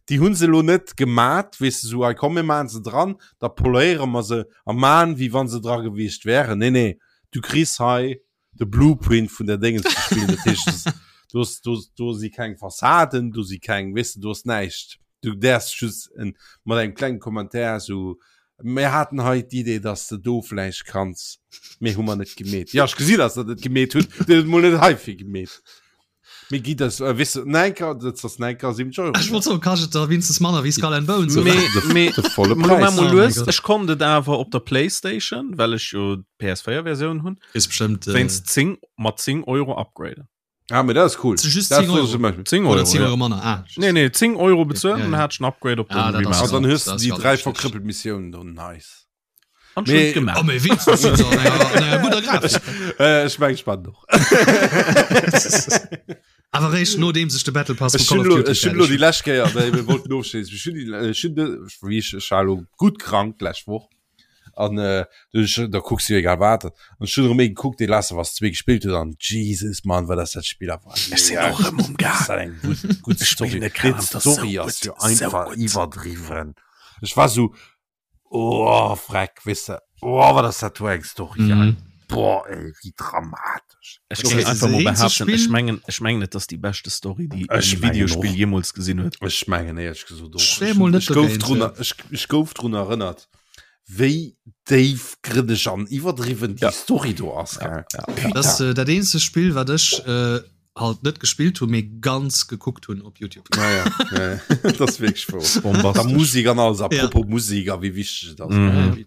Speaker 3: déi hunn se lo net gemat weess du so ei komm mir maan se dran da poléiere mer se a maan wéi wann se dra gewiescht wären. Nee nee, du kriss hei de Blueprint vun der Déngens ze spillen. Dat heescht, du hast, du, do si keng Fassaden, do si keng, weess du, do ass näischt. Du däerfs just en, mat engem klengen Kommentär sou. Mir haten hei d'Idee, dass de do vläicht kanns, mee hu mer net gemeet. Ja, ech gesi, dass der dat gemeet hutt, Dir hutt et mol net heifir gemeet. Mee gi das, äh, weess de, 9, dat ass 9,70 Euro.
Speaker 1: Ech wollt soen, kascht et da winstens manner wéi Skull and Bones,
Speaker 2: oder? Mee,
Speaker 3: De,
Speaker 2: mee,
Speaker 3: de volle
Speaker 2: mol
Speaker 3: Präis.
Speaker 2: mol
Speaker 1: Oh mein
Speaker 2: lues,
Speaker 1: Gott.
Speaker 2: ech konnt et awer op der Playstation, well ech jo d'PS4-Versioun hunn,
Speaker 1: Ist bestimmt äh,
Speaker 2: wéinst 10, mat 10 Euro upgraden.
Speaker 3: Ah, mee dat ass cool.
Speaker 1: Zu just
Speaker 3: Dat
Speaker 1: 10
Speaker 3: soll
Speaker 1: Euro.
Speaker 3: zum Beispiel.
Speaker 2: 10
Speaker 1: oder
Speaker 2: Euro,
Speaker 1: 10
Speaker 2: ja.
Speaker 1: Euro manner. Ah, just.
Speaker 2: Nee, nee, 10 Euro bezuelen,
Speaker 1: Ja,
Speaker 2: dann
Speaker 1: ja.
Speaker 2: hat ech en Upgrade op
Speaker 1: Ah,
Speaker 2: den
Speaker 1: dat ass
Speaker 3: An
Speaker 2: Remaster.
Speaker 3: dann hues
Speaker 1: Das
Speaker 3: du déi
Speaker 1: ist
Speaker 3: dräi
Speaker 1: ganz
Speaker 3: verkrëppelt Missiounen do. Nice.
Speaker 2: An
Speaker 3: Mee-
Speaker 2: schön gemacht.
Speaker 1: Oh, mee wenigstens sind sie an enger, an enger guter Grafik.
Speaker 3: Äh, ech meng, ech man doch.
Speaker 1: Awer réischt nodeems ech de Battle Pass
Speaker 3: Ech
Speaker 1: vu Call
Speaker 3: hunn
Speaker 1: of
Speaker 3: lo,
Speaker 1: Duty
Speaker 3: ech hunn lo
Speaker 1: fäerdeg
Speaker 3: déi lescht Kéier, well mir wollten ofschléissen, ech hunn déi, ech hunn de, wéi ech, ech war lo gutt krank d'lescht Woch an äh, du ech, da kucks du jo egal wat an ech hunn erëm ee gekuckt, dee Last of Us 2 gespillt huet an Jesus Mann, wat ass dat Spill awer
Speaker 2: Ech sinn och erëm um
Speaker 3: Ass
Speaker 2: Gang.
Speaker 3: dat eng gutt, gutt
Speaker 2: Ech
Speaker 3: Story.
Speaker 2: spillen et
Speaker 3: Déi
Speaker 2: grad, dat ass sou
Speaker 3: Story ass
Speaker 2: gutt,
Speaker 3: jo
Speaker 2: sou
Speaker 3: einfach
Speaker 2: gutt.
Speaker 3: iwwerdriwwen. Ech war sou, Oh freck wis de oh, wat ass dat do eng Story mm.
Speaker 1: Mhm.
Speaker 3: Boah ey, wie dramatisch.
Speaker 2: Ech
Speaker 1: Okay,
Speaker 2: géing einfach
Speaker 1: das
Speaker 2: mol
Speaker 1: eenzege
Speaker 2: behaupten, ech
Speaker 1: Spill-
Speaker 2: mengen, ech mengen et ass déi beschte Story, déi
Speaker 3: Ech
Speaker 2: e
Speaker 3: mengen
Speaker 2: Videospill
Speaker 3: och.
Speaker 2: jeemools gesinn huet.
Speaker 3: Ech mengen éierlech gesot och.
Speaker 1: Ech wär mol net
Speaker 3: Ech gouf
Speaker 1: dogéint,
Speaker 3: drun
Speaker 1: ja.
Speaker 3: ech, ech gouf drun erënnert, wéi déifgrënneg an iwwerdriwwen déi
Speaker 2: Ja.
Speaker 3: Story do ass. Gell?
Speaker 2: Ja.
Speaker 1: Das ist äh, dat eenzege Spill, wat ech äh, halt net gespillt hunn, mee ganz gekuckt hunn op YouTube.
Speaker 3: Ja, ja, ja, ja. Dat ass wierklech wouer.
Speaker 2: Bombastesch.
Speaker 3: Da Musik an alles, apropos Musik a wéi wichteg et ass.
Speaker 2: Mhm.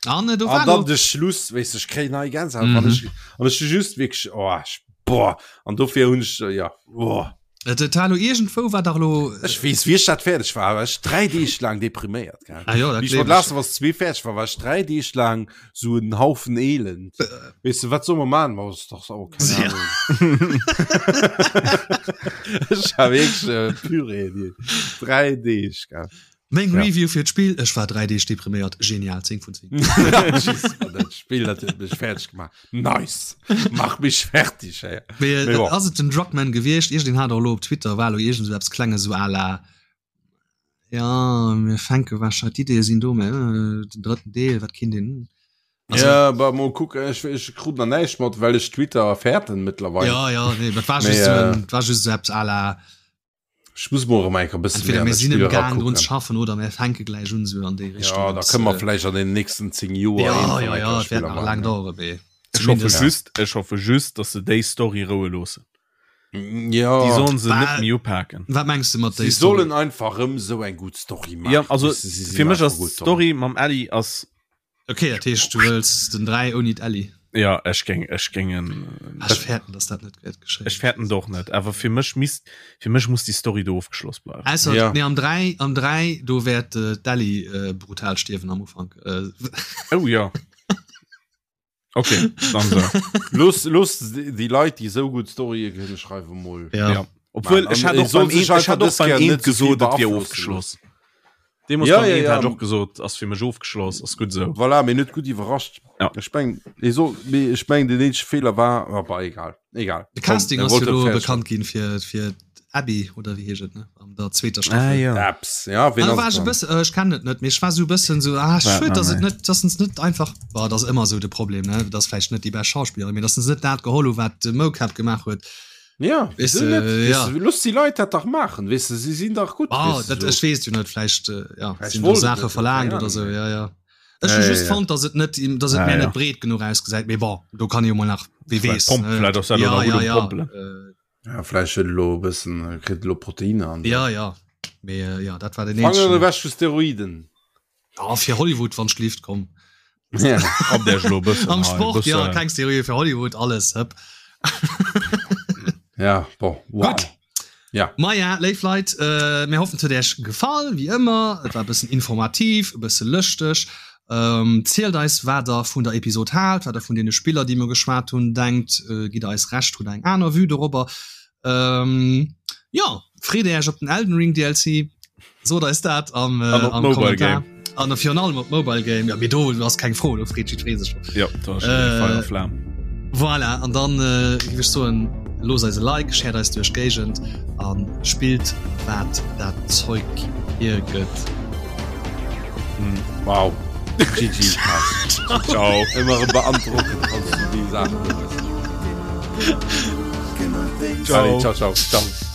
Speaker 1: An äh, do war
Speaker 3: An dann
Speaker 1: lo-
Speaker 3: de Schluss, weess de, ech kréien nei Gänsehaut,
Speaker 1: Mhm.
Speaker 3: wann ech, an ech hu just wierklech, oh, ech, boah, an dofir hunn ech, ja, oh.
Speaker 1: Äh, de Talo iergendwou war dach lo.
Speaker 3: Ech weess, wéi ech dat fäerdeg war, war ech dräi Deeg laang depriméiert, gell.
Speaker 1: Ah jo, dat
Speaker 3: Wéi ech
Speaker 1: gleef
Speaker 3: mat
Speaker 1: ech.
Speaker 3: Last of Us 2 fäerdeg war, war ech dräi Deeg laang sou en Haufen Elend. Weess de, wat soll mer maachen? Ma ass dach oh, keng
Speaker 1: Ja.
Speaker 3: Ahnung. Ech war wierklech äh, Purée, déi dräi Deeg, gell.
Speaker 1: Meng
Speaker 3: Ja.
Speaker 1: Review fir d'Spill, ech war 3 Deeg depriméiert, genial, 10 vun 10.
Speaker 3: Jesus, Mann, dat Spill, dat huet mech fäerdeg gemaach. Nice! Mach mich fertig, ey.
Speaker 1: Mee,
Speaker 3: Mee bon.
Speaker 1: ass et den Druckmann gewiescht? Iergendeen hat och elo op Twitter, war elo iergend esou eppes Klenges, esou à la, ja, mir fänke warscheinlech, d'Ideeë sinn do, mä den drëtten Deel, wat kinnt een, also,
Speaker 3: Ja, bah, mol kucken, ech, ech krut nach näischt mat, well ech Twitter fäerten mëttlerweil.
Speaker 1: ja, ja, nee, dat war
Speaker 3: Mee,
Speaker 1: just esou
Speaker 3: äh,
Speaker 1: en, dat war just esou eppes à la,
Speaker 3: Ech muss mol erëm eng Kéier e bësse méi
Speaker 1: entweder
Speaker 3: an
Speaker 1: mir
Speaker 3: dat
Speaker 1: sinn
Speaker 3: Spill
Speaker 1: am Gaang drun ze
Speaker 3: erakucken.
Speaker 1: schaffen oder mir fänke gläich un, esou an déi Richtung
Speaker 3: Ja, da
Speaker 1: eppes,
Speaker 3: kënne mer
Speaker 1: äh,
Speaker 3: vläicht an den nächsten 10 Joer
Speaker 1: ja,
Speaker 3: eent vun
Speaker 1: ja,
Speaker 3: enker
Speaker 1: ja, et wäert
Speaker 3: Spiller
Speaker 1: nach
Speaker 3: maachen,
Speaker 1: laang
Speaker 3: ja.
Speaker 1: dauere, mee
Speaker 2: Ech hoffe
Speaker 1: zumindest.
Speaker 2: just, ech hoffe just, dass se déi Story roue loossen.
Speaker 3: Ja.
Speaker 2: Déi sollen se net
Speaker 1: Bah,
Speaker 2: méi upaken.
Speaker 1: Wat mengs de mat déi
Speaker 3: Si
Speaker 1: Story?
Speaker 3: sollen einfach erëm sou eng gutt Story
Speaker 2: Ja,
Speaker 3: maachen.
Speaker 2: also
Speaker 3: Weess de, si sinn
Speaker 2: fir mech
Speaker 3: einfach
Speaker 2: ass
Speaker 3: gutt dran.
Speaker 2: d'Story mam Ellie ass
Speaker 1: Okay, dat heescht du wëlls den 3 ouni d'Ellie?
Speaker 2: Ja, ech géing, ech géingen.
Speaker 1: Ah, ech fäerten, dass dat net wäert geschéien.
Speaker 2: Ech fäerten et och net, awer fir mech misst, fir mech muss déi Story do ofgeschloss bleiwen.
Speaker 1: Ausser,
Speaker 3: Ja.
Speaker 1: nee, am 3, am 3, do wäert äh, d'Ellie äh, brutal stierwen am Ufank. Äh,
Speaker 2: Oh ja. Okay, dann so.
Speaker 3: Looss, looss déi Leit, déi esou gutt Storye kënne schreiwen, mol.
Speaker 1: ja.
Speaker 2: Ja. Obwuel,
Speaker 3: Mann,
Speaker 2: ech
Speaker 3: an
Speaker 2: hat
Speaker 3: et
Speaker 2: och
Speaker 3: soll
Speaker 2: beim
Speaker 3: sech
Speaker 2: Eent, ech
Speaker 3: einfach
Speaker 2: hat och
Speaker 3: dës
Speaker 2: beim
Speaker 3: Kéier
Speaker 2: Eent
Speaker 3: net ze vill
Speaker 2: gesot, et wier
Speaker 3: beaflossen
Speaker 2: ofgeschloss. Deemoos
Speaker 3: Ja,
Speaker 2: beim
Speaker 3: ja,
Speaker 2: Eent
Speaker 3: ja.
Speaker 2: hat ech och gesot, ass fir mech ofgeschloss, ass gutt esou.
Speaker 3: Voilà, mee net gutt iwwerrascht.
Speaker 2: Ja.
Speaker 3: Ech meng, ee soll, mee ech meng, den eenzege Feeler war, ah, bah, egal, egal.
Speaker 1: De
Speaker 3: Komm,
Speaker 1: Casting
Speaker 3: er
Speaker 1: ass jo
Speaker 3: wollt et
Speaker 1: lo
Speaker 3: fäerdeg
Speaker 1: bekannt ginn fir, fir d'Abby, oder wéi heescht et, ne? An der zweeter
Speaker 2: Ah,
Speaker 1: Staffel.
Speaker 2: ja.
Speaker 3: Apps, ja, ween
Speaker 1: Ah, da
Speaker 3: ass
Speaker 1: war
Speaker 3: et
Speaker 1: ech e
Speaker 3: dann?
Speaker 1: bësse, äh, ech kennen et net, mee ech war sou e bëssen sou, ah,
Speaker 2: War
Speaker 1: schued,
Speaker 2: nach
Speaker 1: dass et
Speaker 2: méi.
Speaker 1: net, dass se net einfach, bah, dat ass ëmmer sou de Problem, ne? Dat ass vläicht net déi bescht Schauspillerin, mee dass se net dat geholl hu wat de Mocap gemaach huet.
Speaker 3: Ja,
Speaker 1: Weess
Speaker 3: wieso
Speaker 1: de,
Speaker 3: net? Weess
Speaker 1: ja.
Speaker 3: de, looss déi Leit dat dach maachen, weess de, si sinn dach gutt,
Speaker 1: Ah,
Speaker 3: weess de,
Speaker 1: dat,
Speaker 3: so.
Speaker 1: ech weess jo net, vläicht, äh, ja,
Speaker 3: Vläicht
Speaker 1: sinn do
Speaker 3: wollt et
Speaker 1: Saache
Speaker 3: net,
Speaker 1: verlaangt
Speaker 3: keine
Speaker 1: oder sou,
Speaker 3: Ahnung.
Speaker 1: ja, ja. Ech
Speaker 3: Ja,
Speaker 1: hu
Speaker 3: ja,
Speaker 1: just
Speaker 3: ja.
Speaker 1: fonnt, dass et net, dass et
Speaker 2: Ah,
Speaker 1: mir
Speaker 2: ja.
Speaker 1: net breet genuch ausgesäit, mee bon, do kann ee jo mol nach, wie
Speaker 2: Vläicht
Speaker 1: weess,
Speaker 2: pomp,
Speaker 1: ne?
Speaker 2: vläicht ass dat elo
Speaker 1: Ja,
Speaker 2: nach gutt
Speaker 1: ja,
Speaker 2: um
Speaker 1: ja,
Speaker 2: Pompelen.
Speaker 1: äh,
Speaker 3: Ja, vläicht huet elo e bëssen, kritt elo Proteiner an.
Speaker 1: ja, ja. Mee, äh, ja, dat war den
Speaker 3: Fanger
Speaker 1: eenzegen.
Speaker 3: ewech vu Steroiden.
Speaker 1: Ja, fir Hollywood, wann schlift, komm.
Speaker 3: Ja.
Speaker 2: Ab der elo e bëssen
Speaker 1: Am
Speaker 2: hei,
Speaker 1: Sport, ja,
Speaker 2: bëssen.
Speaker 1: keng Steroide fir Hollywood, alles, hëpp.
Speaker 3: Ja, bon, wow.
Speaker 1: Gutt.
Speaker 3: Ja.
Speaker 1: Maja, léif Leit, äh, mir hoffen, et huet Iech gefall, wéi ëmmer. Et war e bëssen informativ, e bësse lëschteg. Ähm, zielt eis, wat der vun der Episod haalt, wat der vun deene Spiller, déi mir geschwat hunn, denkt. Äh, gitt der eis Recht, hutt der eng aner Vue dorobber? Ähm, jo, freet Iech op den Elden Ring DLC? Sot eis dat am, äh,
Speaker 2: An op
Speaker 1: am
Speaker 2: Mobile
Speaker 1: Kommentar. An virun allem op Mobile Game. Ja, mee do ass keng Fro, do freet jiddweree sech drop.
Speaker 2: Ja, do ass schon
Speaker 1: Äh,
Speaker 2: Feier a Flam.
Speaker 1: Voilà, an dann äh, géif ech soen, loosst eis e Like, shared eis duerch d'Géigend a spillt wat dat Zeug hiergëtt.
Speaker 3: Wow. GG.
Speaker 2: Ciao.
Speaker 3: Ëmmer erëm beandrockend, wann s du déi Saachen do hues.
Speaker 2: Ciao.
Speaker 3: Allez, ciao, ciao. ciao.